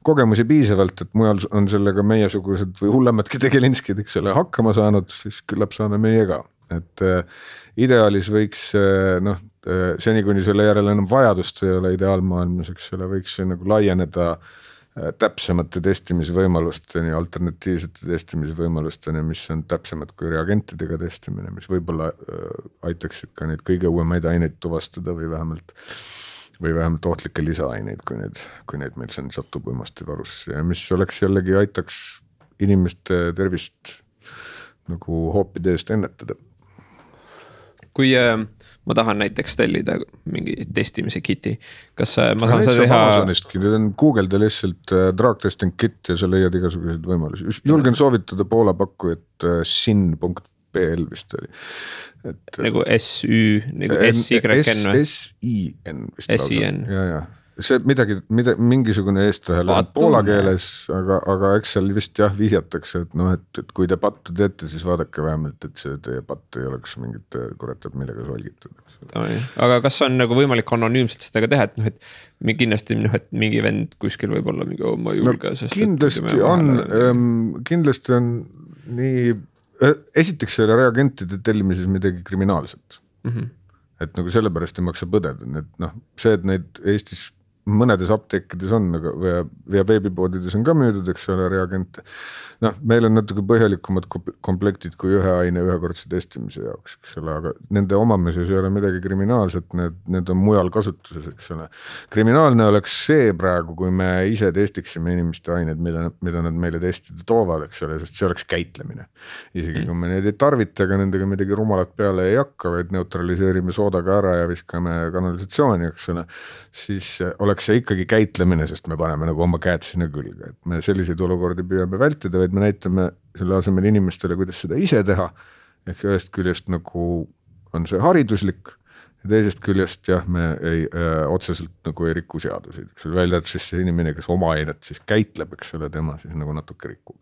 kogemusi piisavalt, et mujal on sellega meiesugused või hullemadki tegelinskid, eks ole, hakkama saanud, siis küllap saame meie ka. Et ideaalis võiks, seni kuni selle järele enam vajadust ei ole ideaalmaailmas, eks ole, võiks nagu laieneda täpsemate testimisvõimalusteni, alternatiivsete testimisvõimalusteni, mis on täpsemad kui reagentidega testimine, mis võib-olla aitaksid ka neid kõige uuemaid aineid tuvastada või vähemalt ohtlikke lisaaineid, kui neid meil siin satub uimastivarusse ja mis oleks jällegi aitaks inimeste tervist nagu hoopide eest ennetada. Kui ma tahan näiteks tellida mingi testimise kiti, kas ma saan seda teha? Amazonistki, nüüd on Google'da lihtsalt drug testing kit ja sa leiad igasuguseid võimalusi. Julgen soovitada Poola pakkujat sin.pl vist oli. Nagu SÜ, nagu SYN või? SIN vist lausa. SIN. Ja. See mingisugune eestlahel poola keeles, aga eks seal vist vihjatakse, et kui te pattu teete, siis vaadake vähemalt, et see teie patt ei oleks mingit kuretab millega solgitud. Aga kas on nagu võimalik anonüümselt seda teha, et kindlasti et mingi vend kuskil võib olla mingi ma julge, sest kindlasti on nii, esiteks ei ole reagentide tellimises midagi kriminaalset. Et nagu sellepärast ei maksa põdeda, see, et neid Eestis mõnedes apteekides on, ja veebipoodides on ka müüdud, eks ole, reagente. Meil on natuke põhjalikumad komplektid kui ühe aine ühekordse testimise jaoks, eks ole, aga nende omamises ei ole midagi kriminaalset, need on mujal kasutuses, eks ole. Kriminaalne oleks see praegu, kui me ise testiksime inimeste aineid, mida nad meile testida toovad, eks ole, sest see oleks käitlemine. Isegi kui me neid ei tarvita, aga nendega midagi rumalat peale ei hakka, vaid neutraliseerime soodaga ära ja viskame kanalisatsiooni, eks ole, siis oleks ollakse ikkagi käitlemine, sest me paneme nagu oma käed sinna külge, et me selliseid olukordi püüame vältida, vaid me näitame selle asemel inimestele, kuidas seda ise teha. Ehk ühest küljest nagu on see hariduslik ja teisest küljest jah, me otseselt nagu ei riku seadusi. Välja, et siis see inimene, kes oma ainet siis käitleb, eks ole, tema siis nagu natuke rikub.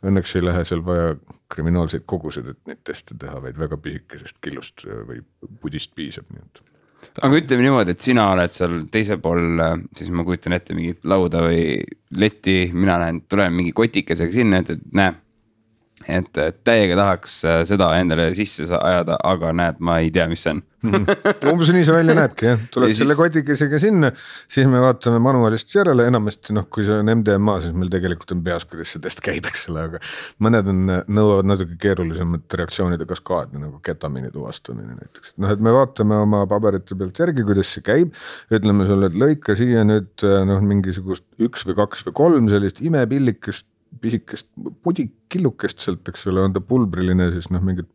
Õnneks ei lähe seal vaja kriminaalseid kogused, et neid teste teha, vaid väga pisikesest killust või pudist piisab. Nii et. Aga ütleme niimoodi, et sina oled seal teise pool, siis ma kujutan ette mingit lauda või letti, mina näen, tulen mingi kotikesega sinna, et näe, et täiega tahaks seda endale sisse ajada, aga näed, ma ei tea, mis see on. Umbes nii see välja näebki, jah. Tuleb selle kotikesega sinna, siis me vaatame manuaalist järele, enamasti kui see on MDMA, siis meil tegelikult on peas, kuidas see test käib, eks ole, aga mõned nõuavad natuke keerulisemat reaktsioonide kaskaadi, nagu ketamiini tuvastamine näiteks. Et me vaatame oma paberite pealt järgi, kuidas see käib, ütleme sulle, et lõika siia nüüd mingisugust 1 või 2 või 3 sellist imepillikest, pisikest pudikillukest sealt, eks ole, on ta pulbriline, siis mingit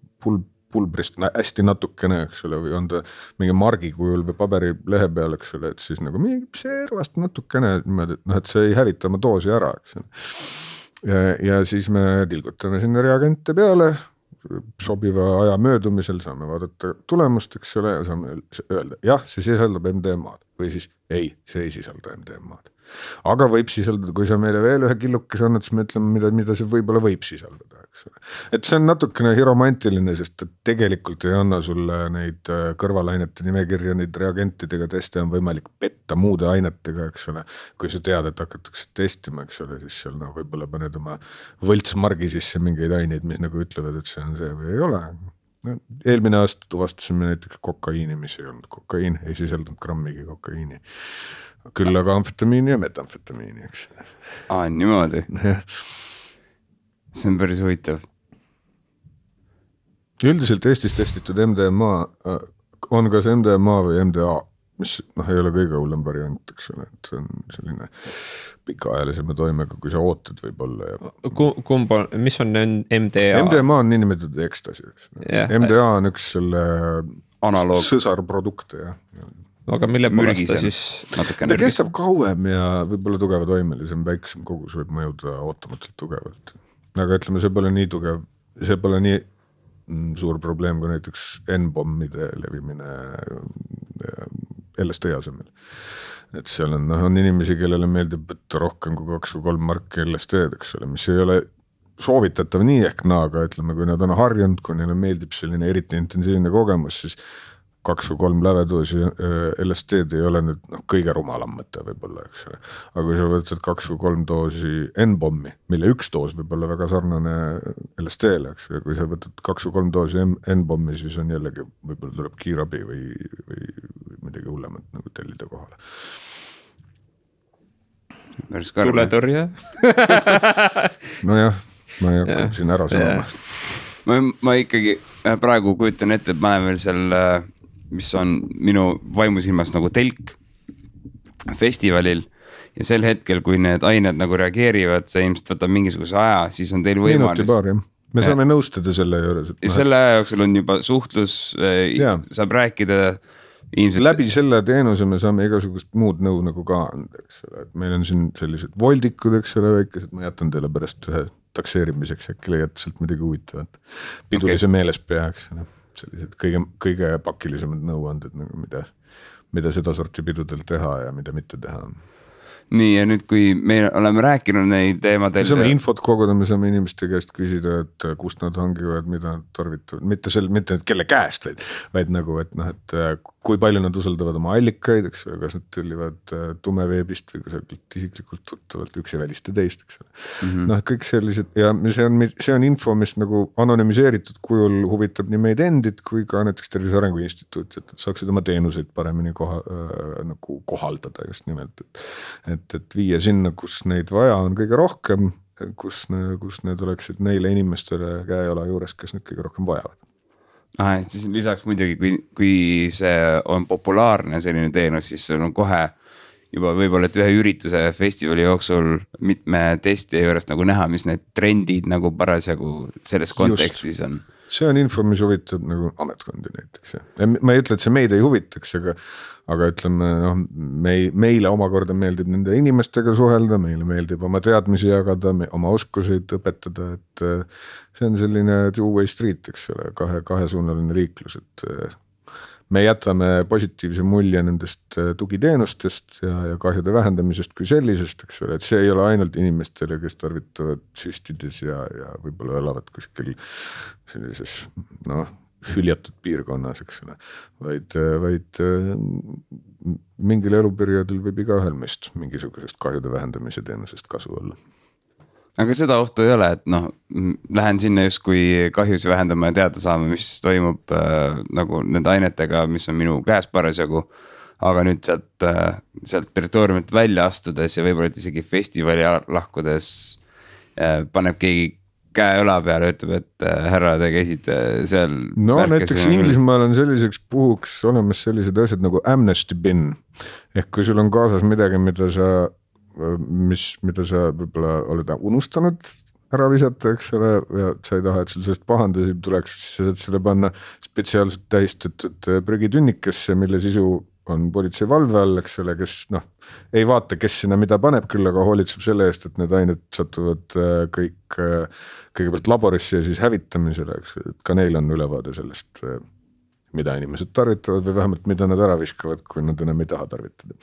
pulbrist hästi natukene, eks ole, või on ta mingi margi kujul või paberi lehe peal, eks ole, et siis nagu mingi servast natukene, et see ei hävita oma doosi ära, eks ole. Ja siis me tilgutame sinna reagente peale, sobiva aja möödumisel saame vaadata tulemust, eks ole, ja saame öelda, jah, see sisaldab MDMA-d või siis ei, see ei sisalda MDMA-d. Aga võib sisaldada, kui sa meile veel ühe killukes annad, siis me ütleme, mida see võib-olla võib sisaldada, eks ole. Et see on natukene romantiline, sest tegelikult ei anna sulle neid kõrvalainete nimekirja, neid reagentidega teste on võimalik petta muude ainetega, eks ole. Kui sa tead, et hakatakse testima, eks ole, siis seal võib-olla paned oma võltsmargi sisse mingeid aineid, mis nagu ütlevad, et see on see või ei ole. Eelmine aasta tuvastasime näiteks kokaiini, mis ei olnud kokaiin, ei sisaldanud grammigi kokaiini. Küll aga amfetamiini ja metamfetamiini, eks. Niimoodi. See on päris huvitav. Üldiselt Eestis testitud MDMA on kas MDMA või MDA, mis ei ole kõige hullem variant, eks ole, et see on selline pikaajalisema toimega, kui sa ootad võib-olla. Ja. Mis on MDA? MDMA on niinimetatud ekstasi, eks. MDA on üks selle analoog. Sõsarprodukte, jah. Aga mille poolest ta siis? Ta kestab kauem ja võib-olla tugeva toimelisem, väiksem kogus võib mõjuda ootamatult tugevalt. Aga ütleme, see pole nii tugev, see pole nii suur probleem kui näiteks N-bommide levimine LSD asemel. Et seal on inimesi, kellele meeldib võtta rohkem kui 2 või 3 marki LSD-d, eks ole, mis ei ole soovitatav nii ehk naaga, ütleme, kui nad on harjunud, kui neile meeldib selline eriti intensiivne kogemus, siis 2 või 3 lävedoosi LSD-d ei ole nüüd kõige rumalam mõte võib-olla, eks ole. Aga kui sa võtad 2 või 3 doosi N-bommi, mille 1 doos võib olla väga sarnane LSD-le, eks ole. Kui sa võtad 2 või 3 doosi N-bommi, siis on jällegi, võib-olla tuleb kiirabi või midagi hullemat nagu tellida kohale. Tuletõrje? Nojah, ma ei hakka siin ära sõnama. Ma ikkagi praegu kujutan ette, et ma olen veel seal, mis on minu vaimusilmas nagu telk festivalil ja sel hetkel, kui need ained nagu reageerivad, see ilmselt võtab mingisuguse aja, siis on teil võimalus. Me saame nõustada selle juures. Selle jooksul on juba suhtlus, saab rääkida ilmselt. Läbi selle teenuse me saame igasugust muud nõu nagu ka anda, eks ole. Et meil on siin sellised voldikud, eks ole, väikesed, ma jätan teile pärast ühe takseerimiseks, äkki leiate sealt midagi huvitavat. Pidulise meeles pea, eks ole. Sellised kõige pakilisemad nõuanded, mida seda sorti pidudel teha ja mida mitte teha. Nii, ja nüüd kui me oleme rääkinud neid teemadel. Me saame infot koguda, me saame inimeste käest küsida, et kust nad hangivad, mida nad tarvitavad. Mitte kelle käest, vaid nagu, et kui palju nad usaldavad oma allikaid, eks ole, kas nad tellivad tumeveebist või kusagilt isiklikult tuttavalt, üks ei välista teist, eks ole. Kõik sellised, ja see on info, mis nagu anonüümiseeritud kujul huvitab nii meid endid, kui ka näiteks Tervise Arengu Instituut, et saaksid oma teenuseid paremini nagu kohaldada just nimelt, et viia sinna, kus neid vaja on kõige rohkem, kus need oleksid neile inimestele käejola juures, kes neid kõige rohkem vajavad. Et siis lisaks muidugi, kui see on populaarne selline teenus, siis sul on kohe juba võib-olla, et ühe ürituse festivali jooksul mitme testi juures nagu näha, mis need trendid nagu parasjagu selles kontekstis on. see on info, mis huvitab nagu ametkondi näiteks. Ma ei ütle, et see meid ei huvitaks, aga ütleme, meile omakorda meeldib nende inimestega suhelda, meile meeldib oma teadmisi jagada, oma oskuseid õpetada, et see on selline two-way street, eks ole, kahesuunaline liiklus, et me jätame positiivse mulje nendest tugiteenustest ja kahjude vähendamisest kui sellisest, eks ole, et see ei ole ainult inimestele, kes tarvitavad süstides ja võib-olla elavad kuskil sellises hüljatud piirkonnas, eks ole, vaid mingil eluperioodil võib igaühel meist mingisugusest kahjude vähendamise teenusest kasu olla. Aga seda ohtu ei ole, et lähen sinna just kui kahjusi vähendama ja teada saama, mis toimub nagu nende ainetega, mis on minu käes parasjagu. Aga nüüd sealt territooriumilt välja astudes ja võib-olla isegi festivali lahkudes paneb keegi käe õla peale, ütleb, et härra, te käisite seal. No näiteks Inglismaal on selliseks puhuks olemas sellised asjad nagu amnesty bin. Ehk kui sul on kaasas midagi, mida sa võib-olla oled unustanud ära visata, eks ole, ja sa ei taha, et sul sellest pahandasi tuleks, siis sa saad selle panna spetsiaalselt tähistatud prügitünnikesse, mille sisu on politsei valve all, eks ole, kes ei vaata, kes sinna mida paneb, küll aga hoolitseb selle eest, et need ained satuvad kõigepealt laborisse ja siis hävitamisele, eks ole, et ka neil on ülevaade sellest, mida inimesed tarvitavad või vähemalt mida nad ära viskavad, kui nad enam ei taha tarvitada.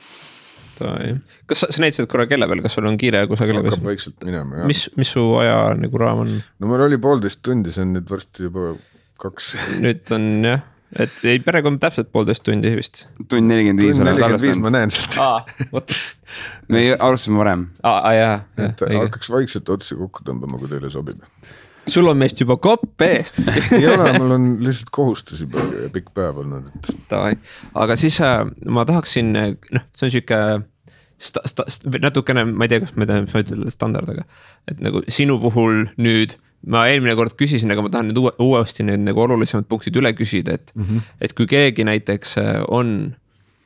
Kas sa näitasid korra kelle peal, kas sul on kiire kusagile? Hakkab vaikselt minema, jah. Mis su aja nagu raam on? No mul oli 1,5 tundi, see on nüüd varsti juba 2. Nüüd on jah, et ei perekond täpselt 1,5 tundi vist. Tund 45 on salvestanud. Ma näen sealt. Me alustasime varem. Jah. Et hakkaks vaikselt otsi kokku tõmbama, kui teile sobib. Sul on meist juba kopp ees. Ei ole, mul on lihtsalt kohustusi palju ja pikk päev olnud. Aga siis ma tahaksin, see on siuke natukene, ma ei tea, kas ma ütlen standard, et nagu sinu puhul nüüd, ma eelmine kord küsisin, aga ma tahan nüüd uuesti need nagu olulisemad punktid üle küsida, et kui keegi näiteks on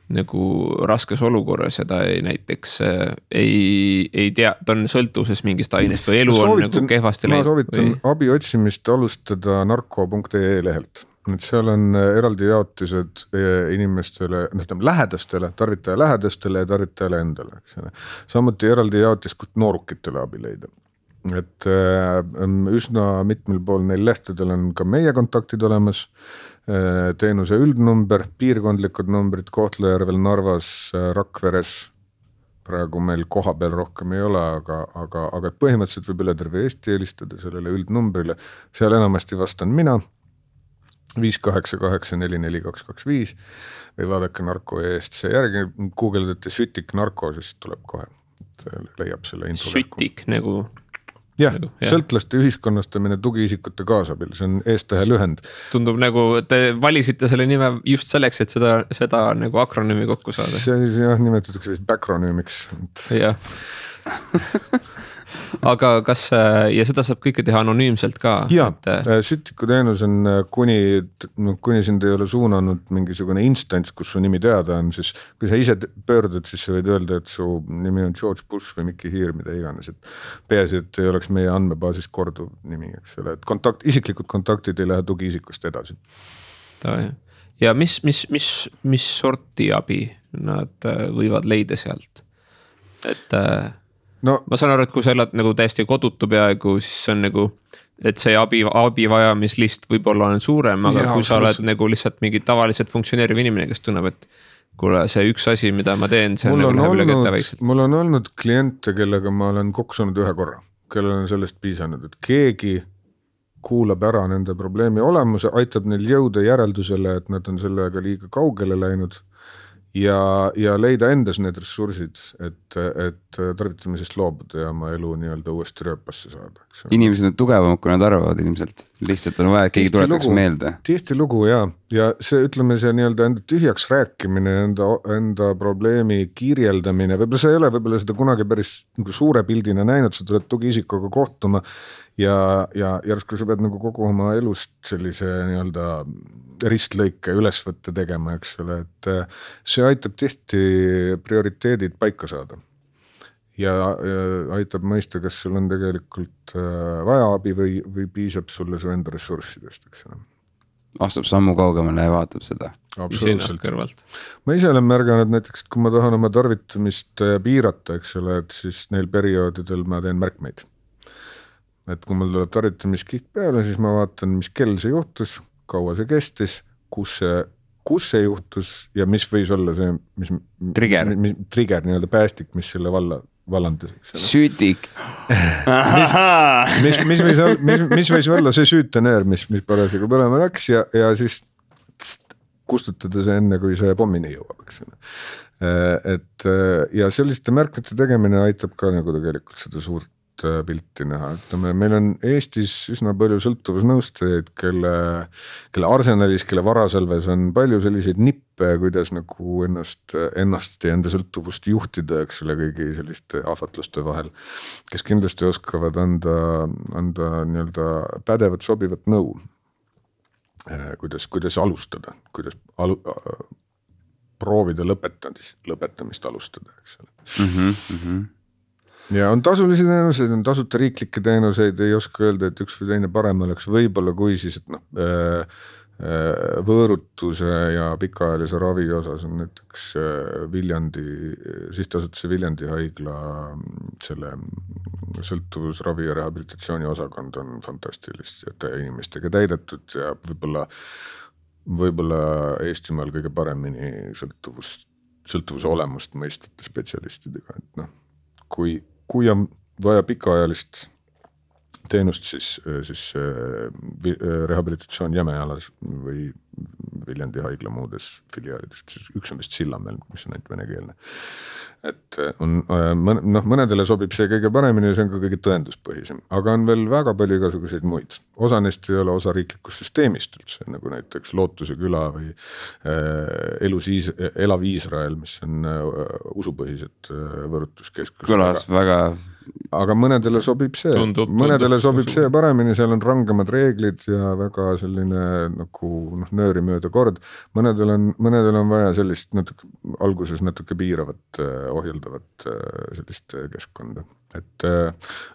nagu raskes olukorras ja ta näiteks ei tea, ta on sõltuvuses mingist ainest või elu on nagu kehvasti läinud. Ma soovitan abi otsimist alustada narko.ee lehelt. Nüüd seal on eraldi jaotised inimestele, lähedastele, tarvitaja lähedastele ja tarvitajale endale. Samuti eraldi jaotis, kus noorukitele abi leida. Et üsna mitmel pool neil lehtedel on ka meie kontaktid olemas, teenuse üldnumber, piirkondlikud numbrid Kohtla-Järvel, Narvas, Rakveres, praegu meil koha peal rohkem ei ole, aga põhimõtteliselt võib üle terve Eesti helistada sellele üldnumbrile, seal enamasti vastan mina, 588442225 või vaadake narko eest see järgi, googleldate sütik narko, siis tuleb kohe, leiab selle info. Sütik nagu... Jah, sõltlaste ühiskonnastamine tugiisikute kaasabil, see on eestahe lühend. Tundub nagu, te valisite selle nime just selleks, et seda nagu akronüümi kokku saada. See jah, nimetatakse vist backronüümiks. Jah. Aga kas, ja seda saab kõike teha anonüümselt ka? Jaa, sütiku teenus on, kuni sind ei ole suunanud mingisugune instants, kus su nimi teada on, siis kui sa ise pöördud, siis sa võid öelda, et su nimi on George Bush või Mikki Hiir, mida iganes. Peaasi, et ei oleks meie andmebaasis korduv nimi, eks ole, et isiklikud kontaktid ei lähe tugiisikust edasi. Ja mis sorti abi nad võivad leida sealt? No, ma saan aru, et kui sa elad nagu täiesti kodutu peaaegu, siis on nagu, et see abi vajamislist võib-olla on suurem, aga kui sa oled nagu lihtsalt mingi tavaliselt funktsioneeriv inimene, kes tunneb, et kuule, see üks asi, mida ma teen, see on nagu läheb üle kätte väikselt. Mul on olnud kliente, kellega ma olen koksunud ühe korra, kellel on sellest piisanud, et keegi kuulab ära nende probleemi olemuse, aitab neil jõuda järeldusele, et nad on sellega liiga kaugele läinud ja leida endas need ressursid, et tarvitamisest loobuda ja oma elu nii-öelda uuesti rööpasse saada. Inimesed on tugevamad, kui nad arvavad ilmselt. Lihtsalt on vaja, et keegi tuletaks meelde. Tihti lugu, ja see, ütleme, see nii-öelda enda tühjaks rääkimine, enda probleemi kirjeldamine, võib-olla see ei ole võib-olla seda kunagi päris nagu suure pildina näinud, sa tuled tugiisikuga kohtuma ja järsku sa pead nagu kogu oma elust sellise nii-öelda ristlõike ülesvõtte tegema, eks ole, et see aitab tihti prioriteedid paika saada. ja aitab mõista, kas sul on tegelikult vaja abi või piisab sulle su enda ressurssidest, eks ole. Astub sammu kaugemale ja vaatab seda. Absoluutselt. Ma ise olen märganud näiteks, et kui ma tahan oma tarvitamist piirata, eks ole, et siis neil perioodidel ma teen märkmeid. Et kui mul tuleb tarvitamiskihk peale, siis ma vaatan, mis kell see juhtus, kaua see kestis, kus see juhtus ja mis võis olla see, mis trigger nii-öelda päästik, mis selle vallandus. Süütik. mis võis olla see süütenöör, mis parasjagu põlema läks ja siis kustutada see enne, kui see pommini jõuab, eks ole. Et ja selliste märkmete tegemine aitab ka nagu tegelikult seda suurt pilti näha. Ütleme, meil on Eestis üsna palju sõltuvusnõustajaid, kelle arsenalis, kelle varasalves on palju selliseid nippe, kuidas nagu ennast ja enda sõltuvust juhtida, eks ole, kõigi selliste ahvatluste vahel, kes kindlasti oskavad anda nii-öelda pädevat, sobivat nõu. Kuidas alustada, kuidas proovida lõpetamist alustada, eks ole. Ja on tasulisi teenuseid, on tasuta riiklikke teenuseid, ei oska öelda, et üks või teine parem oleks võib-olla kui siis, et võõrutuse ja pikaajalise ravi osas on näiteks sihtasutuse Viljandi haigla selle sõltuvusravi ja rehabilitatsiooni osakond on fantastiliste inimestega täidetud ja võib-olla Eestimaal kõige paremini sõltuvuse olemust mõistvate spetsialistidega, et kui on vaja pikaajalist teenust, siis rehabilitatsioon Jämejalas või Viljandi haigla muudes filiaalidest, siis üks on vist Sillamäel, mis on ainult venekeelne. Et mõnedele sobib see kõige paremini ja see on ka kõige tõenduspõhisem, aga on veel väga palju igasuguseid muid. Osa neist ei ole osa riiklikust süsteemist üldse, nagu näiteks Lootuse küla või Elav Iisrael, mis on usupõhised võõrutuskeskused. Kõlas väga... Aga mõnedele sobib see paremini, seal on rangemad reeglid ja väga selline nagu nööri mööda kord. Mõnedel on vaja sellist alguses natuke piiravat, ohjeldavat sellist keskkonda. Et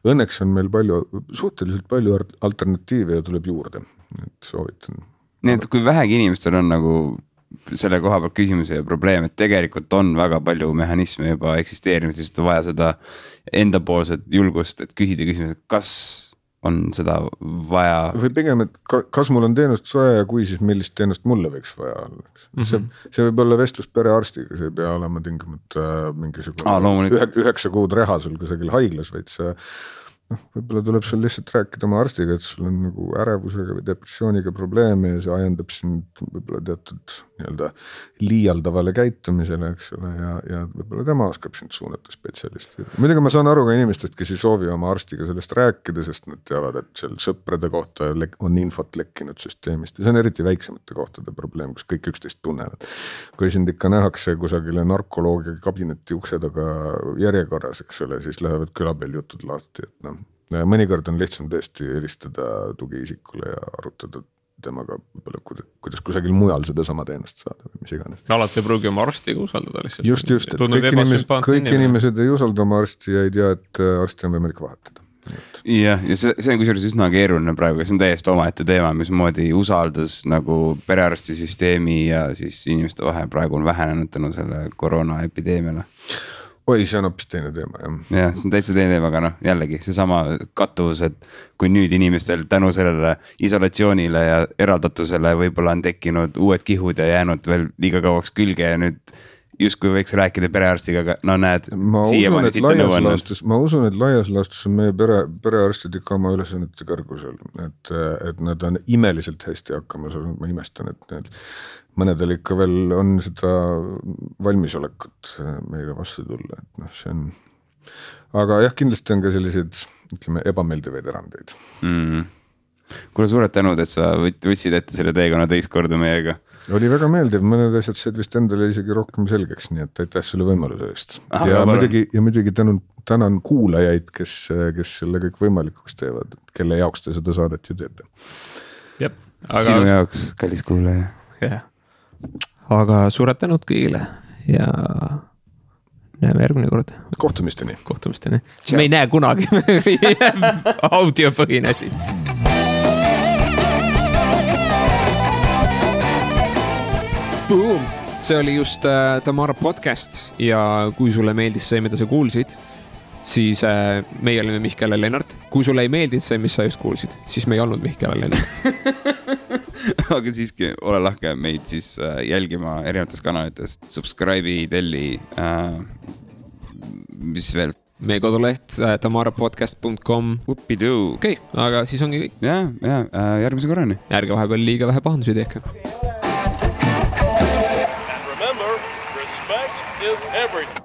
õnneks on meil suhteliselt palju alternatiive ja tuleb juurde, et soovitan. Nii, et kui vähegi inimestel on nagu selle koha peal küsimuse ja probleem, et tegelikult on väga palju mehhanisme juba eksisteerinud, lihtsalt on vaja seda endapoolset julgust, et küsida küsimus, kas on seda vaja. Või pigem, et kas mul on teenust vaja ja kui, siis millist teenust mulle võiks vaja olla. See võib olla vestlus perearstiga, see ei pea olema tingimata mingisugune 9 kuud reha sul kusagil haiglas, vaid see võib-olla tuleb sul lihtsalt rääkida oma arstiga, et sul on nagu ärevusega või depressiooniga probleeme ja see ajendab sind võib-olla teatud nii-öelda liialdavale käitumisele, eks ole, ja võib-olla tema oskab sind suunata spetsialisti. Muidugi ma saan aru ka inimestest, kes ei soovi oma arstiga sellest rääkida, sest nad teavad, et seal sõprade kohta on infot lekkinud süsteemist ja see on eriti väiksemate kohtade probleem, kus kõik üksteist tunnevad. Kui sind ikka nähakse kusagile narkoloogia kabineti ukse taga järjekorras, eks ole, siis lähevad külapeal jutud lahti, et mõnikord on lihtsam tõesti helistada tugiisikule ja arutada temaga võib-olla, kuidas kusagil mujal seda sama teenust saada või mis iganes. Alati ei pruugi oma arstiga usaldada lihtsalt. Just, et kõik inimesed ei usalda oma arsti ja ei tea, et arsti on võimalik vahetada. Ja see on kusjuures üsna keeruline praegu, see on täiesti omaette teema, mismoodi usaldus nagu perearstisüsteemi ja siis inimeste vahel praegu on vähenenud tänu selle koroonaepideemiale. Oi, see on hoopis teine teema, jah. Ja, see on täitsa teine teema, aga jällegi see sama kattuvus, et kui nüüd inimestel tänu sellele isolatsioonile ja eraldatusele võib-olla on tekkinud uued kihud ja jäänud veel liiga kauaks külge ja nüüd justkui võiks rääkida perearstiga, aga näed, siiamaani siit on nõuannud. Ma usun, et laias laastus on meie perearstid ikka oma ülesannete kõrgusel, et nad on imeliselt hästi hakkama saanud, ma imestan, et mõnedel ikka veel on seda valmisolekut meile vastu tulla, et see on, aga jah, kindlasti on ka selliseid, ütleme, ebameeldivaid erandeid. Kuule, suured tänud, et sa võtsid ette selle teekonna teist korda meiega. Oli väga meeldiv, mõned asjad said vist endale isegi rohkem selgeks, nii et aitäh selle võimaluse eest. Ja muidugi tänan kuulajaid, kes selle kõik võimalikuks teevad, kelle jaoks te seda saadet ju teete. Sinu jaoks, kallis kuulaja. Aga suured tänud kõigile ja näeme järgmine kord. Kohtumisteni. Me ei näe kunagi audiopõhine siin. Boom! See oli just Tamara podcast ja kui sulle meeldis see, mida sa kuulsid, siis meie olime Mihkel ja Lennart. Kui sulle ei meeldinud see, mis sa just kuulsid, siis me ei olnud Mihkel ja Lennart. Aga siiski ole lahke meid siis jälgima erinevates kanalites. Subscribe'i, telli, mis veel? Meie koduleht tamarapodcast.com. Upidoo. Okei, aga siis ongi kõik. Ja, järgmise korrani. Ärge vahepeal liiga vähe pahandusi tehke. Respect is everything.